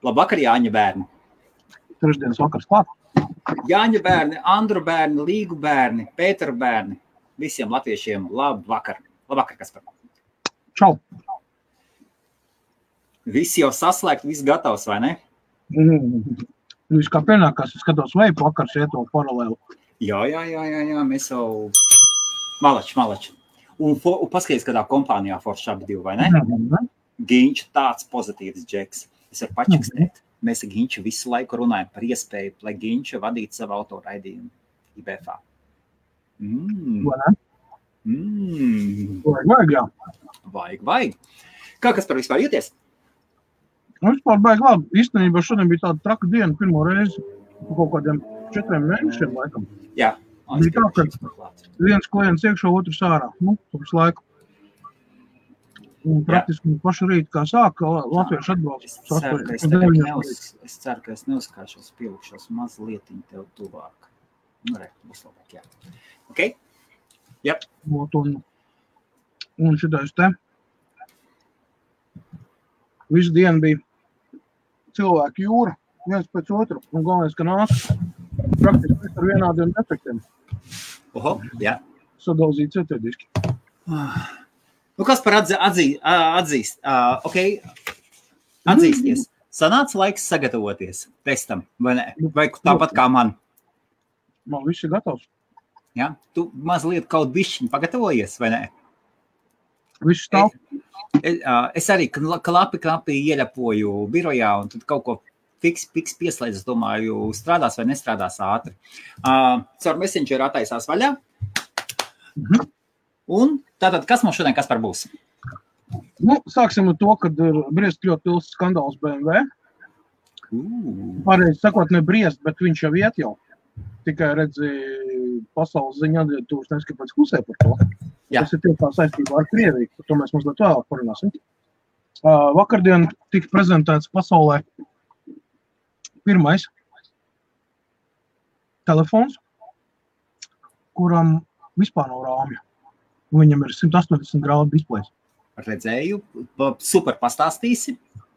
Labvakar, Jāņa bērni. Trešdienas vakars klāt. Jāņa bērni, Andru bērni, Līgu bērni, Pēteru bērni. Visiem latviešiem labvakar. Labvakar, Kaspar. Čau. Visi jau saslēgt, viss gatavs, vai ne? Viss kā pienākās, es skatos veipu vakars iet to paralēlu. Jā, mēs jau malači. Un paskaties, kādā kompānijā forši abi divi, vai ne? Giņš tāds pozitīvs džeks. Es varu pačikstēt. Mēs ar Giņšu visu laiku runājam par iespēju, lai Giņša vadītu savu autoraidījumu IBFā. Vajag, jā. Vajag. Kā kas par vispār jūties? Vispār baigi labi. Īstenībā šodien bija tāda traka diena pirmo reizi kaut kādiem 4 mēnešiem laikam. Jā. Bija tā, ka viens klients iekšā, otrs ārā. Visu laiku. Un praktiski pašu rīt, kā sāka, latviešu atbalsts. Es ceru, ka es neuzkāšos, pielikšos mazlietiņ tev tuvāk. Būs labāk, jā. Ok? Jep. Un šitais te. Visu dienu bija cilvēku jūra, viens pēc otru. Un galvenais, ka nāk praktiski ar vienādiem defektiem. Oho, jā. Sadalzīt cetēdiski. Kas par atzīst? Atzīsties. Sanāca laiks sagatavoties testam, vai ne? Vai tāpat kā man? Man viss ir gatavs. Jā? Tu mazliet kaut bišķiņ pagatavojies, vai ne? Viss stāv. Es arī klapi ieļapoju birojā un tad kaut ko fiks pieslēdz, es domāju, strādās vai nestrādās ātri. Caur Messenger attaisās vaļā. Un tātad, kas mums šodien Kaspar būs? Sāksim ar to, kad ir briest ļoti liels skandāls BMW. Pareizi sakot, ne briest, bet viņš jau iet jau. Tikai redzi pasaules ziņā atvietūs neskapēc klusē par to. Jā. Tas ir tiekā saistībā ar Krieviju, par to mēs mazliet vēlāk parunāsim. Vakardien tika prezentēts pasaulē pirmais telefons, kuram vispār nav rāmja. Viņam ir 180 grādu displejs. Redzēju, super pastāstīsi.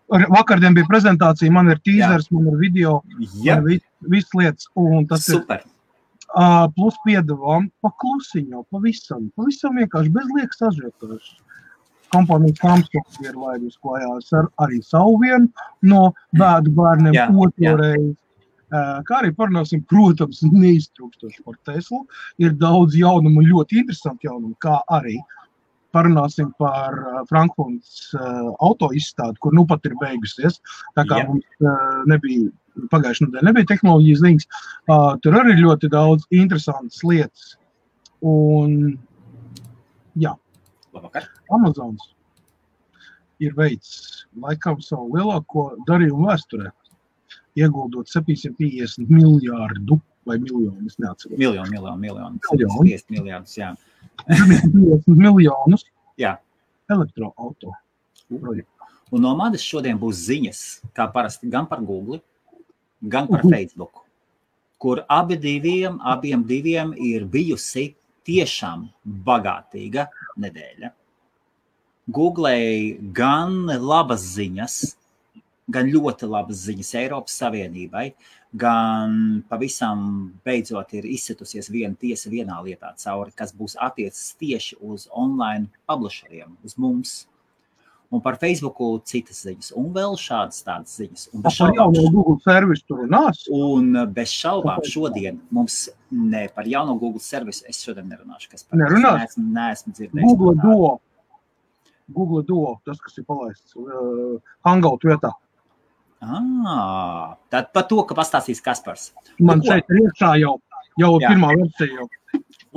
Vakardien bija prezentācija, man ir teasers, man ir video, man ir viss lietas. Un tas super. Plus piedevām pa klusiņo, pavisam vienkārši bez liekas ažiotāžas. Kompānijas Samsung ir laidus klājās ar arī savu vienu no bēdu bērniem otrais. Kā arī parunāsim, protams, neiztrūkstoši par Teslu. Ir daudz jaunumu, ļoti interesanti jaunumu, kā arī parunāsim par Frankfurtas auto izstādi, kur pat ir beigusies. Tā kā mums pagājušajā nedēļā nebija tehnoloģijas ziņas, tur arī ļoti daudz interesantas lietas. Un, jā, Labvakar. Amazons ir veids laikam savu lielāko darījumu vēsturē. Ieguldot 750 miljārdu vai miljonu, es neatceros. Miljonu. 750 miljārdus, jā. 750 miljonus elektroauto projektu. Un no manis šodien būs ziņas, kā parasti, gan par Google, gan par Facebook, kur abiem diviem ir bijusi tiešām bagātīga nedēļa. Googlei gan labas ziņas, gan ļoti labas ziņas Eiropas Savienībai, gan pavisam beidzot ir izsitusies viena tiesa vienā lietā cauri, kas būs attiecas tieši uz online publisheriem, uz mums. Un par Facebooku citas ziņas, un vēl šādas tādas ziņas. Un par jauno Google servisu tur runās? Un bez šaubām šodien mums par jauno Google servisu es šodien nerunāšu. Kas par nerunās? Neesmu dzirdējis. Google Duo, tas, kas ir palaists Hangout vietā. Tad par to, ka pastāstīs Kaspars. Man šeit ir iekšā jau pirmā versija jau.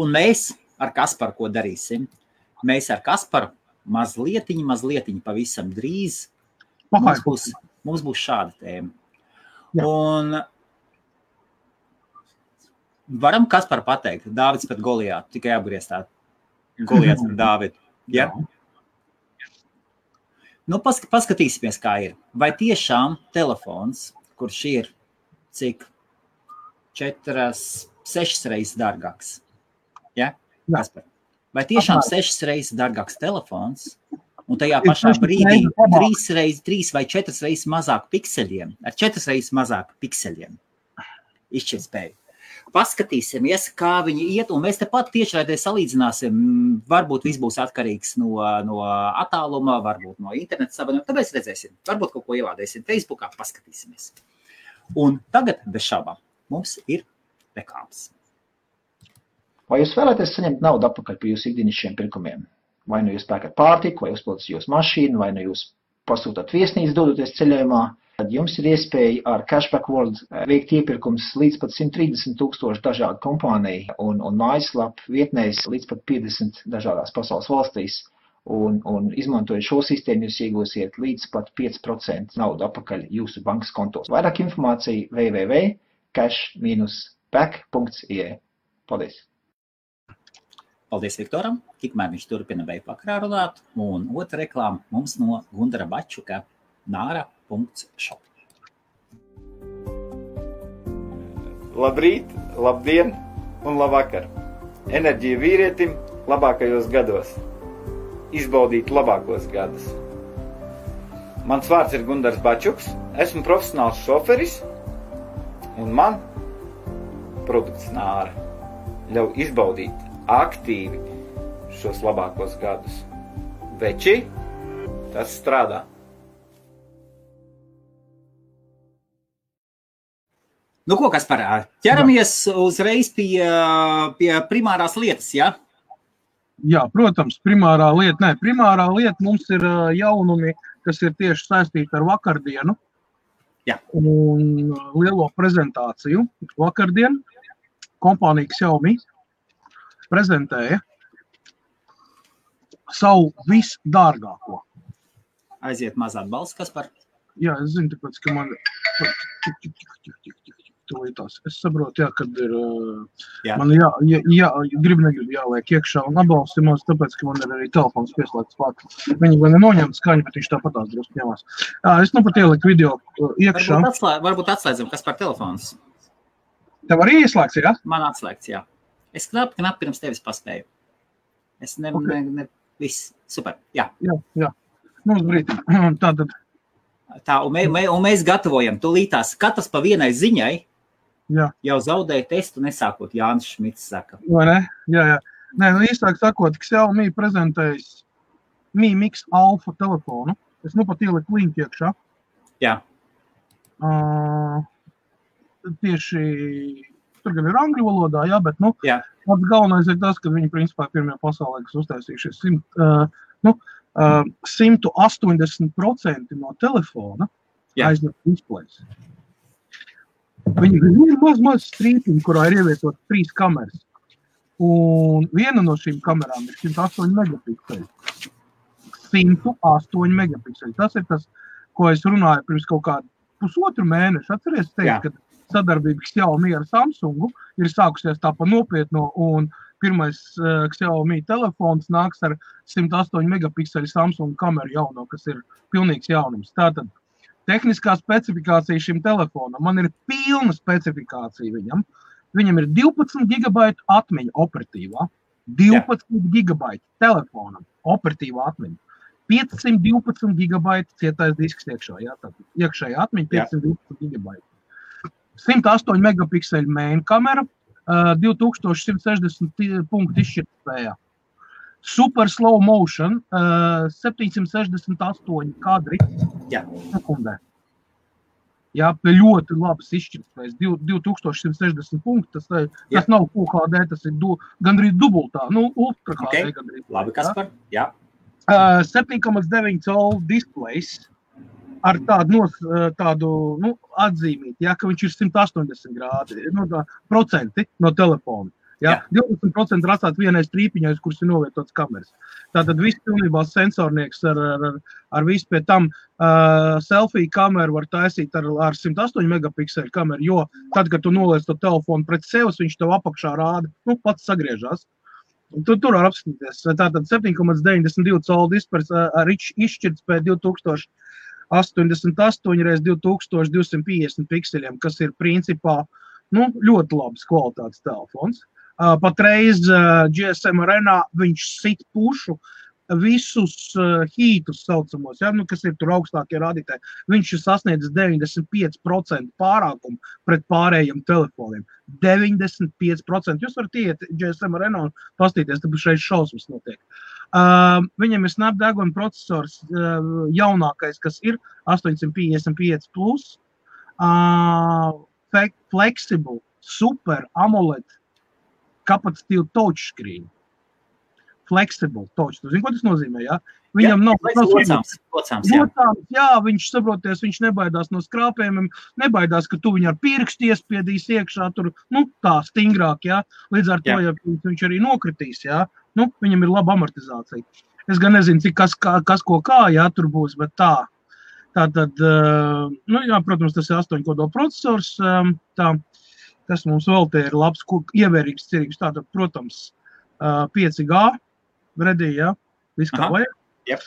Un mēs ar Kasparu ko darīsim? Mēs ar Kasparu mazlietiņi pavisam drīz. Mums būs šāda tēma. Jā. Un varam Kasparu pateikt, Dāvids pret Goliātu, tikai apgrieztā. Goliāts pret Dāvidu. Ja? Paskatīsimies, kā ir. Vai tiešām telefons, kurš ir cik 6 reizes dārgāks? Ja? Kaspar? Vai tiešām 6 reizes dārgāks telefons un tajā pašā brīdī 3 vai 4 reizes mazāk pikseļiem, ar 4 reizes mazāk pikseļiem izšķirtspēju. Paskatīsimies, kā viņi iet, un mēs tepat tiešraidē salīdzināsim. Varbūt viss būs atkarīgs no attāluma, varbūt no interneta savienojuma. Tāpēc redzēsim, varbūt kaut ko ielādēsim Facebookā, paskatīsimies. Un tagad, bez šaubām, mums ir reklāmas. Vai jūs vēlaties saņemt naudu atpakaļ par jūsu ikdienišķiem pirkumiem? Vai nu jūs pērkat pārtiku, vai uzpildat jūsu mašīnu, vai nu jūs pasūtat viesnīcu dodoties ceļojumā? Tad jums ir iespēja ar Cashback World veikt iepirkums līdz pat 130,000 dažādu kompāniju un mājaslapu vietnēs līdz pat 50 dažādās pasaules valstīs. Un izmantojot šo sistēmu, jūs iegūsiet līdz pat 5% naudu atpakaļ jūsu bankas kontos. Vairāk informācija www.cash-back.ie. Paldies! Paldies Viktoram, tikmēr viņš turpina veipakrā runāt, un otra reklāma mums no Gundara Bačuka, nara.shop. Labrīt, labdien un labvakar! Enerģija vīrietim labākajos gados. Izbaudīt labākos gadus. Mans vārds ir Gundars Bačuks, esmu profesionāls šoferis, un man produkts Nāra ļauj izbaudīt aktīvi šos labākos gadus. Veči, tas strādā. Nu, ko, Kaspar, ķeramies uzreiz pie primārās lietas, ja? Jā, protams, primārā lieta mums ir jaunumi, kas ir tieši saistīti ar vakardienu. Jā. Un lielo prezentāciju. Vakardien kompānija Xiaomi prezentēja savu visdārgāko. Aiziet maz atbalsts, Kaspar. Jā, es zinu, tāpēc, ka man... Es saprotu, jā, kad ir... Jā. Man negrib jāliek iekšā un atbalstimos, tāpēc, ka man ir arī telefons pieslēgts klāt. Viņi gan neņemt skaņu, bet viņš tāpatās drusku ņemās. Es nu pat ieliku video iekšā. Varbūt atslēdzam, kas par telefons. Tev arī ieslēgts, jā? Man atslēgts, jā. Es knapi pirms tevis paspēju. Es viss, super, jā. Jā. Mums brīdī. Tātad. Tā, un mēs gatavojam tūlītās katrs pa vienai ziņai. Jā. Jau zaudēja testu nesākot, Jānis Šmits saka. Vai ne? Jā. Nē, īstāk sakot, Xiaomi prezentējis Mi Mix Alpha telefonu. Es nu pat ieliku linku iekšā. Jā. Tieši, tur gan ir angļu valodā, jā, bet, pats galvenais ir tas, ka viņi principā pirmie pasaulē, kas uztaisījušies 180% no telefona aizņem displejs. Viņi ir maz strīpiņi, kurā ir ievietot 3 kameras. Un viena no šīm kamerām ir 108 megapikseli. 108 megapikseli. Tas ir tas, ko es runāju pirms kaut kādu pusotru mēnešu. Atceries teikt, ka sadarbība Xiaomi ar Samsungu ir sākusies tā pa nopietno, un pirmais Xiaomi telefons nāks ar 108 megapikseli Samsung kameru jauno, kas ir pilnīgs jaunums. Tātad tehniskā specifikācija šim telefonam. Man ir pilna specifikācija viņam. Viņam ir 12 GB atmiņa operatīvā. 12 GB telefonam operatīvā atmiņa. 512 GB cietais disks iekšā. Jā, tātad iekšējā atmiņa 512 GB. 108 megapikseli main kamera, 2160 punktu izšķirtspējā. Super slow motion, 768 kadri sekundē. Jā, ļoti labas izšķirtspējas, 2160 punkti, tas nav UHD, tas ir gandrīz dubultā, ultra HD gandrīz. Labi, Kaspar, jā. 7,9 colu displejs ar tādu atzīmīti, jā, ka viņš ir 180 grādi, procenti no telefona. Jā. 20% ir atstāt vienai strīpiņai, kuras ir novietotas kameras. Tātad viss pilnībā sensornieks ar visu pie tam selfie kameru var taisīt ar 108 megapikseli kameru, jo tad, kad tu noliec to telefonu pret sevis, viņš tev apakšā rāda, pats sagriežās. Tur var apskatīties. Tātad 7,92 colu displejs ar izšķirtspēju 2088 x 2250 pikseļiem, kas ir principā ļoti labs kvalitātes telefons. Patreiz GSM Arena viņš sit pušu visus hītus saucamos, ja, nu, kas ir tur augstākie rādītāji, viņš ir sasniedzis 95% pārākumu pret pārējiem telefoniem. 95%. Jūs varat iet GSM Arena un pastīties, tāpēc šeit šausmas notiek. Viņam ir Snapdragon procesors jaunākais, kas ir 855 plus, flexible, super AMOLED, kapacitīvu touchscreen. Flexible touch. Tu zini, ko tas nozīmē, jā? Viņam nav locāms, jā. Jā, viņš saproties, viņš nebaidās no skrāpējumiem, nebaidās, ka tu viņu ar pirkstu iespiedīs iekšā tur, nu, tā stingrāk, jā. Līdz ar to, ja viņš arī nokritīs, jā, nu, viņam ir laba amortizācija. Es gan nezinu, cik kas ko kā, jā, tur būs, bet tā. Tātad, nu, jā, protams, tas ir 8 kodola procesors, tā, kas mums vēl te ir labs, ievērīgs, cerīgs, tātad, protams, 5G redī, jā, viss kā vajag. Yep.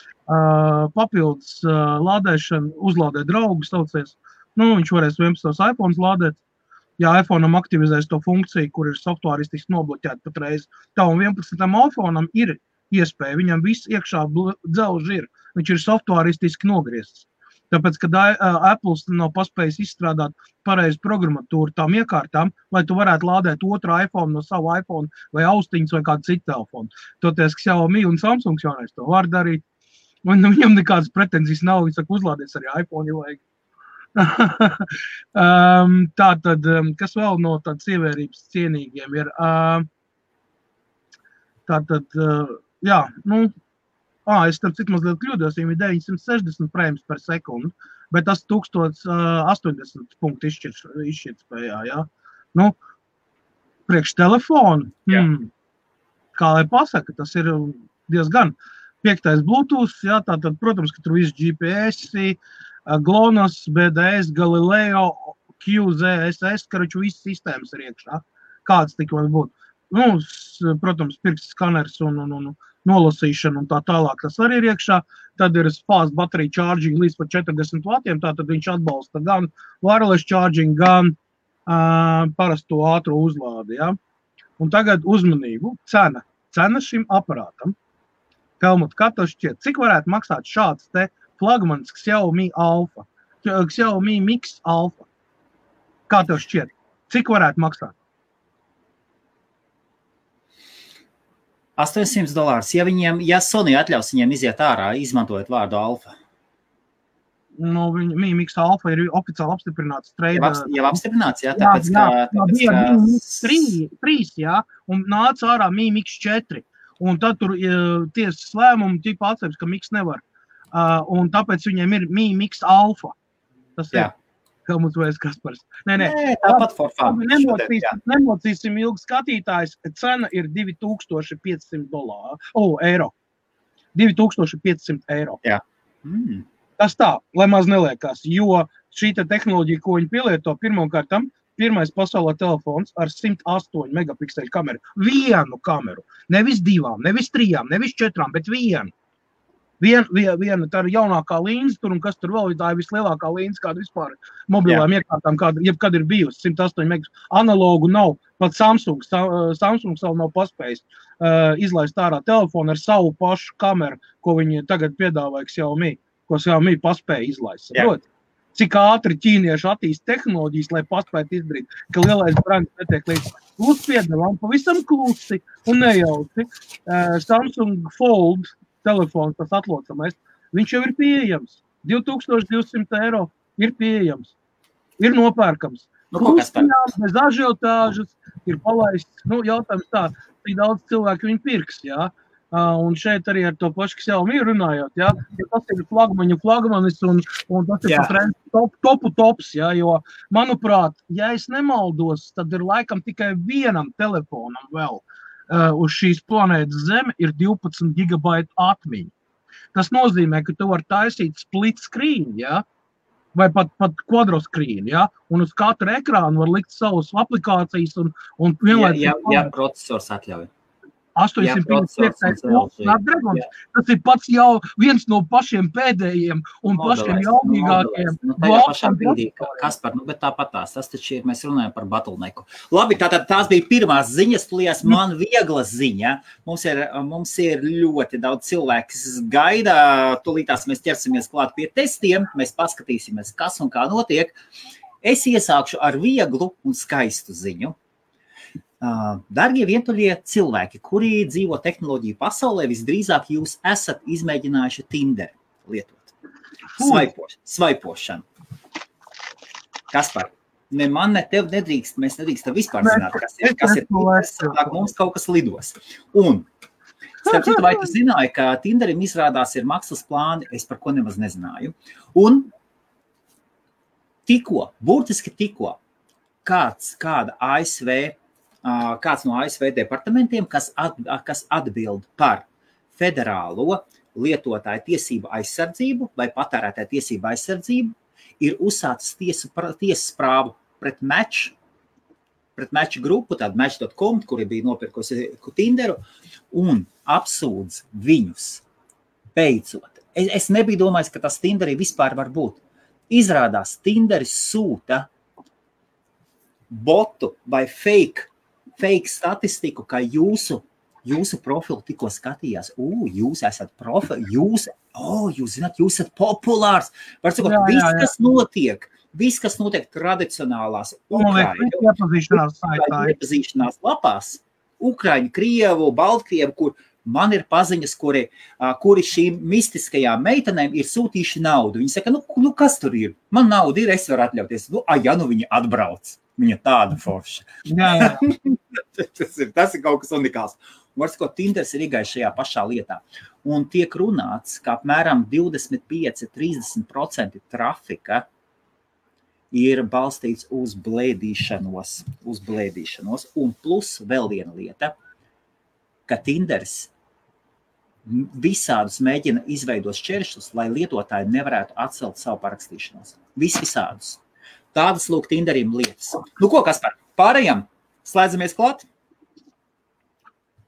Papildus lādēšana, uzlādēt draugus, saucies. Nu, viņš varēs 11 iPhones lādēt. Ja iPhone'am aktivizēs to funkciju, kur ir softvāristiski nobloķēta patreiz, tā un 11. iPhone'am ir iespēja, viņam viss iekšā dzelži ir, viņš ir softvāristiski nogriezts. Tāpēc, kad Apple nav paspējis izstrādāt pareizu programmatūru tām iekārtām, lai tu varētu lādēt otru iPhone no savu iPhone vai austiņas vai kādu citu telefonu. Toties Xiaomi un Samsung jaunais to var darīt. Un viņam nekādas pretenzijas nav, viņš saka, uzlādies arī iPhone, ja vajag. Tātad, kas vēl no tādas ievērības cienīgiem ir? Tātad, jā, nu, es tam cik mazliet kļūdos, viņam ir 960 frames per sekundi, bet tas 1080 punktu izšķirtspējā, jā. Nu, priekš telefonu, kā lai pasaka, tas ir diezgan 5. Bluetooth, jā, tātad, protams, ka tur viss GPS, GLONASS, BDS, Galileo, QZSS, karoču visas sistēmas ir iekšā. Kāds tik var būt? Nu, protams, pirksts skaners un nolasīšana un tā tālāk, tas arī ir iekšā. Tad ir fast battery charging līdz pat 40 vatiem, tātad viņš atbalsta gan wireless charging, gan parasto ātro uzlādi, ja? Un tagad uzmanību, cena šim aparātam. Helmut, kā tev šķiet, cik varētu maksāt šāds te flagmans Xiaomi Alpha, Xiaomi Mix Alpha? Kā tev šķiet, cik varētu maksāt? $800. Ja Sony atļaus viņiem iziet ārā, izmantojot vārdu Alfa. Nu, Mi Mix Alpha ir oficiāli apstiprināts trade. Jau apstiprināts, jā, tāpēc, ka... Trīs, jā, un nāca ārā Mi Mix 4. Un tad tur tiesas lēmumu tipa atceras, ka Mix nevar. Un tāpēc viņiem ir Mi Mix Alpha. Tas ir. Helmuts vai Kaspars. Nē, tāpat for fun. Nemocīsim ilgi skatītājs. Cena ir $2500 eiro. 2500 eiro. Jā. Tas tā, lai maz neliekās, jo šī tehnoloģija, ko viņi pielieto, pirmkārtam, pirmais pasaulē telefons ar 108 megapikseļu kameru. Vienu kameru. Nevis 2, nevis 3, nevis 4, bet vienu. Viena tā ir jaunākā līnijas tur, un kas tur vēl, tā ir vislielākā līnijas, kāda vispār mobilām iekārtām, jebkad ir bijusi, 108 megas. Analogu nav, pat Samsung vēl nav paspējis izlaist ārā telefonu ar savu pašu kameru, ko viņi tagad piedāvāja Xiaomi, ko Xiaomi paspēja izlaist. Saprot? Cik ātri ķīnieši attīst tehnoloģijas, lai paspētu izdarīt, ka lielais brands netiek līdz. Piedāvām pavisam klusi un nejauci. Samsung Fold telefons, tas atlocamais, viņš jau ir pieejams. 2200 eiro ir pieejams. Ir nopērkams. Bez ažiotāžas ir palaists. Nu, jautājums tā, cik daudz cilvēku viņi pirks, jā. Un šeit arī ar to pašu Xiaomi runājot, jā. Ja tas ir flagmanis un tas ir pat tops, jā. Jo, manuprāt, ja es nemaldos, tad ir laikam tikai vienam telefonam vēl. Uz šīs planētas Zeme ir 12 GB atmiņa. Tas nozīmē, ka tu vari taisīt split screen, ja? Vai pat quadro screen, ja? Un uz katru ekrānu var likt savus aplikācijas un vienlaicīgi... Ja procesors atļauj. 855. Snapdragons. Tas ir pats jau viens no pašiem pēdējiem un pašiem jaudīgākiem. Nu, tajā pašā brīdī, Kaspar, bet tāpatās, tas taču ir, mēs runājam par bottlenecku. Labi, tātad tās bija pirmās ziņas, tulījās man viegla ziņa. Mums ir ļoti daudz cilvēku, kas gaida, tulītās mēs ķersimies klāt pie testiem, mēs paskatīsimies, kas un kā notiek. Es iesākšu ar vieglu un skaistu ziņu. Dargie vientuļie cilvēki, kuri dzīvo tehnoloģiju pasaulē, visdrīzāk jūs esat izmēģinājuši Tinder lietot. Svaipošanu. Kaspar, ne man, ne tev nedrīkst, mēs nedrīkstam vispār zināt, kas ir Tinder, mums kaut kas lidos. Un, starp citu, vai tu zināji, ka Tinderim izrādās ir maksas plāni, es par ko nemaz nezināju. Un burtiski tikko, kāds no ASV departamentiem, kas atbild par federālo lietotāju tiesību aizsardzību vai patērētāju tiesību aizsardzību, ir uzsācis tiesas prāvu pret Match grupu, tādu Match.com, kuri bija nopirkusi Tinderu, un apsūdz viņus beidzot. Es nebiju domājis, ka tas Tinderī vispār var būt. Izrādās, Tinderis sūta botu vai fake statistiku, ka jūsu profilu tikko skatījās. Jūs esat jūs zināt, jūs esat populārs. Var sakot, viss, kas notiek tradicionālās Ukraiņu iepazīšanās lapās, Ukraiņu, Krievu, Baltkrievu, kur man ir paziņas, kuri šīm mistiskajām meitenēm ir sūtījuši naudu. Viņi saka, nu kas tur ir? Man nauda ir, es varu atļauties. Viņi atbrauc. Viņa tāda forša. Jā. Tas ir kaut kas unikāls. Un var sakot, Tinders ir igais šajā pašā lietā. Un tiek runāts, ka apmēram 25–30% trafika ir balstīts uz blēdīšanos. Un plus vēl viena lieta, ka Tinders visādus mēģina izveidot šķēršļus, lai lietotāji nevarētu atcelt savu parakstīšanos. Visādus. Tādas lūk Tinderim lietas. Nu ko, Kaspar, pārējām? Slēdzamies klāt?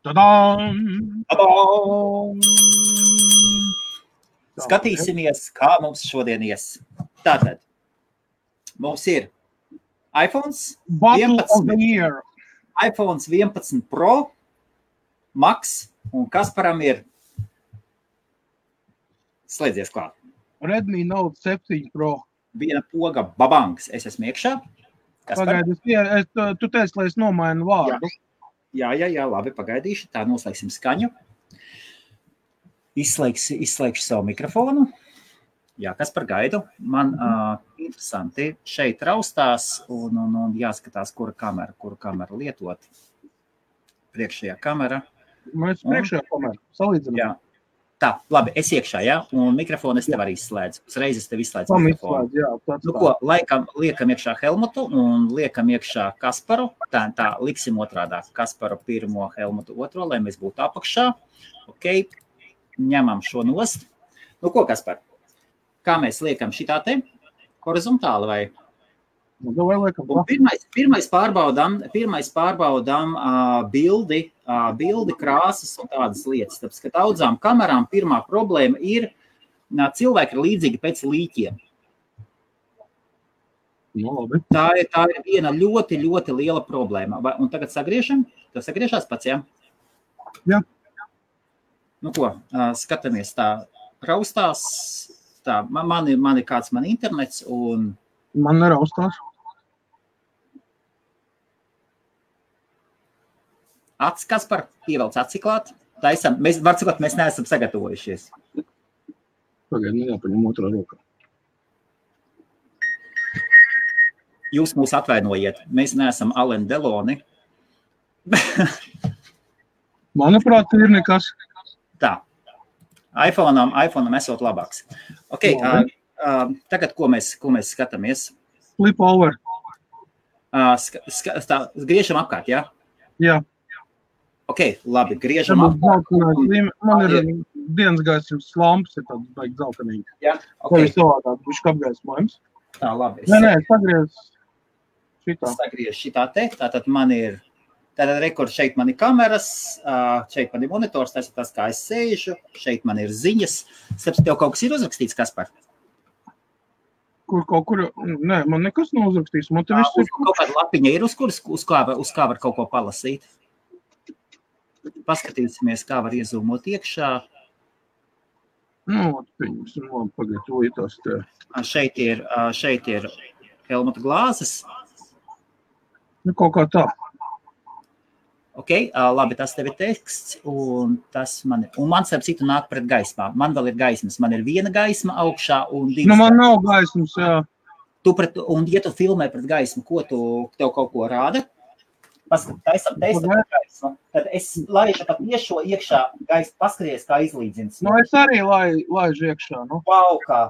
Tadām! Skatīsimies, kā mums šodien ies. Tātad, mums ir iPhones 11 Pro, Max, un Kasparam ir slēdzies klāt. Redmi Note 7 Pro. Viena poga babangs. Es esmu iekšā. Pagaidi, tu teici, lai es nomainu vārdu. Jā, labi, pagaidīšu. Tā noslēgsim skaņu. Izslēgšu savu mikrofonu. Jā, Kaspar, gaidu. Man interesanti šeit raustās un jāskatās, kura kamera lietot. Priekšējā kamera. Mēs priekšējā kamera. Salīdzinām. Jā. Tā, labi, es iekšā, jā, un mikrofonu es tev arī izslēdzu. Uzreiz es tev izslēdzu mikrofonu. Nu ko, liekam iekšā Helmutu un liekam iekšā Kasparu. Tā, liksim otrādāk. Kasparu pirmo, Helmutu otro, lai mēs būtu apakšā. Ok, ņemam šo nost. Nu ko, Kaspar, kā mēs liekam šitā te? Horizontāli vai? Un pirmais pārbaudām bildi, krāsas un tādas lietas. Tāpēc, ka daudzām kamerām pirmā problēma ir, cilvēki ir līdzīgi pēc līķiem. Tā ir viena ļoti, ļoti liela problēma. Un tagad sagriežam? Tev sagriežās pats, jā? Jā. Nu ko, skatāmies tā raustās. Tā, man ir kāds internets un... Man neraustās. Acis, Kaspar, ievelc aci klāt. Mēs neesam sagatavojušies. Pagaid, jāpaņem otrā rokā. Jūs mūs atvainojiet. Mēs neesam Alain Deloni. Manuprāt, ir nekas. Tā. iPhone'am esot labāks. Ok, tagad, ko mēs skatāmies? Flip over. Griežam apkārt, jā? Jā. Ok, labi, griežam apkārt. Man ir dienas gaismas lampas, ir tāds baigi zeltenīgi. Jā, ok. Tā ir savādāk, bišķi apgaismojums. Tā, labi. Nē, sagriez šitā. Sagriez šitā te, tātad man ir Tātad rekur šeit man ir kameras, šeit man ir monitors, tas ir tas, kā es sēžu, šeit man ir ziņas. Starp tev kaut kas ir uzrakstīts, Kaspar? Kur, nē, man nekas nav uzrakstīts. Man te viss ir. Kaut kāda lapiņa ir, uz kā var kaut ko palasīt. Paskatīsimies, kā var iezūmot iekšā. Nu, pieņemsim, labi, pagaidotās te. Šeit ir Helmuta glāzes. Nu, kaut kā tā. Ok, labi, tas tev ir teksts, un tas man ir. Un man starp citu nāk pret gaismā. Man vēl ir gaismas. Man ir viena gaisma augšā un divas. Nu, man nav gaismas, jā. Un ja tu filmē pret gaismu, ko tev kaut ko rāda? Taisam pret gaismu. Tad es laižu pat tiešo iekšā gaismu, paskaties, kā izlīdzins. Nu, es arī laižu iekšā, nu. Wow, kā.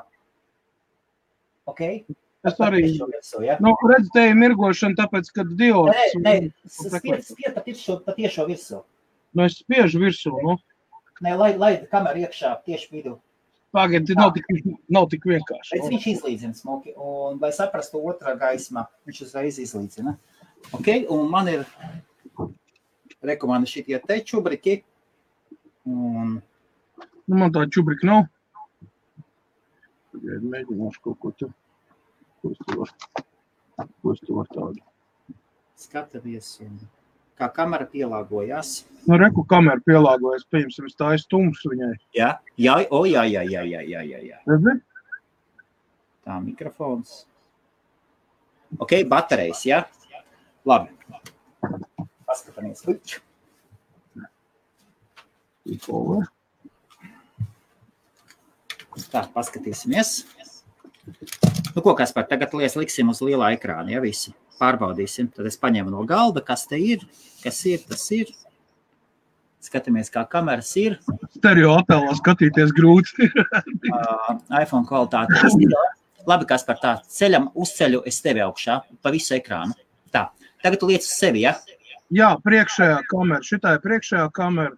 Ok. Es arī, nu, redz, te ir mirgošana, tāpēc, kad diods... Nē, spied pa tiešo virsū. Nu, es spiežu virsū, nu. Nē, laid kameru iekšā tieši vidū. Pagaid, nav tik vienkārši. Bet viņš izlīdzina smuki, un lai saprastu otrā gaismā, viņš uzreiz izlīdzina. Ok, un man ir rekomanda šitie te čubriki. Un... Nu, man tā čubrika nav. Pagaid, mēģināšu kaut ko tu. Ko es tu var tādu? Skatamies, un kā kamera pielāgojās. Nu, reku kamera pielāgojas, pieņemsim, es tā tumšs viņai. Jā. Redzi? Tā, mikrofons. Ok, baterijas, jā? Labi. Paskatāmies. Tā, paskatīsimies. Nu, ko, Kaspar, tagad liksim uz lielā ekrāna, ja visi pārbaudīsim. Tad es paņēmu no galda, kas te ir, tas ir. Skatāmies, kā kameras ir. Stereo attēlā skatīties grūti. iPhone kvalitāte. Labi, Kaspar, tā, uzceļu es tevi augšā, pa visu ekrānu. Tā, tagad tu liec uz sevi, ja? Jā, priekšējā kamera, šitā ir priekšējā kamera.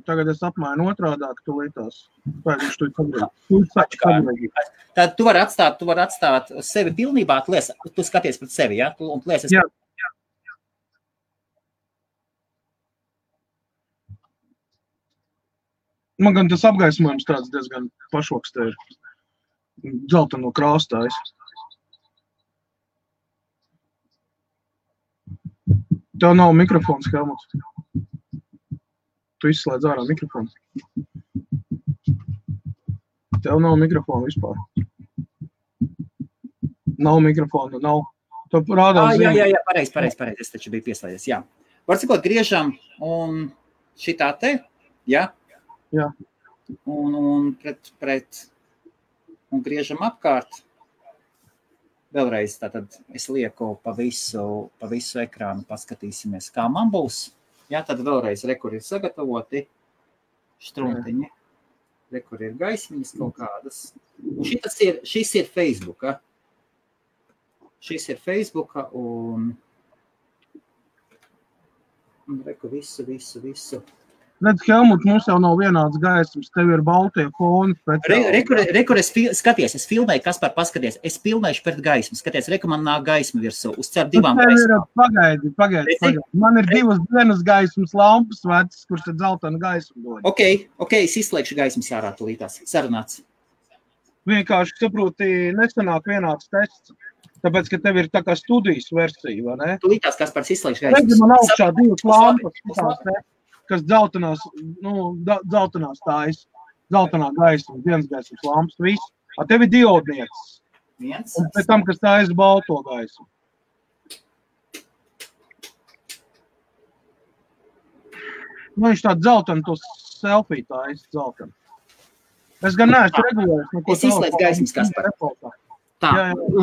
Tagad es apmainu otrādāk, tu lietās. Viņš tu Tad tu vari atstāt sevi pilnībā, tu skaties pret sevi, ja? Jā. Man gan tas apgaismojums tāds diezgan pašoks te ir. Dzelteno krāstājs. Tev nav mikrofons, Helmuts. Tu izslēdz ārā mikrofonu. Tev nav mikrofona vispār. Nav mikrofona, nav. Tu rādās Jā, pareizi. Es taču biju pieslēdzies, jā. Var sakot, griežam un šitā te, jā? Jā. Un un griežam apkārt. Vēlreiz tātad es lieku pa visu ekrānu, paskatīsimies, kā man būs. Jā, tad vēlreiz rekur ir sagatavoti štrumtiņi. Rekur ir gaismiņas kaut kādas. Un šis ir Facebooka. Šis ir Facebooka un reku visu. Redz, Helmut, mums jau nav vienāds gaismas, tev ir baltie foni. Rekur es filmēju, Kaspar, paskaties, es filmēšu pret gaismu, skaties, reku man nāk gaisma virsū, uz cer divām gaismām. Pagaidi. Man ir divas gaismas lampas vecas, kurš tad zeltainu gaismu dod. Ok, es izslēgšu gaismas ārā tulītās, sarunāts. Vienkārši saproti, nesanāk vienāds tests, tāpēc, ka tev ir tā kā studijas versija, vai ne? Tulītās, Kaspars, izslēgšu gaismas. Redzi, man augšā divas lampas, kas dzeltenās tājas, zeltenā gaisma, dienas gaismas lampas, viss. A tev ir diodniecis. Un pēc tam, kas tājas balto gaismu. Nu, viņš tādu zeltenu, to selfie tājas zeltenu. Es gan neesmu regulējis. Es izslēdzu gaismas, Kaspar. Tā,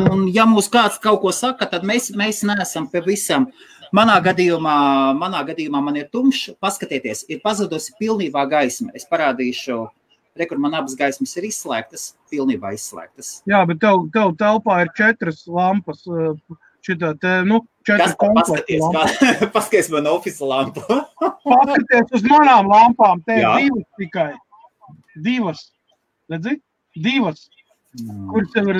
un ja mūs kāds kaut ko saka, tad mēs neesam pie visam. Manā gadījumā man ir tumšs, paskatieties, ir pazudusi pilnībā gaisma. Es parādīšu, rekur man abas gaismas ir izslēgtas, pilnībā izslēgtas. Jā, bet tev telpā ir 4 lampas, šitā te, 4 komplekta lampas. Paskaties man ofisa lampu. Paskaties uz manām lampām, te ir 2 tikai. 2. Redzi? 2. Kurš jau ir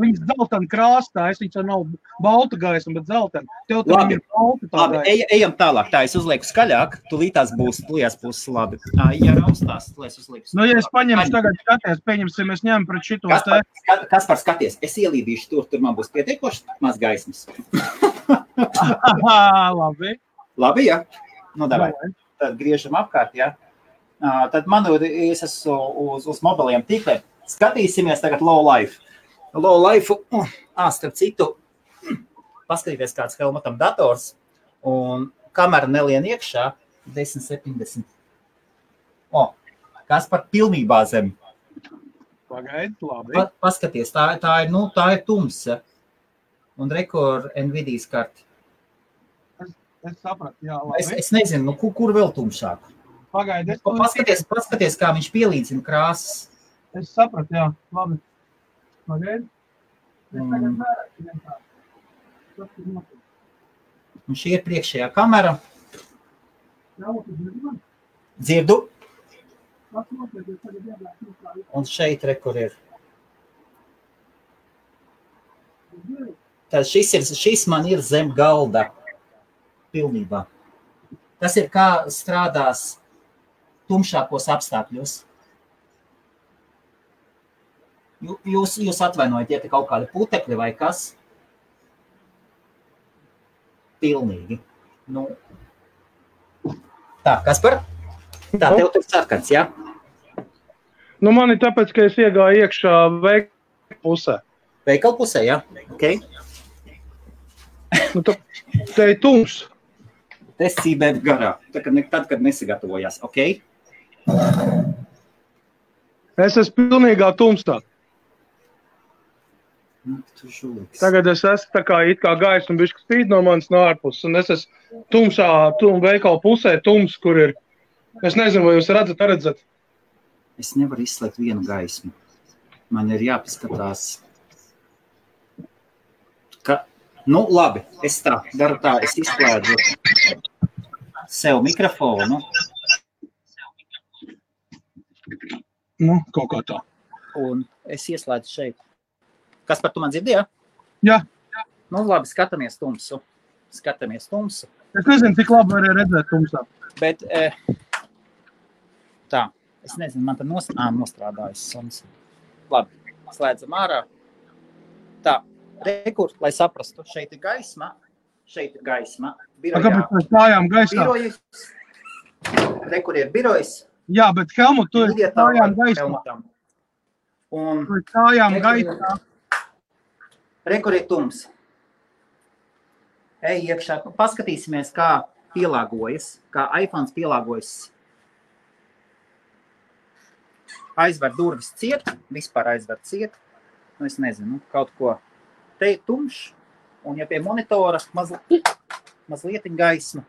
viņas dzeltena krāstā, viņas jau nav balta gaisma, bet dzeltena. Tev tam ir balta tā Labi, gaisma. ejam tālāk. Tā, es uzlieku skaļāk, tulītās būs labi. Ja raustās, lai es uzlieku. Nu, ja es paņemšu tagad skaties, pieņemsim, es ņemu pret šito te. Kaspar, skaties, es ielīdīšu tur man būs pietiekoši maz gaismas. Labi. Labi, ja? Nu, davai. Tad griežam apkārt, ja? Tad man es esmu uz mobiliem tīkliem. Skatīsimies tagad low life. Low life, starp citu, paskatīties kāds Helmutam dators, un kamera nelien iekšā 1070. Kaspar pilnībā zem. Pagaid, labi. Paskaties, tā ir tumsa. Un rekord Nvidias karti. Es sapratu, jā, labi. Es nezinu, kur vēl tumšāk. Pagaid, Paskaties, kā viņš pielīdzina krāsas. Es sapratu, jā, labi. Pagaid. Un šī ir priekšējā kamera. Dzirdu. Un šeit rekur ir. Tad šis man ir zem galda. Pilnībā. Tas ir kā strādās tumšākos apstākļos. Jūs atvainojiet, ja te kaut kādi putekļi vai kas? Pilnīgi. Nu. Tā, Kaspar? Tā, tev tur sarkans, jā? Nu, man ir tāpēc, ka es iegāju iekšā veikala pusē. Veikala pusē, jā? Ok. Nu, te ir tums. Te sībēt garā, tad, kad nesagatavojās, ok? Es esmu pilnīgā tumsā. Tagad es esmu tā kā it kā gaisma bišķi spīd no manis no ārpuses, un es esmu tumšā veikala pusē, tums, kur ir. Es nezinu, vai jūs redzat? Es nevaru izslēgt vienu gaismu. Man ir jāpaskatās. Nu, labi, es daru tā, es izslēdzu sev mikrofonu. Nu, kaut kā tā. Un es ieslēdzu šeit. Kas par tu man dzirdi, jā? Jā. Nu, labi, skatāmies tumsu. Es nezinu, cik labi var redzēt tumsā. Bet, tā, es nezinu, man tad nostrādājas suns. Labi, slēdzam ārā. Tā, rekur, lai saprastu, šeit ir gaisma. Birojā. Kāpēc mēs stājām gaisā? Rekur ir birojas. Jā, bet Helmut, tu ir stājām gaisā. Un tu ir stājām gaisā. Rekur ir tums. Ej iekšā, paskatīsimies, kā pielāgojas, kā iPhones pielāgojas. Aizver durvis ciet, vispār aizver ciet. Nu, es nezinu, kaut ko. Te ir tumšs, un ja pie monitora mazlietiņ gaisma.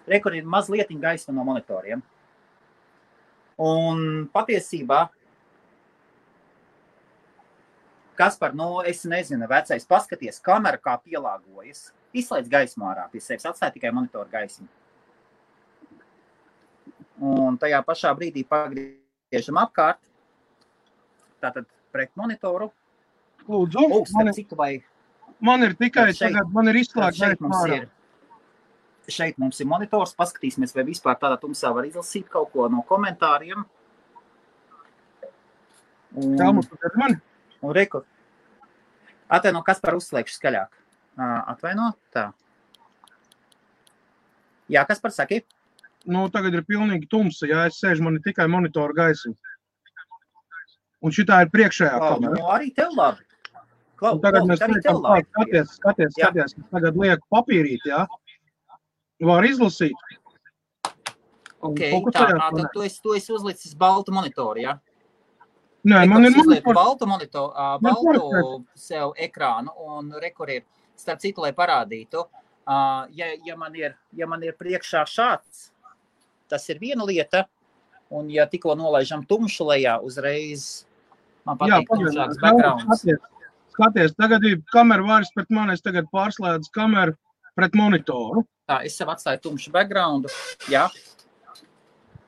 Rekur ir mazlietiņ gaisma no monitoriem. Un patiesībā, Kaspar, nu, es nezinu, vecais, paskaties, kamera kā pielāgojas. Izslēdz gaismu ārā pie sevis, atstāj tikai monitoru gaismu. Un tajā pašā brīdī pagriežam apkārt. Tātad pret monitoru. Lūdzu, man ir tikai tagad, man ir izslēgts gaismu ārā. Šeit mums ir monitors, paskatīsimies, vai vispār tādā tumsā var izlasīt kaut ko no komentāriem. Helmut, tu dzirdi mani? Un rekur. Atvaino, Kaspar, uzslēgšu skaļāk. Atvaino, tā. Jā, Kaspar, saki? Nu, tagad ir pilnīgi tumsa, jā, es sēžu, man ir tikai monitoru gaisma. Un šitā ir priekšējā kamera. Nu, arī tev labi. Tagad mēs skaties, tagad lieku papīrīt, jā. Var izlasīt. Ok, tā, tad tu esi uzlicis baltu monitoru, jā? Nē, man ir monitors. Baltu sev ekrānu un rekur ir, starp citu, lai parādītu, ja man ir priekšā šāds, tas ir viena lieta, un ja tikko nolaižam tumšu lejā, uzreiz man patīk tumšāks backgrounds. Skaties, tagad ir kamera vairs pret mani, es tagad pārslēdzu kameru pret monitoru. Tā, es sev atstāju tumšu backgroundu, jā.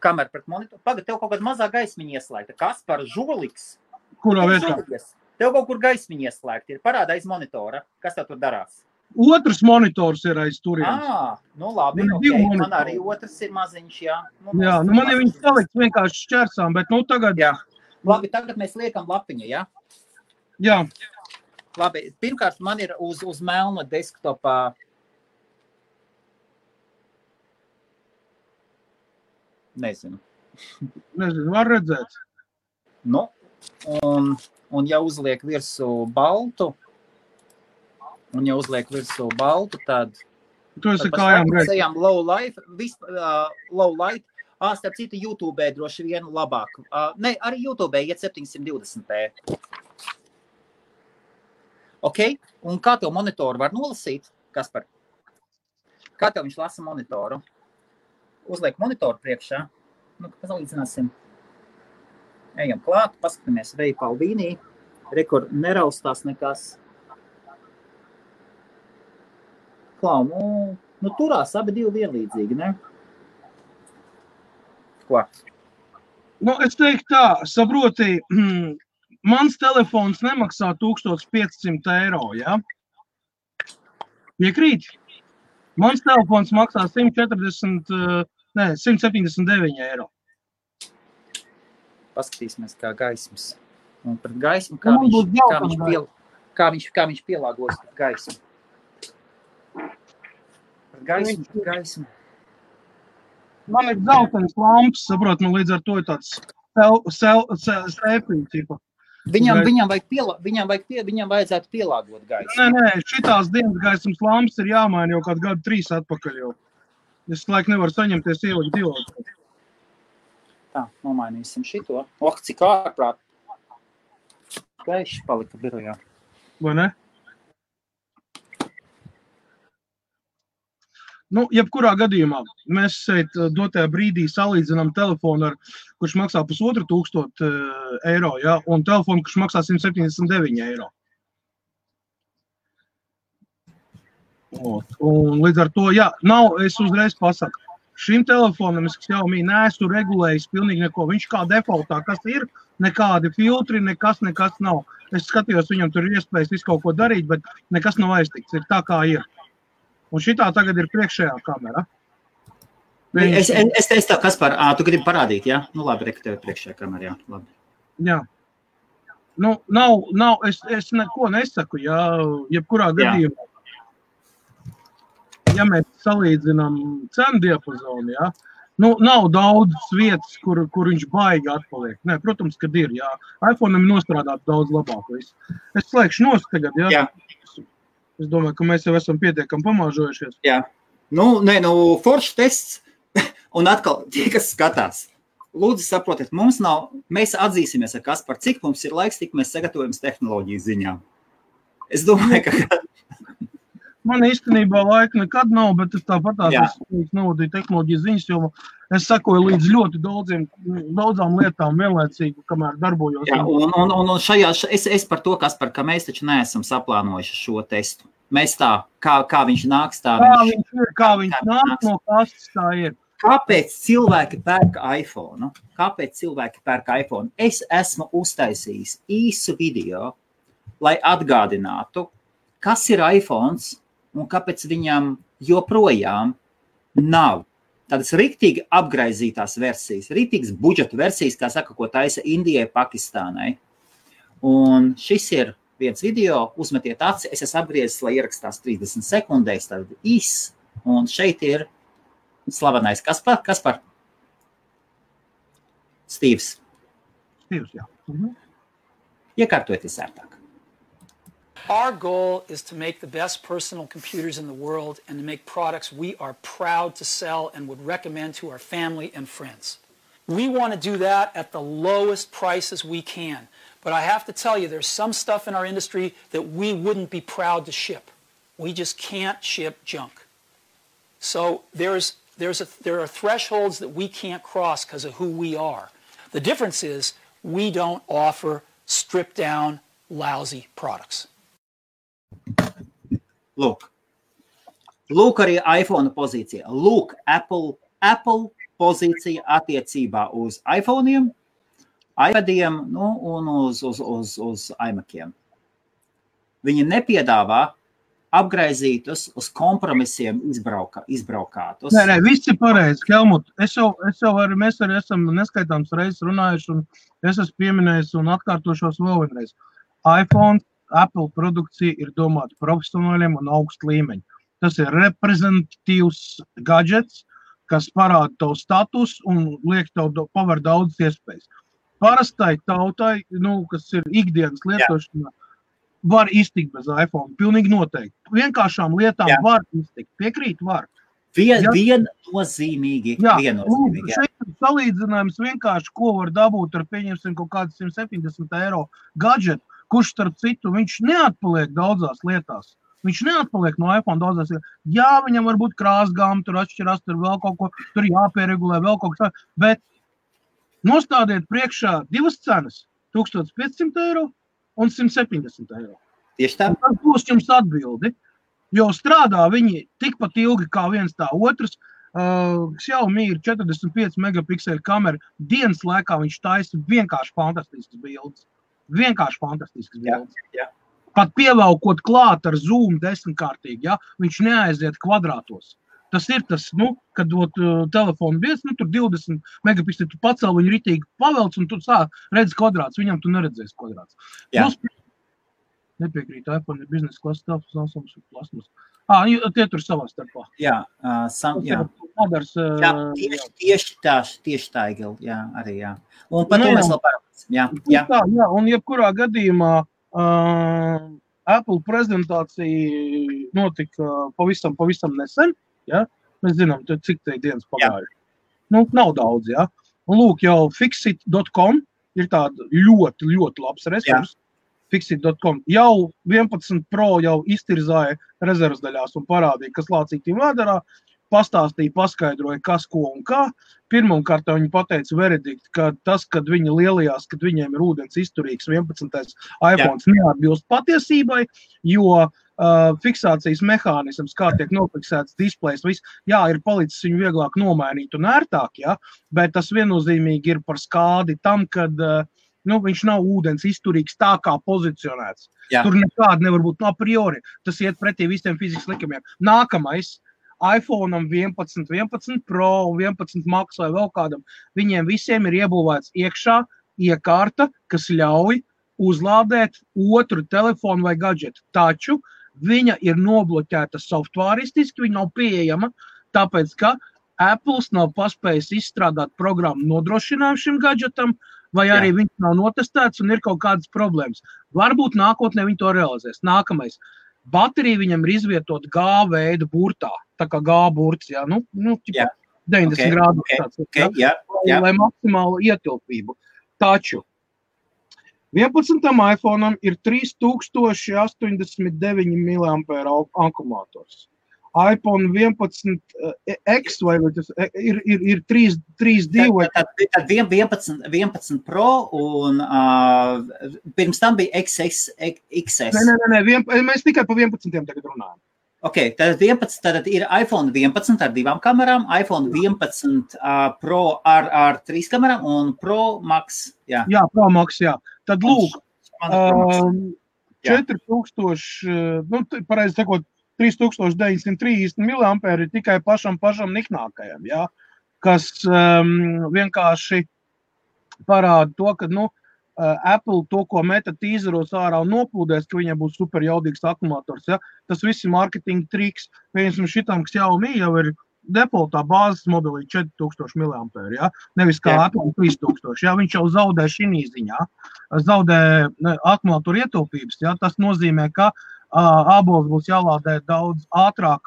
Kamera pret monitoru. Pagad, tev kaut kāda mazā gaismiņa ieslēgta. Kaspar, žoliks. Kurā vietā? Tev kaut kur gaismiņa ieslēgta ir. Parāda aiz monitora. Kas tev tur darās? Otrs monitors ir aiz turienes. Nu labi, Man ir okay. divi monitori. Man arī otrs ir maziņš, jā. Jā, nu man ir viņas salikts vienkārši šķersām, bet nu tagad... Jā. Labi, tagad mēs liekam lapiņa, jā? Jā. Labi, pirmkārt man ir uz melna desktopā. Nezinu, var redzēt. Nu, un ja uzliek virsū baltu, tad... Tu esi kājām redz. Low light. Starp citu, YouTube droši vien labāk. Ne, arī YouTube iet 720p. Ok, un kā tev monitoru var nolasīt? Kaspar? Kā tev viņš lasa monitoru? Uzliek monitoru priekšā. Nu, salīdzināsim. Ejam klāt, paskatāmies Veja Palvīnī. Rekord neraustās nekas. Klau, nu turās abi divi vienlīdzīgi, ne? Ko? Nu, es teiktu tā, saproti, mans telefons nemaksā 1500 eiro, ja? Piekrīt? Mans telefons maksā 179 eiro. Paskatīsimies, kā gaismas. Un pret gaismu, kā viņš pielāgos pret gaismu. Pret gaismu. Man ir zeltains lamps, saprot, nu līdz ar to ir tāds sēpīgi, tipa. Viņam vajadzētu pielāgot gaisu. Nē, šitās dienas gaismas lampas ir jāmaina jau kādu gadu 3 atpakaļ jau. Es laik nevaru saņemties ielikt divotu. Tā, nomainīsim šito. Cik ārprāt. Gaiši palika birojā. Vai ne? Nu, jebkurā gadījumā mēs šeit dotajā brīdī salīdzinām telefonu, kurš maksā 1500 eiro, ja, un telefonu, kurš maksā 179 eiro. Un līdz ar to, jā, es uzreiz pasaku, šim telefonam es Xiaomi neesmu regulējis pilnīgi neko. Viņš kā defaultā, kas ir, nekādi filtri, nekas nav. Es skatījos, viņam tur ir iespējas visu kaut ko darīt, bet nekas nav aiztikts, ir tā kā ir. Un šitā tagad ir priekšējā kamera. Es teicu tā, Kaspar, tu gribi parādīt, jā? Nu labi, reku tev priekšējā kamera, jā, labi. Jā. Nu, es neko nesaku, jā, jebkurā gadījumā. Ja mēs salīdzinām cenu diapazonu, jā, nu, nav daudz vietas, kur viņš baigi atpaliek. Nē, protams, kad ir, jā. iPhone'am ir nostrādāt daudz labāk visu. Es slēgšu nost tagad, jā. Jā. Es domāju, ka mēs jau esam pietiekami pamāžojušies. Jā. Foršs tests. Un atkal, tie, kas skatās, lūdzu saprotiet, mēs atzīsimies ar Kasparu, cik mums ir laiks, tik mēs sagatavojam tehnoloģiju ziņā. Es domāju, ka... Man īstenībā laika nekad nav, bet es tāpatās novadīju tehnoloģiju ziņas, jo es sakoju līdz ļoti daudzām lietām vienlaicīgi, kamēr darbojos. Jā, un šajā, es par to, Kaspar, ka mēs taču neesam saplānojuši šo testu. Mēs tā, kā viņš nāks, tā kā viņš nāk no kastes, tā ir. Kāpēc cilvēki pērk iPhone? Es esmu uztaisījis īsu video, lai atgādinātu, kas ir iPhones, un kāpēc viņam joprojām nav tādas riktīgi apgraizītās versijas, riktīgas budžeta versijas, kā saka, ko taisa Indijai, Pakistānai. Un šis ir viens video, uzmetiet aci, es esmu apgriezis, lai ierakstās 30 sekundēs, tad un šeit ir slavenais Kaspar? Stīvs, jā. Iekārtoties ērtāk. Our goal is to make the best personal computers in the world and to make products we are proud to sell and would recommend to our family and friends. We want to do that at the lowest prices we can. But I have to tell you, there's some stuff in our industry that we wouldn't be proud to ship. We just can't ship junk. So there are thresholds that we can't cross because of who we are. The difference is we don't offer stripped down, lousy products. Lūk arī iPhone pozīcija. Lūk, Apple pozīcija attiecībā uz iPhone'iem iPadiem, un uz iMaciem. Viņi nepiedāvā apgraizītus, uz kompromisiem izbraukātus. Nē, viss ir pareizi, Helmut. Mēs arī esam neskaitāms reizes runājuši, un es esmu pieminējis un atkārtošos vēl vienreiz. iPhone, Apple produkcija ir domāta profesionāļiem un augstu līmeņu. Tas ir reprezentatīvs gadgets, kas parāda tavu status un liek tev paver daudzas iespējas. Parastai tautai, kas ir ikdienas lietošanā, var iztikt bez iPhone, pilnīgi noteikti. Vienkāršām lietām var iztikt, piekrīt var. Viennozīmīgi. Šeit ir salīdzinājums vienkārši, ko var dabūt ar, pieņemsim, kaut kāds 170 eiro gadžetu, kurš starp citu, viņš neatpaliek daudzās lietās. Viņš neatpaliek no iPhone daudzās lietās. Jā, viņam var būt krāsgāma, tur atšķirās, tur vēl kaut ko, tur jāpieregulē, vēl kaut kas, bet nostādiet priekšā divas cenas, 1500 eiro un 170 eiro. Tieši tā. Tas būs jums atbildi, jo strādā viņi tikpat ilgi kā viens tā otrs. Xiaomi ir 45 megapikseli kamera, dienas laikā viņš taisa vienkārši fantastisks bildes. Jā. Pat pievelkot klāt ar zoom 10-kārtīgi, ja, viņš neaiziet kvadrātos. Tas ir tas, kad telefonu bies, tur 20 megapikseli, tu pacēl viņu ritīgi pavelc un tu redzi kvadrāts, viņam tu neredzēsi kvadrāts. Nepiekrīt, iPhone ir biznesa klases telefons, Samsung plasmas. Tie tur savā starpā. Jā. Tieši tā, Igil, jā, arī, jā. Un par to mēs vēl parunāsim, jā. Un jebkurā gadījumā Apple prezentācija notika pavisam nesen, ja? Mēs zinām, cik te dienas pagājuši. Nav daudz, ja? Un lūk, jau Fixit.com ir tāda ļoti, ļoti labs resurs. Fixit.com jau 11 Pro jau iztirzāja rezervas daļās un parādīja, kas lācītiem vēdarā, pastāstīja, paskaidroja, kas, ko un kā. Pirmkārt viņi pateica veredikt, ka tas, kad viņi lielajās, kad viņiem ir ūdens izturīgs 11. iPhones neatbilst patiesībai, jo fiksācijas mehānisms, kā tiek nofiksēts displejs, ir palicis viņu vieglāk nomainīt un ērtāk, bet tas viennozīmīgi ir par skādi tam, kad viņš nav ūdens izturīgs tā kā pozicionēts. Jā. Tur nekāda nevar būt a priori. Tas iet pretī visiem fizikas likumiem. Nākamais, iPhone'am 11 Pro un 11 Max vai vēl kādam, viņiem visiem ir iebūvēts iekšā iekārta, kas ļauj uzlādēt otru telefonu vai gadžetu. Taču viņa ir nobloķēta softvāristiski, viņa nav pieejama, tāpēc, ka Apple's nav paspējis izstrādāt programmu nodrošinājumu šim gadžetam, vai arī viņš nav notestēts un ir kaut kādas problēmas. Varbūt nākotnē viņi to realizēs. Nākamais. Baterija viņam ir izvietot G veida burtā. Tā kā G burts, 90 grādu. Lai maksimālu ietilpību. Taču 11. iPhone'am ir 3089 mAh akumulātors. iPhone 11 X vai tas ir 3.2 vai... Tad 11 Pro un pirms tam bija XS. Nē, mēs tikai pa 11 tagad runājam. Ok, tad ir iPhone 11 ar 2 kamerām, iPhone 11 Pro ar 3 kamerām un Pro Max. Jā, Pro Max, jā. Tad lūk, 4000, pareizi sakot, 3930 mAh ir tikai pašam niknākajam, kas vienkārši parāda to, ka Apple to, ko meta tīzeros ārā un noplūdēs, ka viņam būs super jaudīgs akumulators. Tas viss ir marketinga triks. Piemēram, šitam Xiaomi jau ir defaultā bāzes modelī 4000 mAh, nevis kā Apple 3000. Viņš jau zaudē šī ziņā, zaudē akumulatoru ietilpības. Tas nozīmē, ka ābols būs jālādē daudz ātrāk,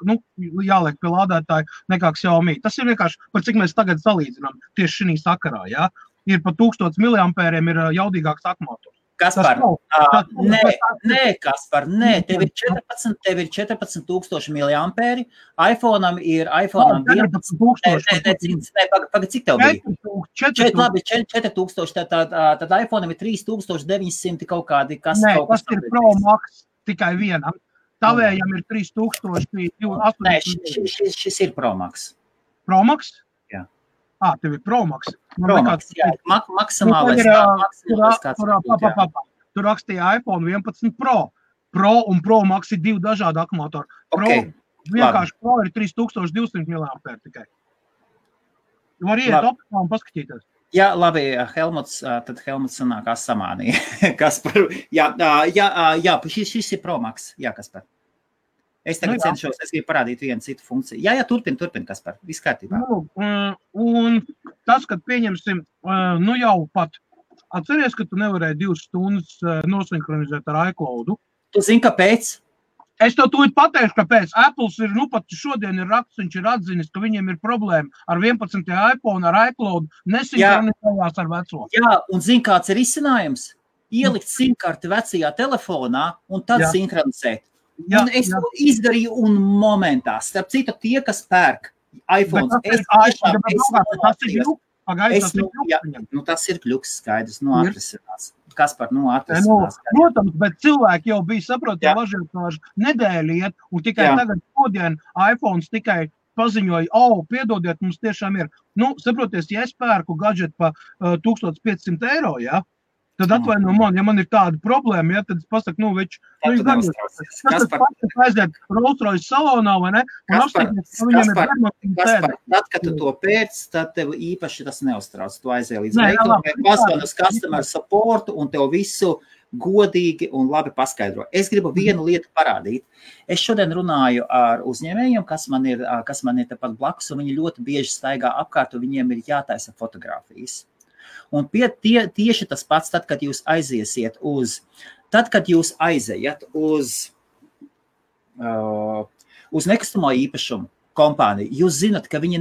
jāliek pie lādētāja nekā Xiaomi. Tas ir vienkārši, par cik mēs tagad salīdzinām tieši šī sakarā, Ir pa 1000 mAh ir jaudīgāks akumulators. Kaspar, Kaspar, tev ir 14,000 mAh, iPhone'am ir 14,000. Pagad, cik tev bija? 4,000, tad iPhone'am ir 3,900 kaut kādi, kas kaut kas. Tas ir Pro Max tikai vienam. Tavējam ir 3,000. Nē, šis ir Pro Max. Pro Max? Jā. Tev ir Pro Max. Pro Max, jā, maksimālais kāds būt, Tur rakstīja iPhone 11 Pro. Pro un Pro Max ir 2 dažādi akumulatori. Vienkārši Pro ir 3200 mAh tikai. Var iet optimā un paskatīties. Jā, labi, Helmuts sanākās samānīja. Kaspar, jā, šis ir Pro Max. Jā, Kaspar. Es tagad cenšos, es gribu parādīt vienu citu funkciju. Jā, turpin, Kaspar, viss kārtībā. Un tas, kad pieņemsim, jau pat atceries, ka tu nevarēji 2 stundas nosinhronizēt ar iCloudu. Tu zini, kāpēc? Es to tūlīt pateikšu, kāpēc. Apples ir, pat šodien ir raksts, viņš ir atzinis, ka viņiem ir problēma ar 11. iPhone, ar iCloud, nesinhronizējās ar veco. Jā, un zini, kāds ir izcinājums? Ielikt simkarti vecajā telefonā un tad sinhronizēt. Un es to izdarīju un momentā. Starp citu, tie, kas pērk iPhones, tas ir kļuks skaidrs, atrisinās. Kaspar, atrisinās. Protams, bet cilvēki jau bija saprotami važiotāži nedēļu iet, un tikai tagad šodien iPhones tikai paziņoja, piedodiet, mums tiešām ir. Saproties, ja es pērku gadžetu pa 1500 eiro, tad atvaino man, ja man ir tāda problēma, tad es pasaku, aiziet Rolls-Royce salonā, vai ne? Kaspar, tad, kad tu to pēc, tad tev īpaši tas neuztrauc. Tu aiziet līdz veikalam, pasvani uz customer support un tev visu godīgi un labi paskaidro. Es gribu vienu lietu parādīt. Es šodien runāju ar uzņēmējiem, kas man ir tepat blakus, un viņi ļoti bieži staigā apkārt, un viņiem ir jātaisa fotogrāfijas. Un tieši tas pats, tad, kad jūs aiziet uz nekustamo īpašumu kompāniju, jūs zinat, ka viņi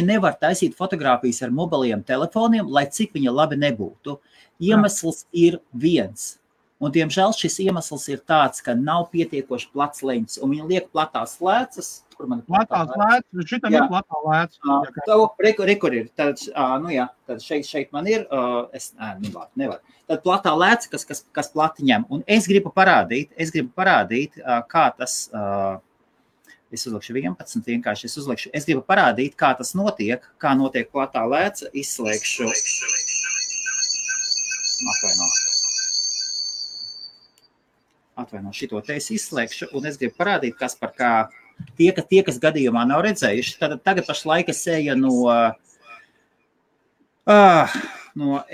nevar taisīt fotogrāfijas ar mobiliem telefoniem, lai cik viņa labi nebūtu. Iemesls ir viens. Un, diemžēl, šis iemesls ir tāds, ka nav pietiekoši plats leņķis, un viņi liek platās lēcas. Platās lēcas, šitam ir platā lēcas. Rekur ir, tad šeit man ir, nevar. Tad platā lēca, kas plati ņem. Un es gribu parādīt, kā tas, es uzlikšu 11 vienkārši, es gribu parādīt, kā tas notiek, kā notiek platā lēca, izslēgšu. Atvaino, šito te es izslēgšu, un es gribu parādīt, kas par kā tie, kas gadījumā nav redzējuši. Tad tagad pašlaik es eju no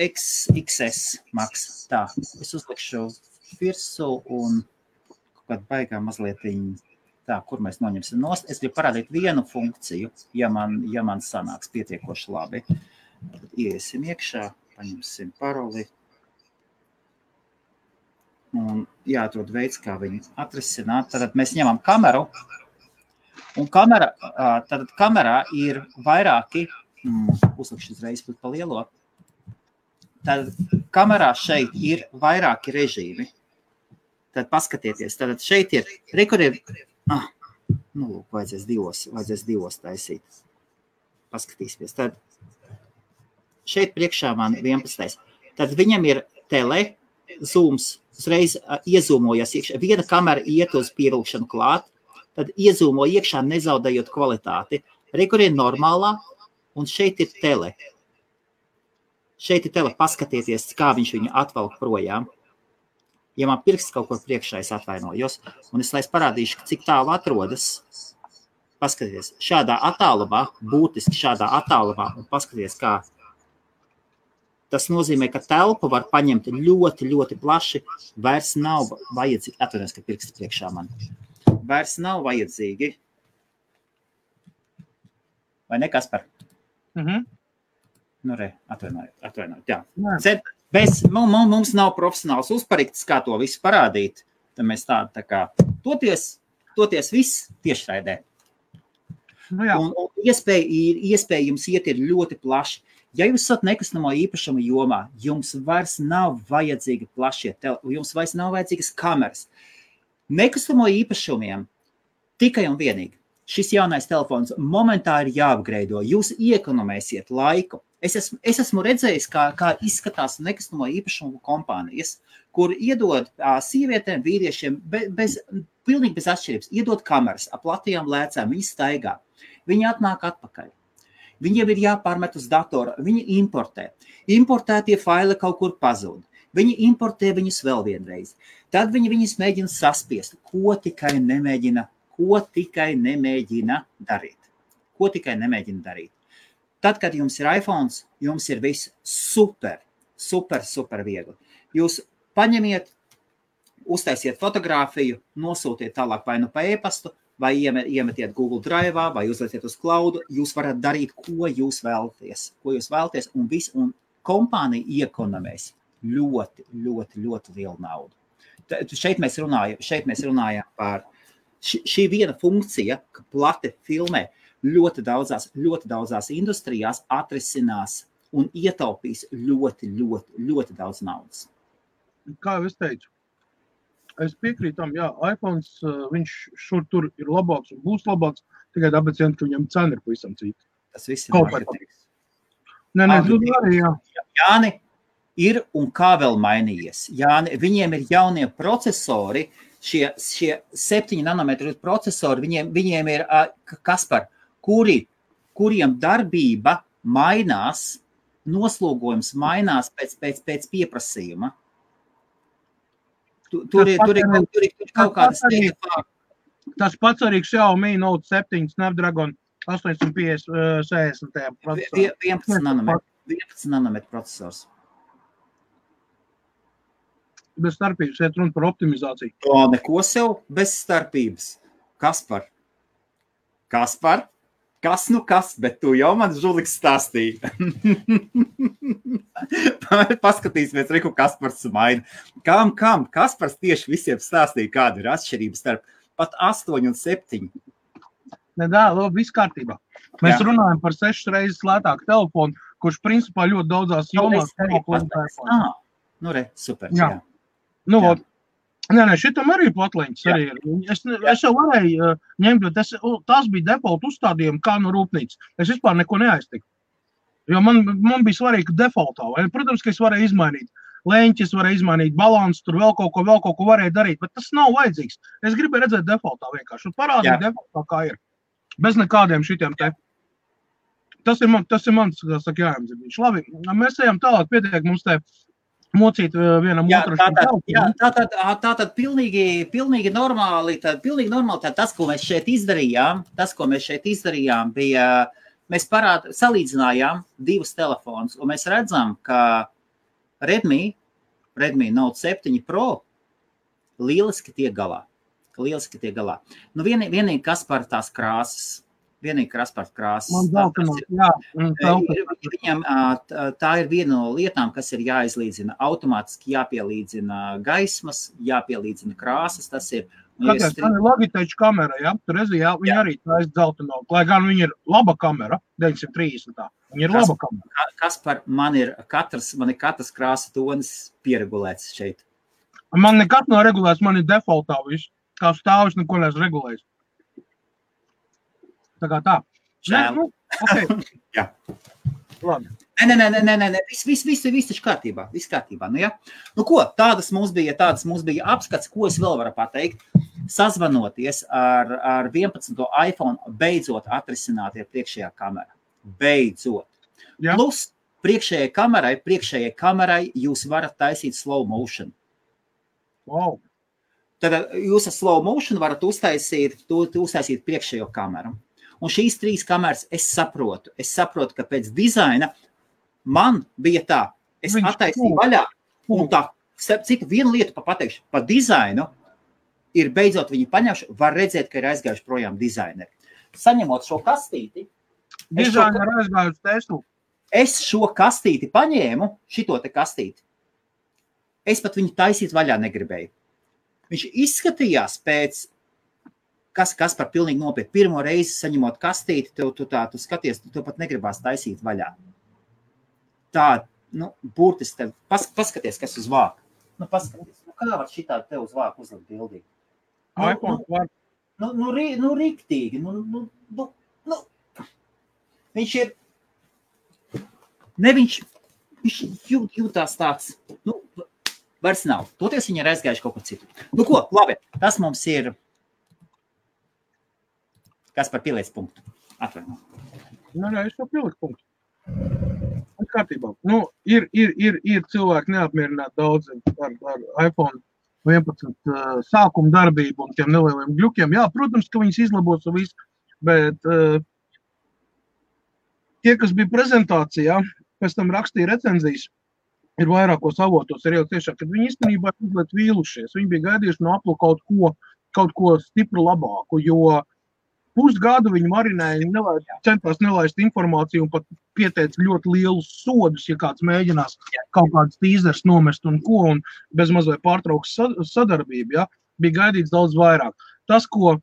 XS Max. Tā, es uzlikšu virsū un kaut baigā mazlietiņ. Tā, kur mēs noņemsim nost. Es gribu parādīt vienu funkciju, ja man sanāks pietiekoši labi. Tad iesim iekšā, paņemsim paroli. Un jāatrod veids, kā viņu atrisināt. Tad mēs ņemam kameru. Un kamerā ir vairāki, uzlikšu uzreiz pa lielo. Tad kamerā šeit ir vairāki režīmi. Tad paskatieties, tad šeit ir, vajadzēs divos taisīt. Paskatīsimies. Tad šeit priekšā man 11. Tad viņam ir tele, zooms, uzreiz iezūmojas iekšā. Viena kamera iet uz pievilkšanu klāt, tad iezūmo iekšā, nezaudējot kvalitāti. Rekur ir normālā, un šeit ir tele. Šeit ir tele, paskatieties, kā viņš viņu atvelk projām. Ja man pirksts kaut kur priekšā, es atvainojos, un es parādīšu, cik tālu atrodas. Paskatieties, šādā attālumā, būtiski šādā attālumā, un paskatieties, kā. Tas nozīmē, ka telpu var paņemt ļoti, ļoti plaši, vairs nav vajadzīgi, atvainojos, ka pirksts priekšā man, vairs nav vajadzīgi. Vai ne, Kaspar? Atvainojot, jā. Mums nav profesionāls uzparikts, kā to visu parādīt, tad mēs tā kā toties viss tiešraidē. Un iespēja jums iet ir ļoti plaši. Ja jūs esat nekustamo īpašumu jomā, jums vairs nav vajadzīgi plašie telefoni, jums vairs nav vajadzīgas kameras. Nekustamo īpašumiem tikai un vienīgi. Šis jaunais telefons momentā ir jāapgreido. Jūs iekonomēsiet laiku. Es esmu redzējis, kā izskatās nekustamo īpašumu kompānijas, kur iedod sievietēm, vīriešiem pilnīgi bez atšķirības. Iedod kameras ap platījām lēcām, viņi staigā. Viņi atnāk atpakaļ. Viņiem ir jāpārmet uz datoru, viņi importē. Importētie faili kaut kur pazūd. Viņi importē viņus vēl vienreiz. Tad viņi viņus mēģina saspiest, ko tikai nemēģina darīt. Ko tikai nemēģina darīt. Tad, kad jums ir iPhones, jums ir viss super viegli. Jūs paņemiet, uztaisiet fotogrāfiju, nosūtiet tālāk vai nu pa e-pastu, vai iemetiet Google Drive, vai uzlieciet uz cloudu, jūs varat darīt, ko jūs vēlaties, un kompānija iekonomēs ļoti lielu naudu. Šeit mēs runājam par šī viena funkcija, ka plati filmē ļoti daudzās industrijās atrisinās un ietaupīs ļoti daudz naudas. Kā jau es teicu, es piekrītu tam, jā, iPhones, viņš šur tur ir labāks un būs labāks, tikai tāpēc, ka viņam cena ir pavisam cita. Tas viss ir marketings. Nē, arī, jā. Jāni ir un kā vēl mainījies. Jāni, viņiem ir jaunie procesori, šie 7 nanometru procesori, viņiem ir, Kaspar, kuriem darbība mainās, noslogojums mainās pēc pieprasījuma. Tur ir kaut kādas teikt. Tas pats arī Xiaomi Note 7 Snapdragon 850 procesors. 11 nanometru procesors. Bez starpības, iet runa par optimizāciju. O, neko sev bez starpības. Kaspar, kas, bet tu jau man žuliks stāstīji. Paskatīsimies, Riku, Kaspars maina. Kam? Kaspars tieši visiem stāstīja, kāda ir atšķirība starp pat 8 un 7. Labi, viss kārtībā. Mēs runājam par 6 reizes lētāku telefonu, kurš principā ļoti daudzās jomās. Super. Jā. Nē, šitam arī platliņas arī ir. Es jau varēju ņemt, bet tas bija default uzstādījumi kā no rūpnīcas. Es vispār neko neaiztiku. Jo man bija svarīgi defaultā. Vai? Protams, ka es varēju izmainīt leņķis, varēju izmainīt balansu, tur vēl kaut ko varēju darīt, bet tas nav vajadzīgs. Es gribēju redzēt defaultā vienkārši. Un parādīt defaultā, kā ir. Bez nekādiem šitiem te. Tas ir mans, kā saka, jājumziņš. Labi, mēs ejam tālāk, pietiek mums te mocīt vienam otru. Tātad pilnīgi normāli, tas, ko mēs šeit izdarījām, bija, mēs salīdzinājām divus telefonus, un mēs redzam, ka Redmi Note 7 Pro lieliski tiek galā. Nu, vienīgi kas par tās krāsas. Man Viņam tā ir viena no lietām, kas ir jāizlīdzina. Automātiski jāpielīdzina gaismas, jāpielīdzina krāsas. Tas ir. Tas ir Logitech kamera, ja? Tur viņa arī taisa dzelteno. Lai gan viņa ir laba kamera, 930. Viņa ir laba kamera. Kaspar, man ir katras krāsa tonis pieregulēts šeit. Man nekat nav regulēts, man ir defaultā viss. Kā stāvis, neko neesmu regulējis. Tā kā tā. Okay. Jā. Labi. Nē. Viss taču kārtībā. Nu, ja? Nu, ko? Tādas mums bija apskats, ko es vēl varu pateikt. Sazvanoties ar 11. iPhone, beidzot atrisināt ir priekšējā kamera. Beidzot. Jā. Plus, priekšējai kamerai jūs varat taisīt slow motion. Wow. Tad jūs ar slow motion varat uztaisīt priekšējo kameru. Un šīs 3 kameras es saprotu, ka pēc dizaina man bija tā, es attaisīju vaļā, un tā, citu vienu lietu pateikšu, pa dizainu ir beidzot viņi paņemši, var redzēt, ka ir aizgājuši projām dizaineri. Saņemot šo kastīti, es šo kastīti paņēmu, šito te kastīti, es pat viņu taisīt vaļā negribēju. Viņš izskatījās pēc kas par pilnīgi nopietni. Pirmo reizi saņemot kastīti, tu skaties, tu pat negribās taisīt vaļā. Tā, burtiski, paskaties, kas uz vāku. Paskaties, kā var šitā te uz vāku uzlikt bildīgi? Riktīgi. Viņš ir, viņš jūtās tāds, vairs nav. Toties viņi ir aizgājuši kaut ko citu. Ko, labi, tas mums ir. Kas par pieliec punktu? Atvaino. Es jau pieliku punktu. Kārtībā. Ir cilvēki neapmierināti daudz ar iPhone 11 sākuma darbību un tiem nelieliem gļukiem. Jā, protams, ka viņas izlabos un viss, bet tie, kas bija prezentācijā, pēc tam rakstīja recenzijas, ir vairākos avotos, ir jau tiešām, kad viņi īstenībā mazliet vīlušies. Viņi bija gaidījuši no Apple kaut ko stipru labāku, jo pusgadu viņi marinēja, centās nelaist informāciju un pat pieteica ļoti lielus sodus, ja kāds mēģinās kaut kāds tīzers nomest un bez mazliet pārtrauks sadarbību, ja, bija gaidīts daudz vairāk. Tas, ko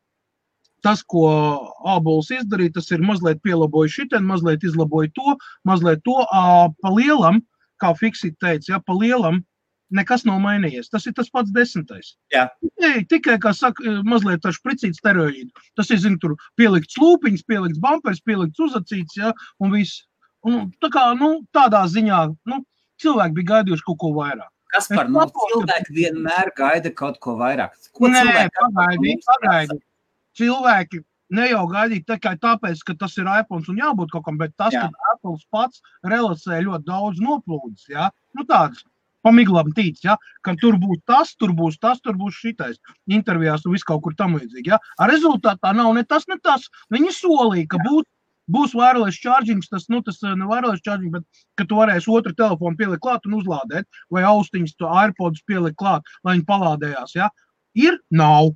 ābols izdarīja, tas ir mazliet pielaboja šitien, mazliet izlaboja to, pa lielam, kā Fixit teica, ja, pa lielam, nekas nav mainījies. Tas ir tas pats 10. Jā. Tikai, kā saka, mazliet ar špricīt steroīdu. Tas ir, tur pielikts lūpiņas, pielikts bumpers, pielikts uzacīts, ja, un viss. Un tā kā, tādā ziņā, cilvēki bija gaidījuši kaut ko vairāk. Kaspar, cilvēki vienmēr gaida kaut ko vairāk. Pagaidi. Cilvēki ne jau gaidīt tikai tāpēc, ka tas ir iPhone un jābūt kaut kam, bet tas, ka Apples pats relasē ļoti daudz noplūdes, ja, tāds. Pamiglam tīc, ja, ka tur būs tas, tur būs šitais intervijās un viss kaut kur tam līdzīgi, ja. Ar rezultātā nav ne tas. Viņi solīja, ka būs wireless charging, tas ne wireless charging, bet ka tu varēsi otru telefonu pielikt klāt un uzlādēt, vai austiņas to AirPods pielikt klāt, lai viņi palādējās, ja. Ir, nav.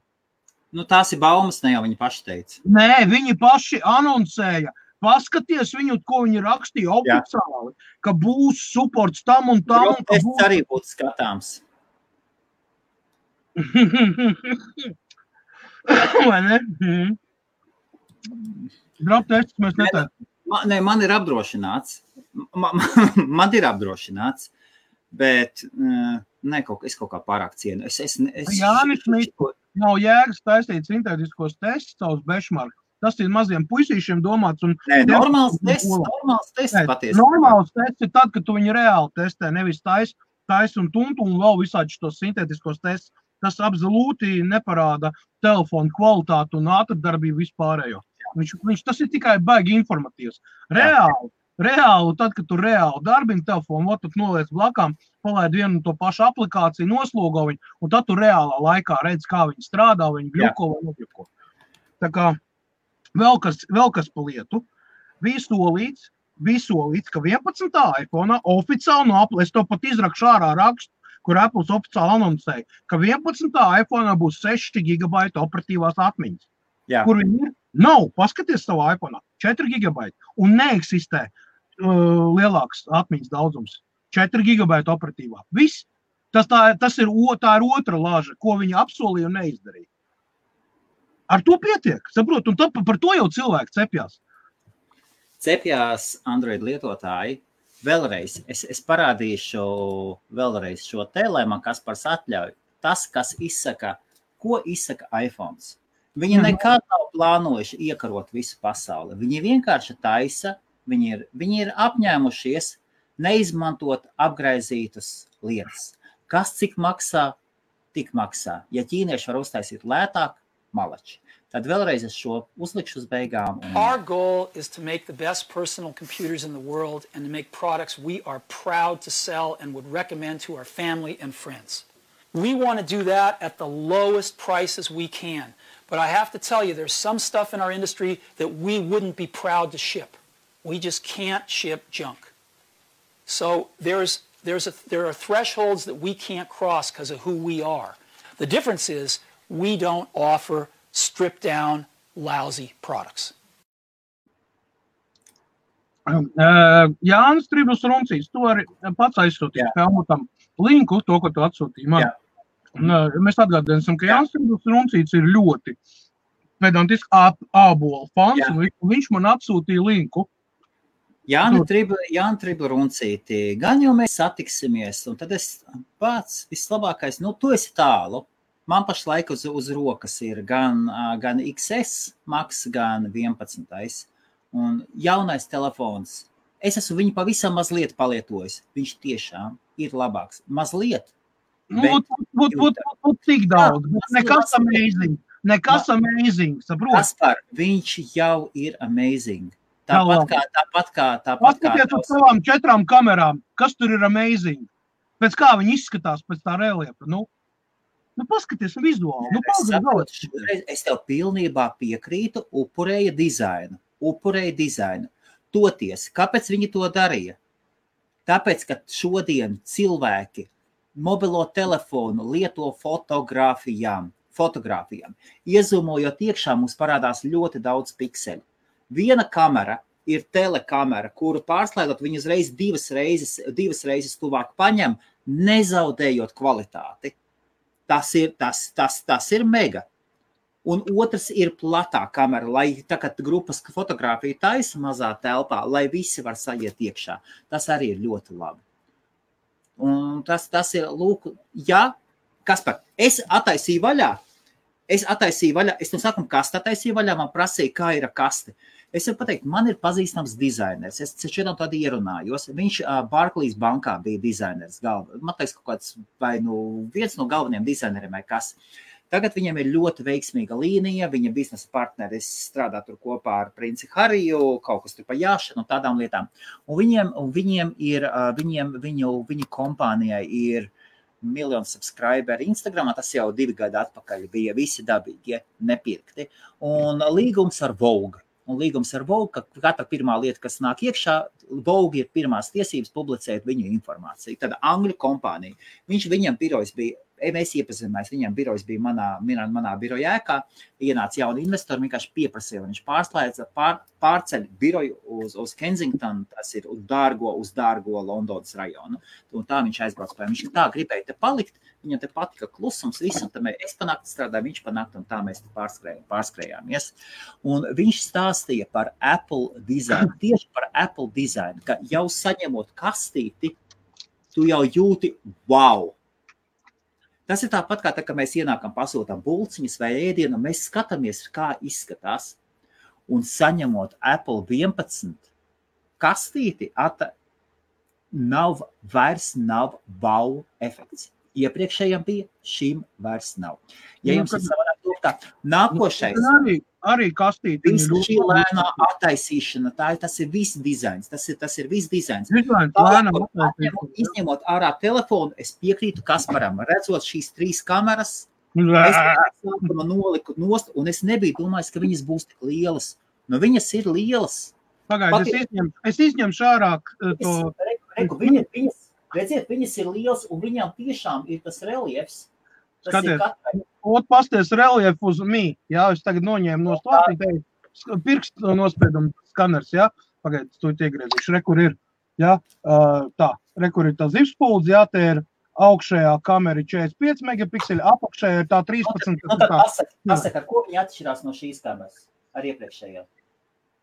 Tās ir baumas, ne jau viņi paši teica. Nē, viņi paši anoncēja. Paskaties viņu, ko viņi rakstīja oficiāli, ka būs supports tam un tam. Tas arī būtu skatāms. Vai ne? Drop tests mēs netēsim. Man ir apdrošināts. Man ir apdrošināts, bet es kaut kā pārāk cienu. Jānis, nav jēgas taisīt sintētiskos testus savus benchmark. Tas ir maziem puisīšiem domāts. Normāls tests patiesībā. Normāls tests ir tad, kad tu viņu reāli testē, nevis tais un tuntu un vēl visādi šitos sintētiskos testus. Tas absolūti neparāda telefonu kvalitātu un ātrdarbību vispārējo. Tas ir tikai baigi informatīvs. Reāli, tad, kad tu reāli darbini telefonu, tad noliec blakām, palaid vienu to pašu aplikāciju, noslogo viņu, un tad tu reālā laikā redz, kā viņi strādā, viņi gļuko vai nogļuko. Tā kā Vēl kas pa lietu, bija solīts, ka 11. iPhone oficiāli no Apple, es to pat izrakšu ārā rakstu, kur Apples oficiāli anoncēja, ka 11. iPhone būs 6 GB operatīvās atmiņas. Jā. Kur viņi ir? Nav, paskaties savu iPhone, 4 GB, un neeksistē lielāks atmiņas daudzums. 4 GB operatīvā. Viss. Tā ir otra lāža, ko viņi apsolīja un neizdarīja. Ar to pietiek, saprot, un par to jau cilvēki cepjās. Cepjās Android lietotāji. Vēlreiz, es parādīšu vēlreiz šo te, lai man Kaspars atļauj. Tas, ko izsaka iPhones. Viņi nekad nav plānojuši iekarot visu pasauli. Viņi vienkārši taisa, viņi ir apņēmušies neizmantot apgraizītas lietas. Kas cik maksā, tik maksā. Ja ķīnieši var uztaisīt lētāk, malači. Tad vēlreiz es šo uzlikšu uz beigām. Our goal is to make the best personal computers in the world and to make products we are proud to sell and would recommend to our family and friends. We want to do that at the lowest prices we can. But I have to tell you, there's some stuff in our industry that we wouldn't be proud to ship. We just can't ship junk. So there are thresholds that we can't cross because of who we are. The difference is we don't offer stripped down, lousy products. Jānis Tribus Runcīs, tu arī pats aizsūtīji Helmutam linku, to, ko tu atsūtīji man. Mēs atgādināsim, ka Jānis Tribus Runcīs ir ļoti pedantisks ābola fans, un viņš man atsūtīja linku. Jāni Tribla Runcīti, gan jau mēs satiksimies, un tad es pats vislabākais, tu esi tālu. Man pašlaik uz rokas ir gan XS Max, gan 11. Un jaunais telefons. Es esmu viņu pavisam mazliet palietojis. Viņš tiešām ir labāks. Mazliet. Tik daudz. Nekas amazing. Nekas amazing. Saprot? Kaspar, viņš jau ir amazing. Tāpat kā Paskatiet uz savām 4 kamerām, kas tur ir amazing. Pēc kā viņi izskatās pēc tā reliefa. Nu paskaties vizuāli. Es tev pilnībā piekrītu, upurēja dizainu. Toties, kāpēc viņi to darīja? Tāpēc, ka šodien cilvēki mobilo telefonu lieto fotogrāfijām. Iezumojot iekšā, mums parādās ļoti daudz pikseļu. Viena kamera ir telekamera, kuru pārslēdot viņu uzreiz divas reizes tuvāk paņem, nezaudējot kvalitāti. Tas ir mega. Un otrs ir platā kamera, lai tagad grupas fotogrāfiju taisa mazā telpā, lai visi var sajiet iekšā. Tas arī ir ļoti labi. Un tas ir, lūk, jā, Kaspar, es attaisīju vaļā, es no sākuma kastu attaisīju vaļā, man prasīja, kā ir kaste. Es varu pateikt, man ir pazīstams dizainers, es šodien tādu ierunājos, viņš Barclays bankā bija dizainers, man teiks kaut kāds, vai viens no galvenajiem dizaineriem vai kas. Tagad viņam ir ļoti veiksmīga līnija, viņa biznesa partneris strādā tur kopā ar princi Hariju, kaut kas tur pa jāšanu un tādām lietām. Un viņu kompānijai ir 1 miljonu subscriberi Instagramā, tas jau 2 gadi atpakaļ bija visi dabīgi, nepirkti. Un līgums ar Vogue. Ka katra pirmā lieta, kas nāk iekšā, Vogue ir pirmās tiesības publicēt viņu informāciju. Tad Angļu kompānija. Viņam birojas bija, mēs iepazināmies, viņam birojas bija manā biroja ēkā, ienāca jauni investori, vienkārši pieprasīja, viņš pārceļ biroju uz Kensington, tas ir uz dārgo Londonas rajonu. Un tā viņš aizbrauc pēc. Viņš tā gribēja te palikt, viņam te patika klusums, visam, tad es panāktu strādāju, viņš panāktu, un tā mēs te pārskrējāmies. Un viņš stāstīja par Apple dizainu, tieši par Apple dizainu, ka jau saņemot kastīti, tu jau jūti wow! Tas ir tāpat kā tā, ka mēs ienākam pasūtām bulciņas vai ēdienu, mēs skatāmies, kā izskatās, un saņemot Apple 11 kastīti, vairs nav wow efekts. Iepriekšējiem bija, šim vairs nav. Ja jums ir savādāk tā, nākošais. Arī kastīti. Šī lēnā attaisīšana, tas ir viss dizains. Tas ir viss dizains. Izņemot ārā telefonu, es piekrītu Kasparam. Redzot šīs 3 kameras, es noliku nost, un es nebiju domājis, ka viņas būs tik lielas. Nu, viņas ir lielas. Pagaid, es izņemšu ārā to... Redziet, viņas ir liels, un viņām tiešām ir tas reliefs. Skaties, pasties reliefu uz mī, jā, es tagad noņēmu no stāstīt, pirkstu nospiedumu skaners, jā, pagaid, tu iegriezīšu, rekur ir, jā, rekur ir tā zivspuldze, jā, te ir augšējā kamera 45 megapikseli, apakšējā ir tā 13. Pasaka, ar ko viņi atšķirās no šīs kameras, ar iepriekšējā?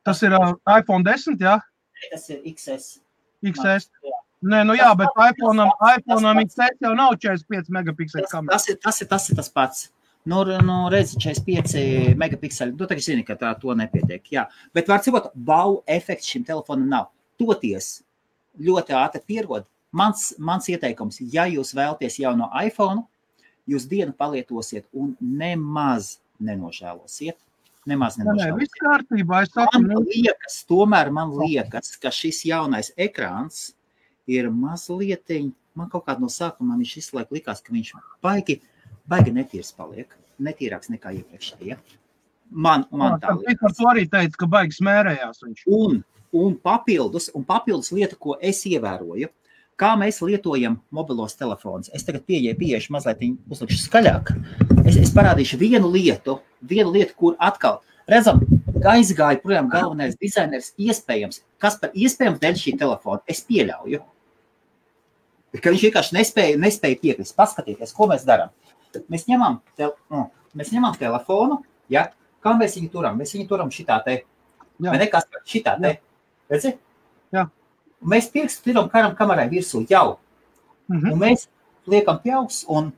Tas ir iPhone 10, jā? Tas ir XS. XS. Nē, jā, bet iPhone'am XS jau nav 45 megapikseli kamera. Tas ir tas pats. Redzi, 45 megapikseli. Tu tagad zini, ka to nepietiek. Jā. Bet var cikot, wow efekts šim telefonam nav. Toties ļoti ātri pierod. Mans ieteikums, ja jūs vēlaties jauno iPhone, jūs dienu palietosiet un nemaz nenožēlosiet. Nē, viss kārtībā. Man liekas, ka šis jaunais ekrāns ir mazlietiņ, man kaut kādā no sākuma viņš visu laiku likās, ka viņš baigi netīrs paliek, netīrāks nekā iepriekšējie. Man tā liekas. Par to arī teica, ka baigi smērējās viņš. Un papildus lieta, ko es ievēroju, kā mēs lietojam mobilos telefonus. Es tagad pieešu mazliet uzlikšu skaļāk. Es parādīšu vienu lietu, kur atkal, redzam, aizgāja projām galvenais dizainers iespējams, kas par iespējams dēļ šī telefona, es pieļauju, ka viņš vienkārši nespēja piekrist. Paskatieties, ko mēs darām. Mēs ņemam telefonu, ja? Kā mēs viņu turam? Mēs viņu turam šitā te, vai ne, kas par šitā te, redzi? Jā. Mēs pirkstu tiram kamerai virsū jau, un mēs liekam pjauks, un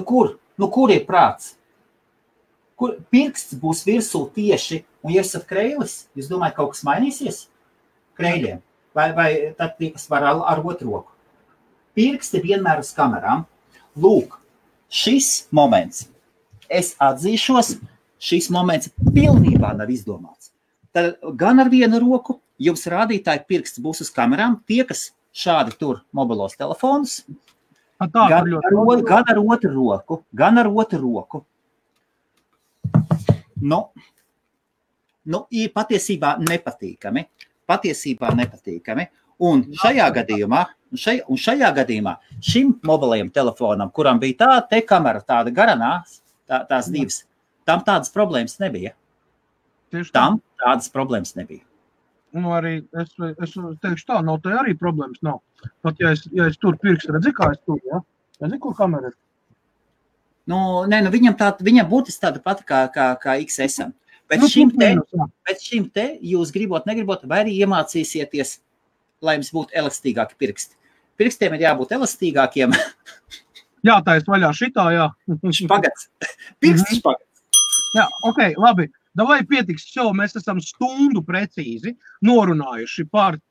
kur ir prāts? Kur pirksts būs virsū tieši, un ja esat kreilis, jūs domājat, kaut kas mainīsies? Kreiļiem. Vai tad tie, kas var ar otru roku. Pirksti vienmēr uz kamerām. Lūk, šis moments, es atzīšos, šis moments pilnībā nav izdomāts. Tad gan ar vienu roku jums rādītāji pirksts būs uz kamerām, tie, kas šādi tur mobilos telefonus, gan ar otru roku. Ir patiesībā nepatīkami. Un šajā gadījumā šim mobilajam telefonam, kuram bija tā te kamera, tāda garanās, tās divas, tam tādas problēmas nebija. Tam tādas problēmas nebija. Nu, arī es teikšu tā, nav te arī problēmas nav. Pat ja es tur pirkstu, redzi, kā es tur, ja? Redzi, kur kamera ir? Viņam būtiski tāda pati kā XS-am. Bet šim te jūs negribot, vai arī iemācīsieties, lai jums būtu elastīgāki pirksti. Pirkstiem ir jābūt elastīgākiem. Jā, tā es vaļā šitā, jā. Špagats. Pirksti špagats. Jā, ok, labi. Davai pietiks šo, mēs esam stundu precīzi norunājuši par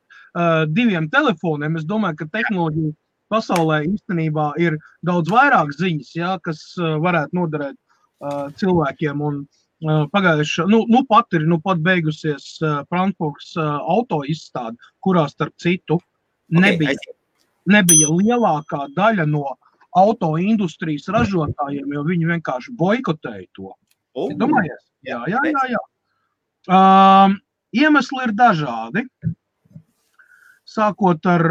diviem telefoniem. Es domāju, ka tehnoloģija pasaulē īstenībā ir daudz vairāk ziņas, jā, kas varētu noderēt cilvēkiem. Un pagājuši, pat beigusies Frankfurts auto izstāde, kurā starp citu nebija lielākā daļa no auto industrijas ražotājiem, jo viņi vienkārši boikotēja to. Domājies? Jā. Iemesli ir dažādi. Sākot ar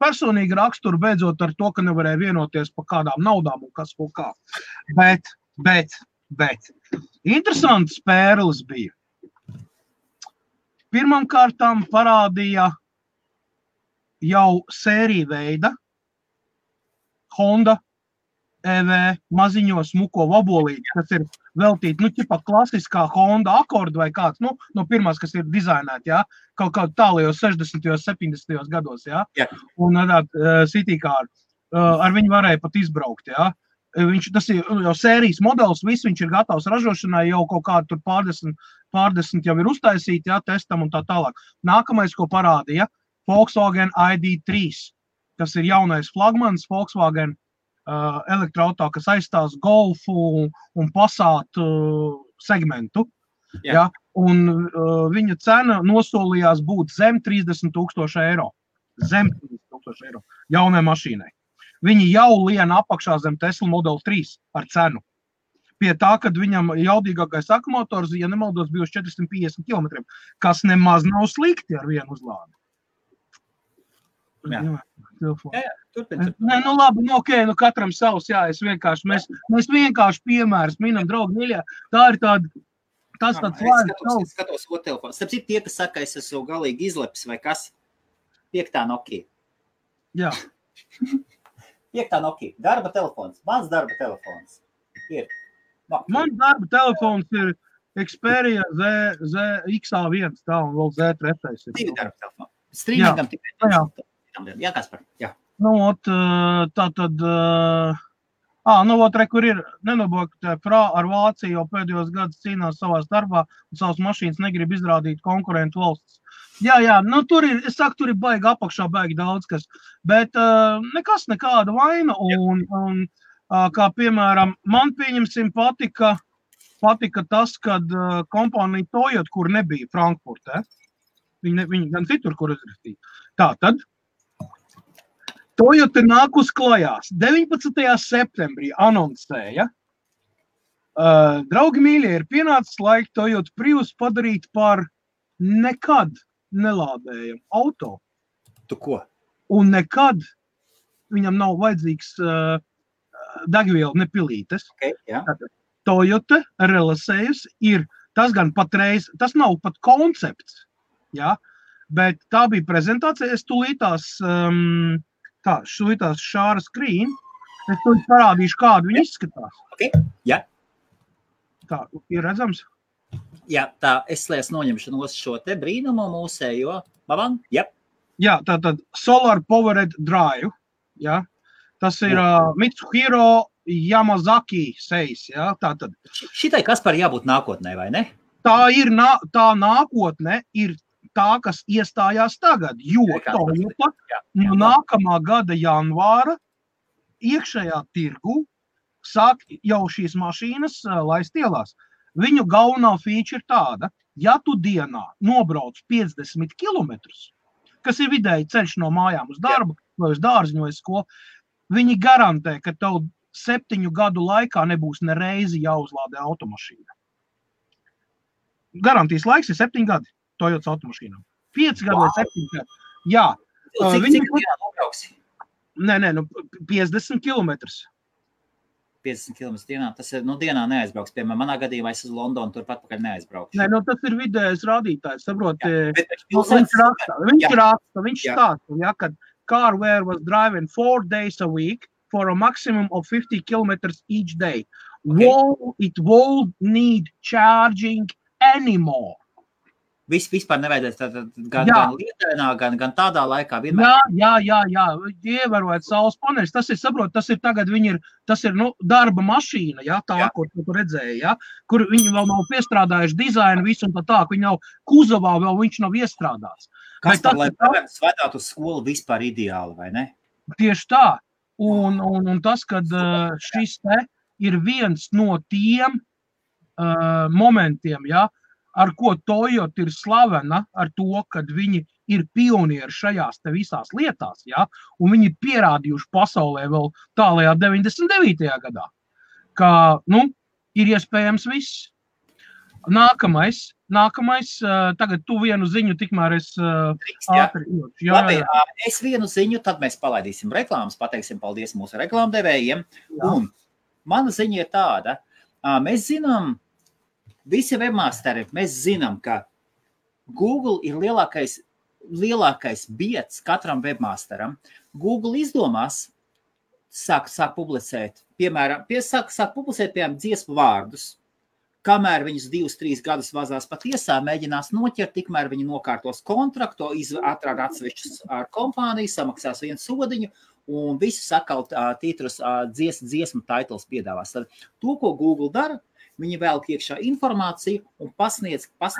personīgu raksturu, beidzot ar to, ka nevarēja vienoties par kādām naudām un kas kaut kā. Bet interesants pērlis bija. Pirmām kārtām parādīja jau sēriju veida Honda EV maziņo smuko vabolīti, kas ir veltīti, ķipa klasiskā Honda Accord vai kāds, no pirmās, kas ir dizainēti, jā, kaut tālajos 60. 70. gados, jā, un City Car, ar viņu varēja pat izbraukt, jā. Tas ir jau sērijas modelis, viss viņš ir gatavs ražošanai, jau kaut kādu tur pārdesmit jau ir uztaisīti, jā, testam un tā tālāk. Nākamais, ko parādīja, Volkswagen ID3, kas ir jaunais flagmans Volkswagen elektroauto, kas aizstās Golfu un Passat segmentu. Ja? Un viņa cena nosolījās būt zem 30,000 eiro. Zem 30,000 eiro jaunai mašīnai. Viņi jau lien apakšā zem Tesla Model 3 ar cenu. Pie tā, kad viņam jaudīgākais akumulātors, ja nemaldos, bija uz 450 km, kas nemaz nav slikti ar vienu uzlādi. Turpin. Nē, labi, katram savs, jā, mēs vienkārši piemērs minam, draugi, mīļā, tā ir tāds vārds. Skatos otru telefonu. Starp citu, tie, kas saka, es esmu galīgi izlepis vai kas, 5. Nokia. Jā. 5. Nokia. Darba telefons. Mans darba telefons ir. Mans darba telefons ir Xperia ZX1, tā un vēl Z3. Divi darba telefoni. Streamingam tikai. Jā, Kaspar, jā. Kur ir nenobokta Frā ar Vāciju jau pēdējos gadus cīnās savā starpā un savas mašīnas negrib izrādīt konkurentu valstis. Jā, tur ir, tur ir baigi apakšā, baigi daudz kas, bet nekas nekāda vaina un kā piemēram, man pieņemsim patika tas, kad kompānija Toyota, kur nebija Frankfurtē, viņi gan citur, kur izrakstīja. Tātad, Toyota nāk uz klajās. 19. septembrī anoncēja. Draugi mīļie, ir pienācis laika Toyota Prius padarīt par nekad nelādējumu auto. Tu ko? Un nekad viņam nav vajadzīgs degviela nepilītes. Okay, jā. Toyota relasējusi ir, tas gan patreiz, tas nav pat koncepts, jā, bet tā bija prezentācija, es tūlītās šāra screen, es to parādīšu, kādu viņi izskatās. Okay. Jā. Tā, ir redzams? Jā, tā, es noņemšu no šo te brīnumu mūsējo. Babam, jā. Jā, tātad Solar Powered Drive, jā. Tas ir Mitsuhiro Yamazaki seis, jā, tātad. Šitai Kaspar jābūt nākotnē, vai ne? Tā ir, tā nākotne ir tā, kas iestājās tagad, jo Toyota no nākamā gada janvāra iekšējā tirgu sāk jau šīs mašīnas laist ielās. Viņu galvenā feature ir tāda, ja tu dienā nobrauc 50 kilometrus, kas ir vidēji ceļš no mājām uz darbu, vai uz dārziņu vai skolu, viņi garantē, ka tev 7 gadu laikā nebūs nereizi jāuzlādē automašīna. Garantijas laiks ir 7 gadi Toyotas automašīnām. 5 gadi vai 7 gadi. Jā. Cik dienā nobrauksi? Nē, 50 kilometrus. 50 km dienā, tas ir, dienā neaizbrauks. Piemēram, manā gadījumā es uz Londonu turpat pakaļ neaizbraukšu. Nē, tas ir vidējais rādītājs, saproti. Viņš stāsta, ja, kad Carware was driving 4 days a week for a maximum of 50 kilometers each day. Okay. It won't need charging anymore. Vispār nevajadzēs gan lietainā, gan tādā laikā vienmēr. Jā, ievērojot saules paneļus, tas ir tagad tas ir darba mašīna, ko tu redzēji, kur viņi vēl nav piestrādājuši dizainu visu un tā, viņi nav kuzavā, vēl viņš nav iestrādāts. Kas tad, lai bērns vedātu uz skolu vispār ideāli, vai ne? Tieši tā, un tas, kad šis te ir viens no tiem momentiem, ar ko Toyota ir slavena, ar to, kad viņi ir pionieri šajās te visās lietās, un viņi pierādījuši pasaulē vēl tālajā 99. gadā, ka, ir iespējams viss. Nākamais, tagad tu vienu ziņu, tikmēr es ātri. Labi, es vienu ziņu, tad mēs palaidīsim reklāmas, pateiksim paldies mūsu reklāmdevējiem, un mana ziņa ir tāda, mēs zinām, visi webmasteri, mēs zinām, ka Google ir lielākais biedrs katram webmasteram. Google izdomās, sāk publicēt, piemēram, dziesmu vārdus, kamēr viņus 2-3 gadus vazās pa tiesā, mēģinās noķert, tikmēr viņi nokārtos kontraktu, atrāda atsevišķus ar kompāniju, samaksās vienu sodiņu, un visus atkal titrus dziesmu titles piedāvās. Tad to, ko Google dara, viņi velk iekšā informāciju un pasniedz kā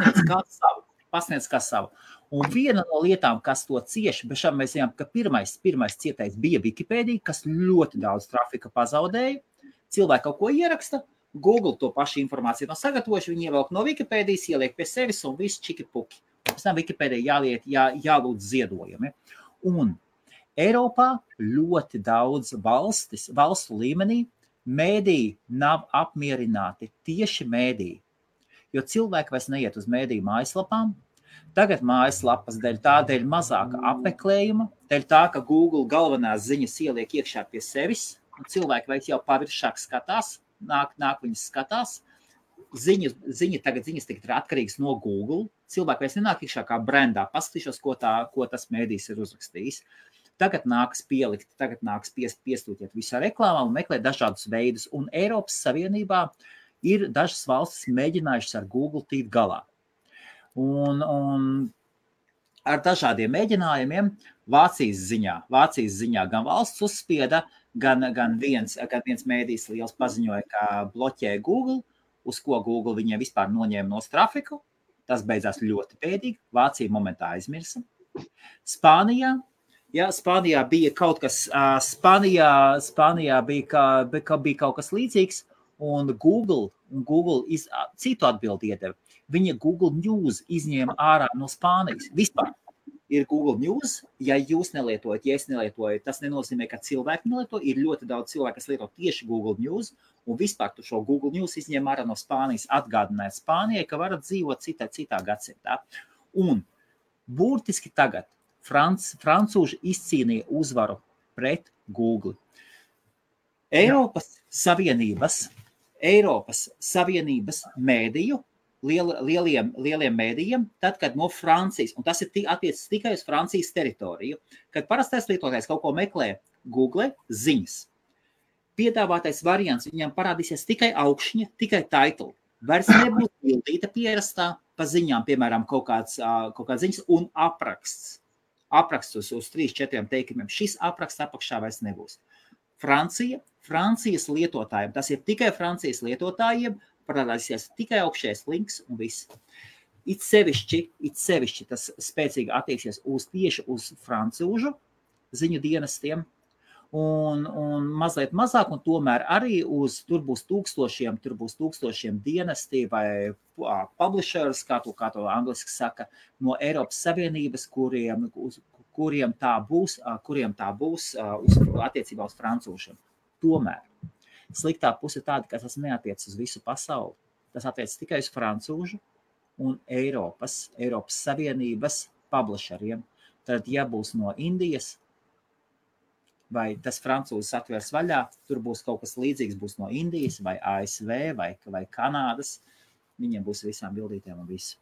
savu. Un viena no lietām, kas to cieši, bet šām mēs zinām, ka pirmais cietais bija Wikipēdija, kas ļoti daudz trafika pazaudēja. Cilvēki kaut ko ieraksta, Google to pašu informāciju nav sagatavojuši, viņi ievelk no Wikipēdijas, ieliek pie sevis un viss čiki-puki. Pēc tam Wikipēdija jālūdz ziedojumi. Un Eiropā ļoti daudz valstu līmenī mēdīji nav apmierināti, tieši mēdīji, jo cilvēki vairs neiet uz mēdīju mājaslapām. Tagad mājaslapas dēļ mazāka apmeklējuma, dēļ tā, ka Google galvenās ziņas ieliek iekšā pie sevis, un cilvēki vairs jau paviršāk skatās, nāk viņas skatās. Ziņas tagad ir atkarīgas no Google, cilvēki vairs nenāk iekšā kā brendā, paskatīšos, ko tas mēdījis ir uzrakstījis. Tagad nāks pielikt, piestūķiet visā reklāmā un meklēt dažādus veidus. Un Eiropas Savienībā ir dažas valstis mēģinājušas ar Google tikt galā. Un ar dažādiem mēģinājumiem Vācijas ziņā gan valsts uzspieda, gan viens mēdījis liels paziņoja, ka bloķē Google, uz ko Google viņiem vispār noņēma no trafiku. Tas beidzās ļoti bēdīgi. Vācija momentā aizmirsa. Spānijā bija kaut kas, Spānijā bija kaut kas līdzīgs, un Google citu atbildi iedeva. Viņa Google News izņēma ārā no Spānijas. Vispār ir Google News, ja jūs nelietojat, ja es nelietoju, tas nenozīmē, ka cilvēki nelieto, ir ļoti daudz cilvēku, kas lieto tieši Google News, un vispār tu šo Google News izņēma ārā no Spānijas, atgādināt Spānijai, ka varat dzīvot citā gadsimtā. Un burtiski tagad francūži izcīnīja uzvaru pret Google. Eiropas Savienības mēdīju, lieliem mēdījiem, tad, kad no Francijas, un tas ir attiecas tikai uz Francijas teritoriju, kad parastais lietotājs kaut ko meklē Google ziņas, piedāvātais variants viņam parādīsies tikai augšņa, tikai title. Vairs nebūs bildīta pierastā pa ziņām, piemēram, kaut kāds ziņas un apraksts. Apraksts uz 3-4 teikumiem. Šis apraksts apakšā vairs nebūs. Francijas lietotājiem, tas ir tikai Francijas lietotājiem, parādīsies tikai augšējais links un viss. It sevišķi tas spēcīgi attieksies tieši uz francūžu ziņu dienestiem. un mazliet mazāk, un tomēr arī tur būs tūkstošiem dienesti vai publishers, kā to angliski saka, no Eiropas Savienības, kuriem tā būs attiecībā uz francūšiem. Tomēr sliktā puse tāda, ka tas neatiec uz visu pasauli. Tas attiec tikai uz francūžu un Eiropas Savienības publisheriem. Tad, ja būs no Indijas, vai tas francūzis atvērs vaļā, tur būs kaut kas līdzīgs, būs no Indijas, vai ASV, vai Kanādas, viņiem būs visām bildītēm un visu.